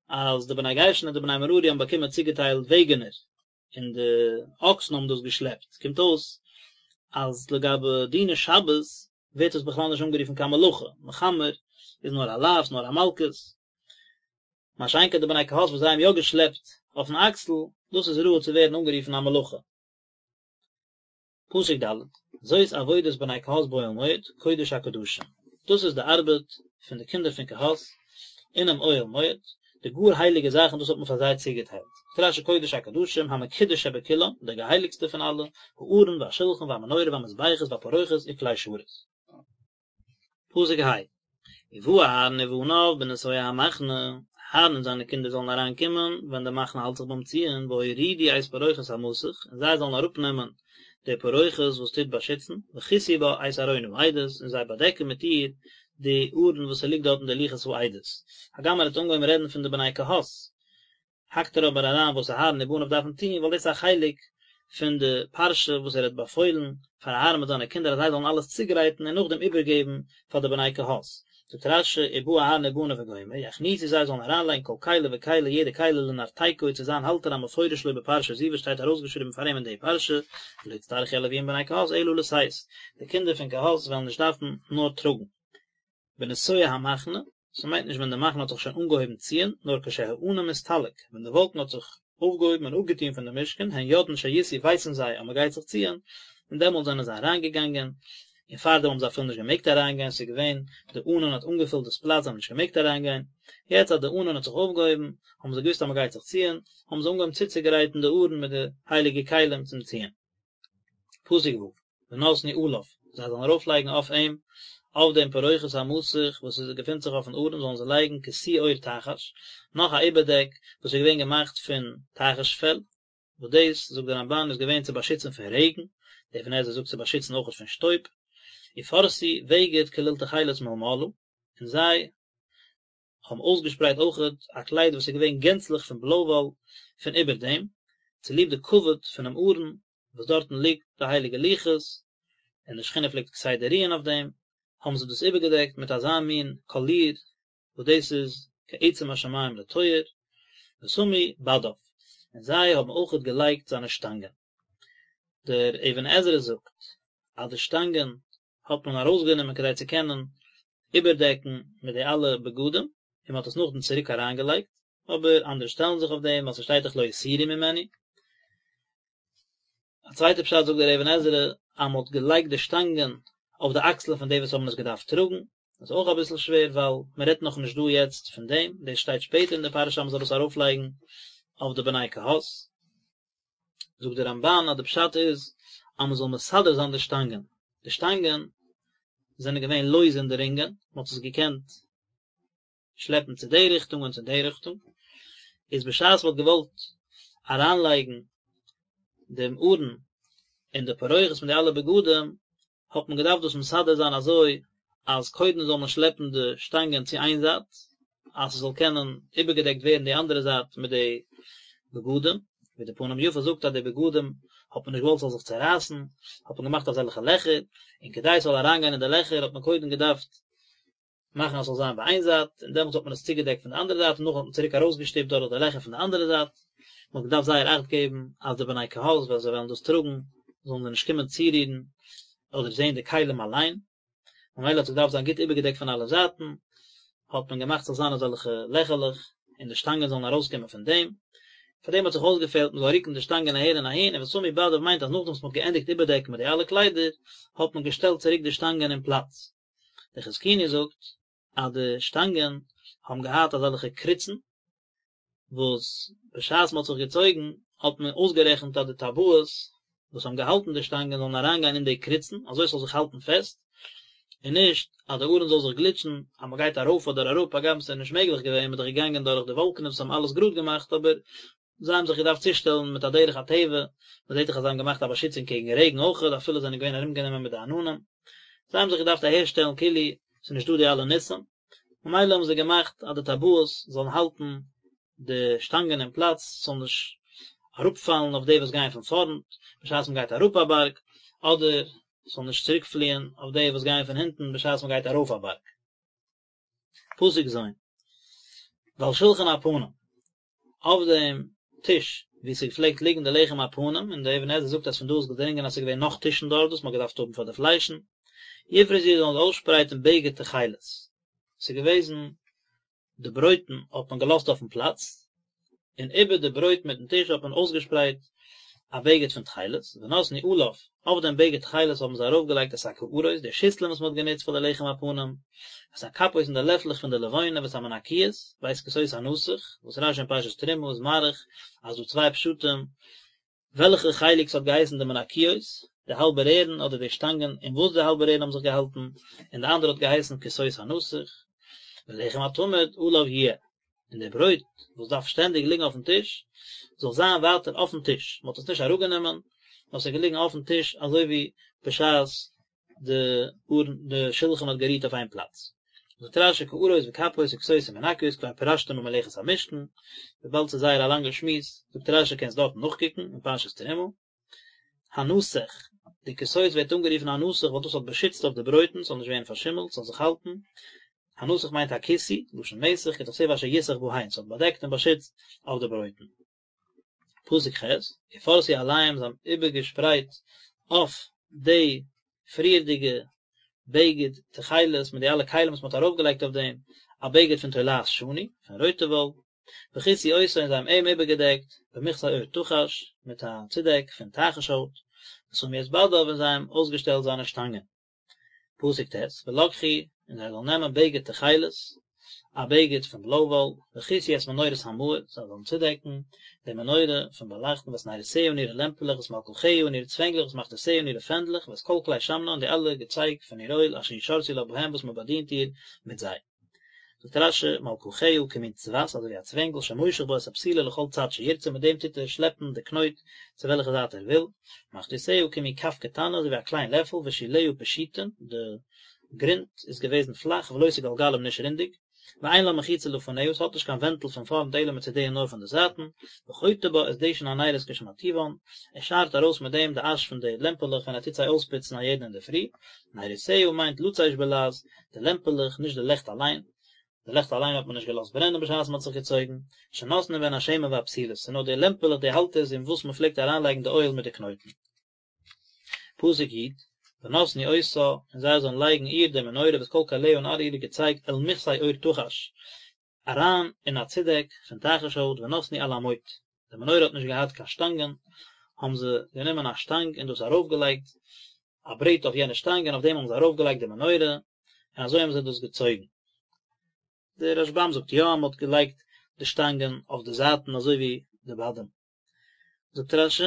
אז די בני גרשון און די בני מררי האבן באקומען צוגעטיילט וועגענער, און די אקסן האבן דאס געשלעפט, קומט אויס אז לגבי דיני שבת ווערט עס בכלל נישט אנגערופן קיין מלאכה, מחמר איז נאר א לאו, נאר א מלקות, מה שאין כן די בני קהת וואס זיי האבן יא געשלעפט אויפן אקסל, דאס איז ראוי צו ווערן אנגערופן א מלאכה. פסוק ד', זאת עבודת בני קהת באוהל מועד, קודש הקדשים, דאס איז די ארבעט פון די קינדער פון קהת אינעם אוהל מועד, די גאר הייליגע זאכן דאס האט מען פאר זיי צוגעטיילט, זאגט רש"י קודש הקדשים, המקודש שבכולם, דער געהייליגסטער פון אלע, הארון והשולחן והמנורה והמזבחות והפרוכת וכלי שרת. פסוק ה', ובא אהרן ובניו בנסוע המחנה, אהרן און זיינע קינדער זאלן אריין קומען ווען די מחנה האלט זיך ביים ציען, והורידו את פרוכת המסך, און זיי זאלן אראפ נעמען די פרוכת וואס טוט באשיצן, וכסו בה את ארון העדות, און זיי באדעקן מיט איר די ארון וואס ס'ליגט דארט אין די לוחות העדות. הגם ער האט אנגעהויבן רעדן פון די בני קהת, האקט ער אבער אריין וואס אהרן ובניו דארפן טון, ווייל דאס איז א חלק פון די פרשה וואס ער האט באפוילן פאר אהרן מיט זיינע קינדער אז זיי זאלן אלעס צוגרייטן און נאכדעם איבערגעבן פאר די בני קהת. זאגט רש"י ובא אהרן ובניו וגומר, יכניסו זיי זאלן אריינלייגן כל כלי וכלי יעדע כלי לנרתיקו צו זיין האלטער המפורש לו בפרשה זו וואס שטייט ארויסגעשריבן פאר אים אין די פרשה, ולא יצטרכו הלוויים בני קהת אלא לשאת, די קינדער פון קהת וועלן נישט דארפן נאר טראגן. בנסוע המחנה, ס'מיינט נישט ווען די מחנה האט זיך שוין אנגעהויבן ציען, נאר כשהענן מסתלק, ווען די וואלקן האט זיך אויפגעהויבן און אפגעטון פון די משכן, הן יודעין שיסעו ווייסן זיי אז מ'גייט זיך ציען, און דעמאלט זענען זיי אריינגעגאנגען, און פארדעם האבן זיי אפילו נישט געמעגט אריינגיין, ס'איז געווען, די ענן האט אנגעפילט דאס פלאץ, זיי האבן נישט געמעגט אריינגיין, יעצט אז די ענן האט זיך אויפגעהויבן, האבן זיי געוואוסט אז מ'גייט זיך ציען, האבן זיי אנגעהויבן צוצוגרייטן די ארון מיט די הייליגע כלים צום ציען. פסוק ו', ונתנו עליו, זיי זאלן ארויפלייגן אויף אים, אויף דעם פרוכת המסך וואס עס געפינט זיך אויפן ארון זאלן זיי לייגן כסוי עור תחש, נאך א איבערדעק וואס איז געווען געמאכט פון תחש פעל, וואס דאס, זאגט דער רמב"ן, איז געווען צו באשיצן פון רעגן, דער אבן עזרא זאגט צו באשיצן אויכעט פון שטויב, ופרשו בגד כליל תכלת מלמעלה, און זיי האבן אויסגעשפרייט אויכעט א קלייד וואס איז געווען גענצליך פון בלוי וואל פון איבער דעם, צוליב די כבוד פונעם ארון וואס דארטן ליגט די הייליגע לוחות, און די שכינה פלעגט כסדר רוען אויף דעם, האבן זיי דאס איבערגעדעקט מיט אזא מין קאליר וואס דאס איז כעצם השמים לטוהר, ושמו בדיו, און זיי האבן אויכעט געלייגט זיינע שטאנגען. דער אבן עזרא זאגט אז די שטאנגען האט מען ארויסגענומען כדי צו קענען איבערדעקן מיט די אלע בגדים, און מען האט עס נאכדעם צוריק אריינגעלייגט, אבער אנדערע שטעלן זיך אויף דעם ווייל ס'שטייט דאך לא יסורו ממנו. א צווייטע פשט זאגט דער אבן עזרא אז מען האט געלייגט די שטאנגען אויף די אקסלען פון די וואס האבן עס געדארפט טראגן, דאס איז אויך אביסל שווער ווייל מען רעדט נאכנישט דא יעצט פון דעם, דאס שטייט שפעטער אין די פרשה אז מען זאל עס ארויפלייגן אויף די בני קהת. זאגט דער רמב"ן אז די פשט איז אז מען זאל מסדר זיין די שטאנגען, די שטאנגען זענען געווען לויז אין די רינגען, מען האט עס געקענט שלעפן צו די ריכטונג און צו די ריכטונג, איז בשעת מען האט געוואלט אריינלייגן דעם ארון אין די פרוכת מיט די אלע בגדים, האט מען געדארפט דאס מסדר זיין אזוי אז קודם זאל מען שלעפן די שטאנגען צו איין זייט, אז ס'זאל קענען איבערגעדעקט ווערן די אנדערע זייט מיט די בגדים, ווי די פנים יפות זאגט אז די בגדים האט מען נישט געוואלט ס'זאל זיך צערייסן, האט מען געמאכט אזעלכע לעכער, און כדי ס'זאל אריינגיין אין די לעכער האט מען קודם געדארפט מאכן אז ס'זאל זיין ביי איין זייט, און דעמאלטס האט מען עס צוגעדעקט פון די אנדערע זייט, און נאכדעם האט מען צוריק ארויסגעשטופט דורך די לעכער פון די אנדערע זייט. מען האט געדארפט זייער אכט געבן אז די בני קהת ווען זיי וועלן דאס טראגן, זאלן זיי נישט קומען צורירן אדער זען די כלים אליין, ממילא האט עס געדארפט זיין גוט איבערגעדעקט פון אלע זייטן, האט מען געמאכט ס'זאל זיין אזעלכע לעכערלעך, און די שטאנגען זאלן ארויסקומען פון דעם. פאר דעם האט זיך אויסגעפעלט מען זאל רוקן די שטאנגען אהער און אהין, און ושמו בדיו מיינט אז נאכדעם וואס מען האט געענדיגט איבערדעקן מיט די אלע קליידער, האט מען געשטעלט צוריק די שטאנגען אין פלאץ. דער חזקוני זאגט אז די שטאנגען האבן געהאט אזעלכע קריצן וואס בשעת מען האט זיך געצויגן האט מען אויסגערעכנט אז די טבעות וואס האבן געהאלטן די שטאנגען זאלן אריינגיין אין די קריצן אזוי ס'זאל זיך האלטן פעסט און נישט אז די ארון זאל זיך גליטשן אז מען גייט ארויף אדער אראפ הגם ס'איז נישט מעגליך געווען מען איז דאך געגאנגען דורך די וואלקענעס וואס האבן אלעס גראד געמאכט אבער זיי האבן זיך געדארפט צושטעלן מיט א דרך הטבע, מען זעט דאך אז זיי האבן געמאכט א באשיצונג קעגן רעגן אויכעט, אפילו זיי זענען געווען ארומגענומען מיט די עננים, זיי האבן זיך געדארפט אהערשטעלן כאילו ס'איז נישט דא די אלע ניסים, ממילא האבן זיי געמאכט אז די טבעות זאלן האלטן די שטאנגען אין פלאץ, ס'זאל נישט אראפפאלן אויף די וואס גייען פון פארנט, בשעת מען גייט אראפ א בארג, אדער ס'זאל נישט צוריקפליען אויף די וואס גייען פון הינטן בשעת מען גייט ארויף א בארג. פסוק ז'. ועל שלחן הפנים, אויף דעם טיש וואו ס'פלעגט ליגן די לחם הפנים, און דער אבן עזרא זאגט אז פון דא איז געדרינגען אז ס'איז געווען נאך טישן דארט וואס מ'האט געדארפט האבן פאר די פליישן, יפרסו זאלן זיי אויסשפרייטן בגד תכלת, ס'איז געוועזן די ברויטן האט מען געלאזט אויפן פלאץ, און איבער די ברויט מיטן טיש האט מען אויסגעשפרייט א בגד פון תכלת, ונתנו עליו, אויף דעם בגד תכלת האבן זיי ארויפגעלייגט את הקערות, די שיסלען וואס מען האט גענוצט פאר די לחם הפנים, ואת הכפות און די לעפלעך פון די לבונה ואת המנקיות, ואת כסות הנסך, וואס רשי אין פרשת תרומה איז מאריך אז דא צוויי פשטים וועלכע חלק ס'האט געהייסן די מנקיות, די האלבע רערן אדער די שטאנגען אין וואס די האלבע רערן האבן זיך געהאלטן, און די אנדערע האט געהייסן כסות הנסך, ולחם התמיד עליו יהיה, און די ברויט וואס דארף שטענדיג ליגן אויפן טיש, זאל זיין ווייטער אויפן טיש, מ'האט עס נישט אראפגענומען, נאר ס'איז געליגן אויפן טיש אזוי ווי בשעת די ארון די שלחן האט גערוהט אויף איין פלאץ. זאגט רשי קערות וכפות וכסות ומנקיות כבר פירשתים במלאכת המשכן, וויבאלד ס'איז זייער א לאנגע שמועס, זאגט רשי קענסט דארטן נאכקוקן אין פרשת תרומה. הנסך, די כסות ווערט אנגערופן הנסך ווייל דאס האט באשיצט אויף די ברויטן ס'זאל נישט ווערן פארשימלט, ס'זאל זיך האלטן. הנסך מיינט הכיסוי, לשון מסך, כדכתיב אשר יסך בהן, ס'האט באדעקט און באשיצט אויף די ברויטן. פסוק ח', ופרשו עליהם זיי האבן איבערגעשפרייט אויף די פריערדיגע בגד תכלת מיט די אלע כלים וואס מען האט ארויפגעלייגט אויף דעם, א בגד פון תולעת שני, פון רויטע וואל, וכסו אותו און זיי האבן אים איבערגעדעקט במכסה עור תחש, מיט א צודעק פון תחש הויט, ושמו את בדיו און זיי האבן אויסגעשטעלט זיינע שטאנגען. פסוק ט', ולקחו, און זיי זאלן נעמען בגד תכלת, א בגד פון בלוי וואל, וכסו את מנורת המאור, זיי זאלן צודעקן די מנורה פון באלייכטן ואת נרותיה און אירע לעמפעלעך ואת מלקחיה און אירע צווענגלעך ואת מחתותיה און אירע פענדלעך ואת כל כלי שמנה און די אלע געצייג פון איר אויל אשר ישרתו לה בהם וואס מען באדינט איר מיט זיי. זאגט רשי, מלקחיה כמין צבת, אזוי ווי א צווענגל שמושך בה את הפתילה לכל צד שירצה, מיט דעם טוט ער שלעפן די קנויט צו וועלכע זייט ער וויל, מחתותיה כמין כף קטנה, אזוי ווי א קליין לעפל, ושוליה פשוטין, די גרונט איז געוועזן פלאך ולא סגלגלים נישט רונדיג, ואין לה מחיצה לפניה, עס האט נישט קיין ווענטל פון פארנט אלא מצדיה נאר פון די זייטן, וחוטא בה את דשן הנרות כשמרטיבן, ער שארט ארויס מיט דעם די אש פון די לעמפעלעך ווען ער טוט זיי אויספוצן א יעדן אינדערפרי, נרותיה מיינט לצש בלעז, די לעמפעלעך, נישט די לעכט אליין, די לעכט אליין האט מען נישט געלאזט ברענען בשעת מען האט זיך געצויגן, שנותנין בהן השמן והפתילות, ס'איז נאר די לעמפעלעך די האלטערס אין וואס מען פלעגט אריינלייגן די אויל מיט די קנויטן. פסוק י', ונתנו אותה, און זיי זאלן לייגן איר די מנורה ואת כל כליה און אלע אירע געצייג אל מכסה עור תחש, אריין אין א צודעק פון תחש הויט ונתנו על המוט, די מנורה האט נישט געהאט קיין שטאנגען, האבן זיי גענומען א שטאנג און דאס ארויפגעלייגט, א ברעט אויף יענע שטאנג און אויף דעם האבן זיי ארויפגעלייגט די מנורה, און אזוי האבן זיי דאס געצויגן. דער רשבם זאגט יא, מען האט געלייגט די שטאנגען אויף די זייטן אזוי ווי די בדים. זאגט רשי,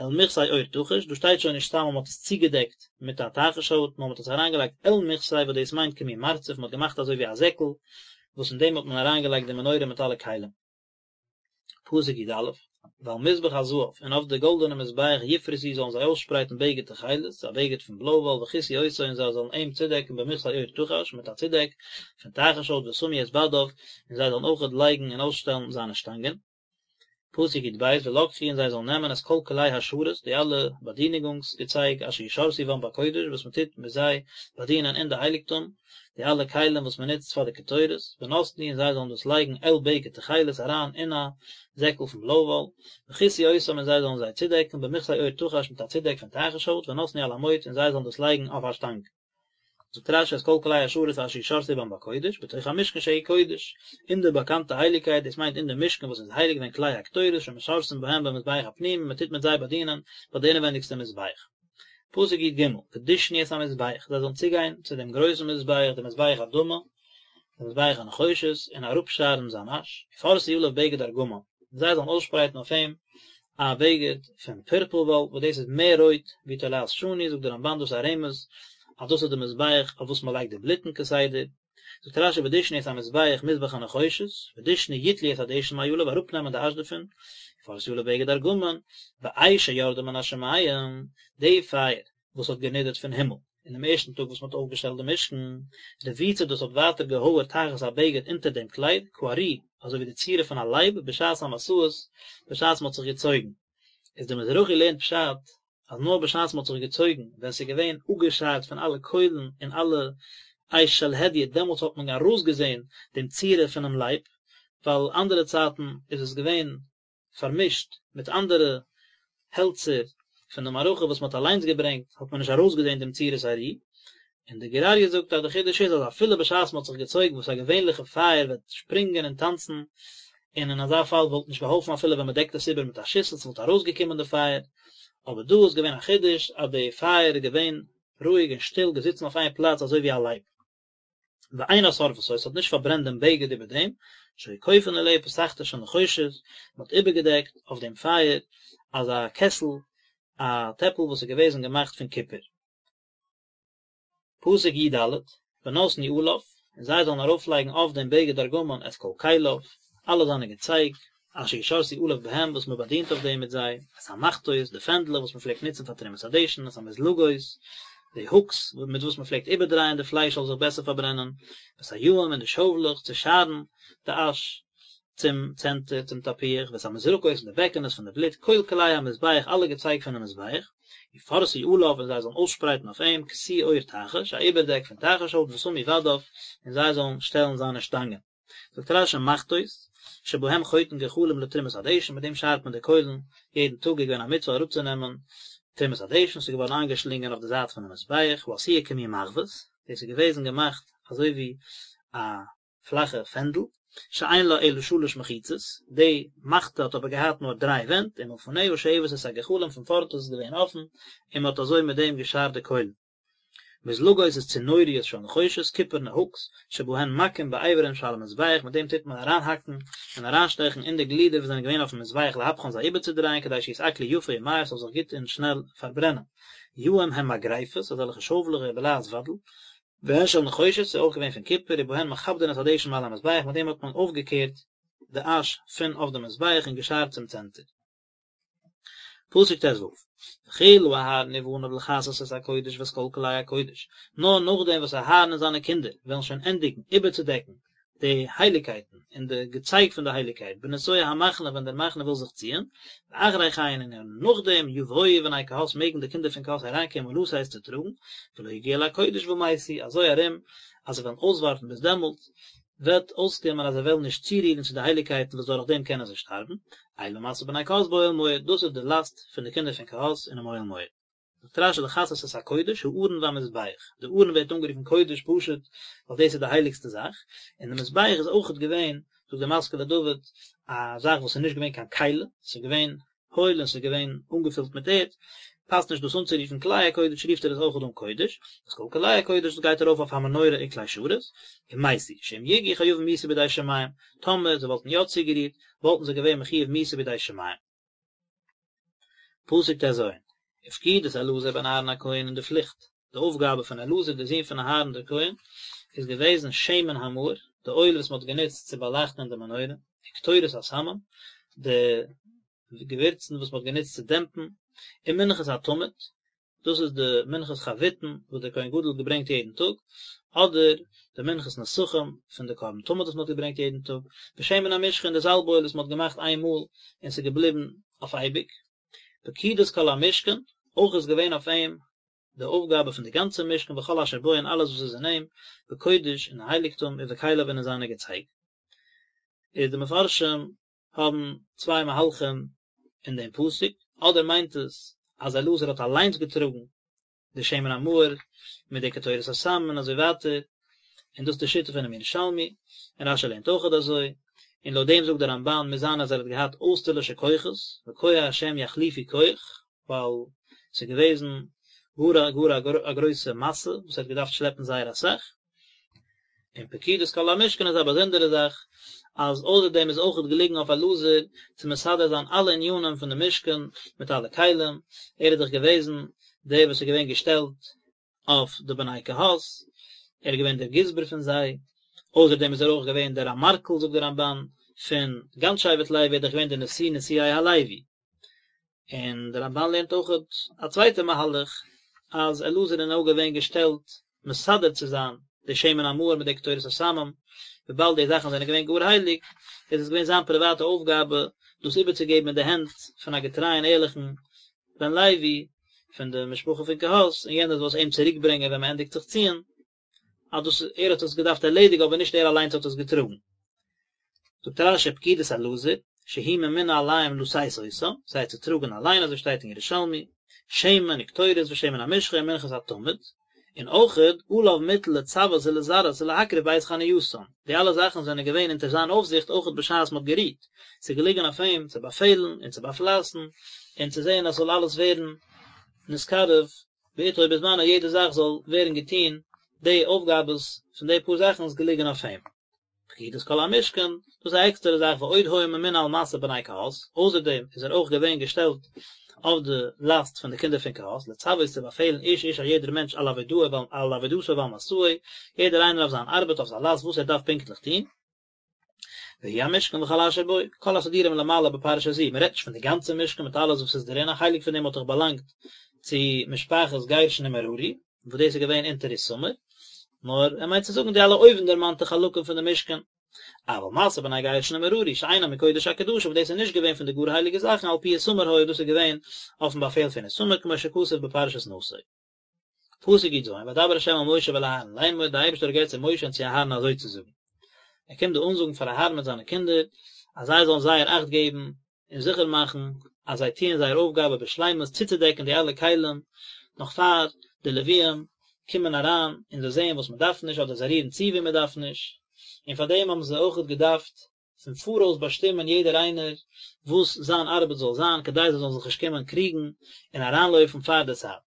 אל מכסה עור תחש, דא שטייט שוין נישט סתם אז מען האט עס צוגעדעקט מיט א תחש הויט, נאר מען האט עס אריינגעלייגט אל מכסה וואס דאס מיינט כמין מרצף, מען האט געמאכט אזוי ווי א זעקל, וואס אין דעם האט מען אריינגעלייגט די מנורה מיט אלע כלים. פסוק י א, ועל מזבח הזהב, און אויף די גאלדענע מזבח יפרסו זאלן זיי אויסשפרייטן בגד תכלת, א בגד פון בלוי וואל וכסו אותו און זיי זאלן אים צודעקן במכסה עור תחש, מיט א צודעק פון תחש הויט ושמו את בדיו, און זיי זאלן אויכעט לייגן און אויסשטעלן זיינע שטאנגען. פסוק י ב, ולקחו און זיי זאלן נעמען את כל כלי השרת, די אלע באדינונגס געצייג אשר ישרתו בם בקודש וואס מען טוט מיט זיי באדינען אין די הייליגטום, די אלע כלים וואס מען נוצט פאר די קטורת, ונתנו און זיי זאלן דאס לייגן אל בגד תכלת אריין אין א זעקל פון בלוי וואל, וכסו אותם און זיי זאלן זיי צודעקן במכסה עור תחש מיט א צודעק פון תחש הויט, ונתנו על המוט און זיי זאלן דאס לייגן אויף א שטאנג. זאגט רשי את כל כלי השרת אשר ישרתו בם בקודש, בתוך המשכן שהוא קודש, אין די באקאנטע הייליגקייט, דאס מיינט אין די משכן וואס איז הייליג והן כלי הקטורת שמשרתין בהם במזבח הפנימי, מען טוט מיט זיי באדינען ביי די אינעווענדיגסטע מזבח. פסוק י ג, ודשנו את המזבח, זיי זאלן צוגיין צו דעם גרויסן מזבח, דעם מזבח אדמה, דעם מזבח הנחושת, און אראפשארן זיין אש, ופרשו עליו בגד ארגמן, און זיי זאלן אויסשפרייטן אויף אים א בגד פון פורפל וואל, וואס דאס איז מער רויט ווי תולעת שני, זאגט דער רמבן דאס איז א רמז אז דאס איז די מזבח אויף וואס מען לייגט די בלוטן כסדר, זאגט רשי ודשנו את המזבח מזבח הנחושת, ודשנו יטלו את הדשן מעליו אראפנעמען די אש דערפון, ופרשו עליו בגד ארגמן, ואש שירדה מן השמים, די פייער וואס האט גענידערט פון הימל, אינעם ערשטן טאג וואס מען האט אויפגעשטעלט די משכן, רבוצה דאס האט ווייטער געהויערט תחת הבגד אונטער דעם קלייד, כארי, אזוי ווי די צורה פון א לייב, בשעת המסעות, בשעת מען האט זיך געצויגן. איז דער מזרחי לערנט פשט, אז נאר בשעת מען האט זיך געצויגן, ווען ס'איז געווען אפגעשארט פון אלע קוילן און אלע אש של הדיוט, דעמאלטס האט מען ארויסגעזען דעם צורה פונעם לייב, ווייל אנדערע צייטן איז עס געווען פארמישט מיט אנדערע העלצער פון די מערכה וואס מען האט אליינס געברענגט האט מען נישט ארויסגעזען דעם צורת הארי, און די גור אריה זאגט אז די חידוש איז אז אפילו בשעת מען האט זיך געצויגן וואס א געווענליכע פייער וועט שפרינגען און טאנצן, און אין אזא פאל וואלט נישט געהאלפן אפילו ווען מען דעקט עס איבער מיט א שיסל ס'וואלט ארויסגעקומען די פייער, אבער דא איז געווען א חידוש אז די פייער איז געווען רואיג און שטיל געזיצן אויף איין פלאץ אזוי ווי א לייב. ואינה שורפתו, עס האט נישט פארברענט דעם בגד איבער דעם, שהיו כופין עליה פסכתר של נחושת, מען האט איבערגעדעקט אויף דעם פייער אזא קעסל, א טעפל וואס איז געוועזן געמאכט פון קופער. פסוק י ד, ונתנו עליו, און זיי זאלן ארויפלייגן אויף דעם בגד ארגמן את כל כליו, אלע זיינע געצייג, אשר ישרתו עליו בהם וואס מען באדינט אויף דעם מיט זיי, את המחתות, די פענדלעך וואס מען פלעגט נוצן פאר תרומת הדשן, את המזלגות, די הוקס מיט וואס מען פלעגט איבערדרייען די פלייש זאל זיך בעסער פארברענען, ואת היעים און די שאוולעך צו שארן די אש צום צענטער, צום תפוח, ואת המזרקות און די בעקענעס פון די בלוט, כל כלי המזבח אלע געצייג פונעם מזבח, ופרשו עליו און זיי זאלן אויסשפרייטן אויף אים כסוי עור תחש, א איבערדעק פון תחש הויט ושמו בדיו, און זיי זאלן שטעלן זיינע שטאנגען. זאגט רשי מחתות, שבהם חותין גחלים לתרומת הדשן, מיט דעם שארט מען די קוילן, יעדן טאג איז געווען א מצוה אראפצונעמען תרומת הדשן, ס'איז געווארן איינגעשלינגען אויף די זייט פונעם מזבח, העשויה כמין מחבת, דאס איז געוועזן געמאכט אזוי ווי א פלאכע פענדל, שאין לה אלא שלש מחיצות, די מחתה האט אבער געהאט נאר דריי ווענט, ומלפניה שואבת את הגחלים פון פארנט איז עס געווען אפן, און מען האט אזוי מיט דעם געשארט די קוילן. מזלגות איז צנוריות של נחושת, קופערנע הוקס, שבהן מכים באיברים שעל המזבח, מיט דעם טוט מען אריינהאקן און אריינשטעכן אין די גלידער וואס זענען געווען אויפן מזבח להפכן זיי איבערצודרייען כדי שיתעכלו יפה ומהר ס'זאל זיך גוט און שנעל פארברענען. יעים הם מגרפות, אזעלכע שאוולעך בלע"ז ודל, והן של נחושת, ס'איז אויך געווען פון קופער, ובהן מכבדין את הדשן מעל המזבח, מיט דעם האט מען אויפגעקערט די אש פון אויף די מזבח און געשארט צום צענטער. פסוק ט"ו, וכלה אהרן ובניו לכסות את הקודש ואת כל כלי הקודש, נאר נאכדעם וואס אהרן און זיינע קינדער וועלן שוין ענדיגן איבערצודעקן די הייליקייטן און די געצייג פון די הייליקייט בנסוע המחנה ווען דער מחנה וויל זיך ציען, ואחרי כן און נאכדעם יבואו בני קהת מעגן די קינדער פון קהת אריינקומען לשאת צו טראגן, ולא יגעו אל הקודש ומתו, אזוי ארום אז זיי וועלן אויסווארטן ביז דעמאלט, וועט אויסקומען אז זיי וועלן נישט צורירן צו די הייליקייטן וואס דורך דעם קענען זיי שטארבן, אלה משא בני קהת באוהל מועד, דאס איז די לאסט פון די קינדער פון קהת אינעם אוהל מועד. זאגט רש"י לכסות את הקודש, הארון והמזבח, די ארון ווערט אנגערופן קודש פשוט ווייל דאס איז די הייליגסטע זאך, און די מזבח איז אויכעט געווען, זאגט די משכיל לדוד, א זאך וואס איז נישט געווען קיין כלי, ס'איז געווען הויל און ס'איז געווען אנגעפילט מיט ערד, פאסט נישט דאס אנצורופן כלי הקודש, רופט ער עס אויכעט אן קודש, ואת כל כלי הקודש דאס גייט ארויף אויף המנורה וכלי שרת, ומתו, שאם יגעו חייבים מיתה בידי שמים, טאמער זיי וואלטן יא צוגערירט, וואלטן זיי געווען מחויב מיתה בידי שמים. פסוק ט"ז, ופקודת אלעזר בן אהרן הכהן און די פליכט, די אויפגאבע פון אלעזר דער זון פון אהרן דער כהן, איז געוועזן שמן המאור, די אויל וואס מען האט גענוצט צו באלייכטן אין די מנורה, וקטורת הסמים, די געווירצן וואס מען האט גענוצט צו דעמפן, ומנחת התמיד, דאס איז די מנחת חביתין וואס דער כהן גדול האט געברענגט יעדן טאג, אדער די מנחת נסכים פון די קרבן תמיד וואס מען האט געברענגט יעדן טאג, ושמן המשחה און די זאלב אויל וואס מען האט געמאכט איין מאל און ס'איז געבליבן אויף אייביג. פקודת כל המשכן, אויך איז געווען אויף אים די אויפגאבע פון די גאנצע משכן וכל אשר בו און אלעס וואס איז אין אים, בקודש אין הייליגטום ובכליו און אין זיינע געצייג. איז די מפרשים האבן צוויי מהלכים אין דעם פסוק, אדער מיינט עס אז אלעזר האט אליינס געטראגן די שמן המאור מיט די קטורת הסמים און אזוי ווייטער, און דאס איז די שיטה פונעם ירושלמי, און רש"י לערנט אויכעט אזוי, און לויט דעם זאגט דער רמב"ן מוז זיין אז ער האט געהאט אויסטערלישע כוחות, וכח השם יחליפו כח, ווייל ס'איז געוועזן גאר א גאר א גרויסע משא וואס ער האט געדארפט שלעפן זייער אסאך, און פקודת כל המשכן איז א באזונדערע זאך, אז אויסער דעם איז אויכעט געליגן אויף אלעזר צו מסדר זיין אלע ענינים פון די משכן מיט אלע כלים, ער איז דאך געוועזן דער וואס איז געווען געשטעלט אויף די בני קהת, ער איז געווען דער גזבר פון זיי, אויסער דעם איז ער אויך געווען דער אמרכל זאגט דער רמב"ן, פון גאנץ שבט לוי, ער איז דאך געווען דער נשיא נשיאי הלוי. און דער רמב"ן לערנט אויכעט א צווייטע מהלך, אז אלעזר איז נאר געווען געשטעלט מסדר צו זיין די שמן המאור מיט די קטורת הסמים, וויבאלד די זאכן זענען געווען גאר הייליג, איז עס געווען זיין פריוואטע אויפגאבע דאס איבערצוגעבן אין די הענט פון א געטרייען ערליכן בן לוי פון די משפחה פון קהת, און יענער זאל עס אים צוריקברענגען ווען מען ענדיגט זיך ציען. אז דאס ער האט עס געדארפט ערלעדיגן אבער נישט ער אליינס האט עס געטראגן. זאגט רש"י פקודת אלעזר, שהוא ממונה עליהם לשאת אותם, זיי צו טראגן אליין אזוי שטייט אין ירושלמי, שמן וקטורת ושמן המשחה ומנחת התמיד, און אויכעט עליו מוטל לצוות ולזרז ולהקריב בעת חנייתן, די אלע זאכן זענען געווען אונטער זיין אויפזיכט אויכעט בשעת מען האט גערוהט, ס'איז געליגן אויף אים צו באפעלן און צו באפלייסן און צו זען אז ס'זאל אלעס ווערן נתקרב בעתו ובזמנו יעדע זאך זאל ווערן געטון, די אויפגאבעס פון די פאר זאכן איז געליגן אויף אים. פקודת כל המשכן, דאס איז א עקסטערע זאך ועוד היה ממונה על משא בני קהת, אויסער דעם איז ער אויך געווען געשטעלט אויף די לאסט פון די קינדער פון קהת, לצוות צו באפעלן איש איש א יעדער מענטש על עבודתו על עבודתו ועל משאו, יעדער איינער אויף זיין ארבעט אויף זיין לאסט וואס ער דארף פונקטליך טון. והוא המשכן וכל אשר בו, כל הסידורים למעלה בפרשה זו, מען רעדט נישט פון די גאנצע משכן מיט אלעס וואס איז דערין, א חלק פון דעם האט דאך באלאנגט צו משפחת גרשון און מררי, וואס דאס איז געווען אונטער איתמר, נאר ער מיינט צו זאגן די אלע אויבנדערמאנטע חלקים פון די משכן. אבל משא בני גרשון ומררי שאינם מקודש הקדשים וואס דאס איז נישט געווען פון די גאר הייליגע זאכן על פי איתמר היה דאס איז געווען אויפן באפעל פון איתמר כמו שכתוב בפרשת נשא. פסוק י"ז, וידבר ה' אל משה ואל אהרן לאמור, דער אייבערשטער האט גערעדט צו משה און צו אהרן אזוי צו זאגן. ער קומט דא אנזאגן פאר אהרן מיט זיינע קינדער אז זיי זאלן זייער אכט געבן און זיכער מאכן אז זיי טוען זייער אויפגאבע בשלימות צוצודעקן די אלע כלים נאך פאר די לוויים קומען אריין און זיי זעען וואס מען דארף נישט אדער זיי רירן צו וואו מען דארף נישט, און פאר דעם האבן זיי אויכעט געדארפט פון פאראויס באשטימען יעדער איינער וואס זיין ארבעט זאל זיין כדי זיי זאלן זיך נישט קומען קריגן און אריינלויפן פאר די צייט.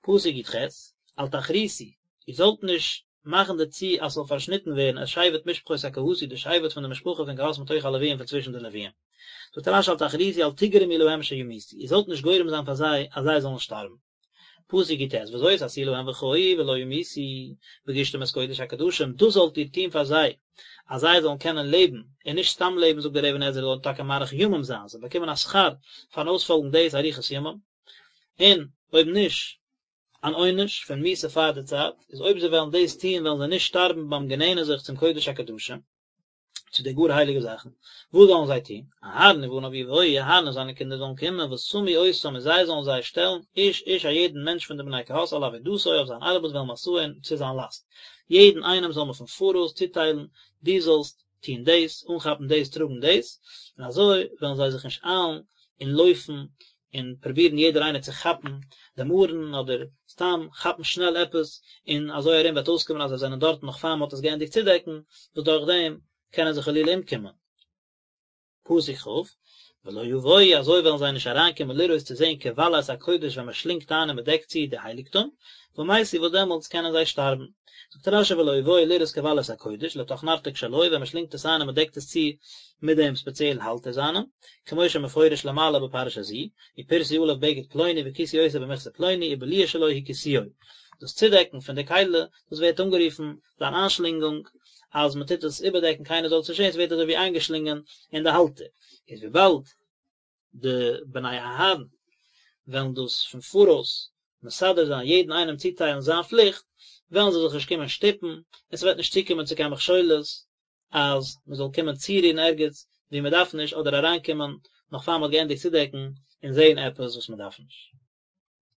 פסוק י"ח, אל תכריתו, איר זאלט נישט מאכן דערצו אז ס'זאל פארשניטן ווערן את שבט משפחות הקהתי, די שבט פון די משפחה פון קהת מתוך הלוויים פון צווישן די לוויים. זאגט רש"י אל תכריתו אל תגרמו להם שימותו, איר זאלט נישט גורם זיין פאר זיי אז זיי זאלן שטארבן. פסוק י"ט, וזאת עשו להם וחיו ולא ימותו, בגשתם את קודש הקדשים, דאס זאלט איר טון פאר זיי, אז זיי זאלן קענען לעבן, און נישט סתם לעבן, זאגט דער אבן עזרא, זאלן טאקע מאריך ימים זיין, זיי באקומען א שכר פארן אויספאלגן דאס אריכות ימים, און אויב נישט, אן עונש פון מיתה פאר די צייט, איז אויב זיי וועלן דאס טון וועלן זיי נישט שטארבן ביים גענענען זיך צום קודש הקדשים, צו די גאר הייליגע זאכן, וואס זאלן זיי טון? אהרן ובניו יבואו, אהרן און זיינע קינדער זאלן קומען, ושמו אותם און זיי זאלן זיי שטעלן, איש איש א יעדן מענטש פון די בני קהת על עבודתו אויף זיין ארבעט ואל משאו און צו זיין לאסט, יעדן איינעם זאל מען פון פאראויס צוטיילן, דו זאלסט טון דאס, אנכאפן דאס, טראגן דאס, און אזוי וועלן זיי זיך נישט איילן און לויפן און פרובירן יעדער איינער צו כאפן דעם ארון אדער סתם כאפן שנעל עפעס, און אזוי ארום וועט אויסקומען אז זיי זענען דארטן נאך פאר מען האט עס געענדיגט צודעקן, וואס דורך דעם קענען זיי חלילה אומקומען. פסוק כ', ולא יבואו אזוי וועלן זיי נישט אריינקומען לראות צו זען כבלע את הקודש ווען מען שלינגט איין און מען דעקט צו די הייליגטום, ומתו וואס דעמאלטס קענען זיי שטארבן. זאגט רש"י ולא יבואו לראות כבלע את הקודש, לתוך נרתיק שלו, ווען מען שלינגט עס איין און מען דעקט עס צו מיט דעם ספעציעלן האלטער זיינעם, כמו שמפורש למעלה בפרשה זו, ופרשו עליו בגד פלוני וכיסו אותו במכסה פלוני ובליעה שלו הוא כיסויו. דאס צודעקן פון די כלי, דאס ווערט אנגערופן זיין איינשלינגונג, אז מען טוט עס איבערדעקן קיינער זאל עס נישט זען, עס ווערט אזוי ווי איינגעשלינגען אין די האלטער, איז וויבאלד די בני אהרן וועלן דאס פון פאראויס מסדר זיין יעדן איינעם צוטיילן זיין פליכט, וועלן זיי זיך נישט קומען שטופן, און ס'וועט נישט צוקומען צו קיין מכשולות אז מען זאל קומען צורירן ערגעץ וואו מען דארף נישט אדער אריינקומען נאך פאר מען האט געענדיגט צודעקן און זען עפעס וואס מען דארף נישט.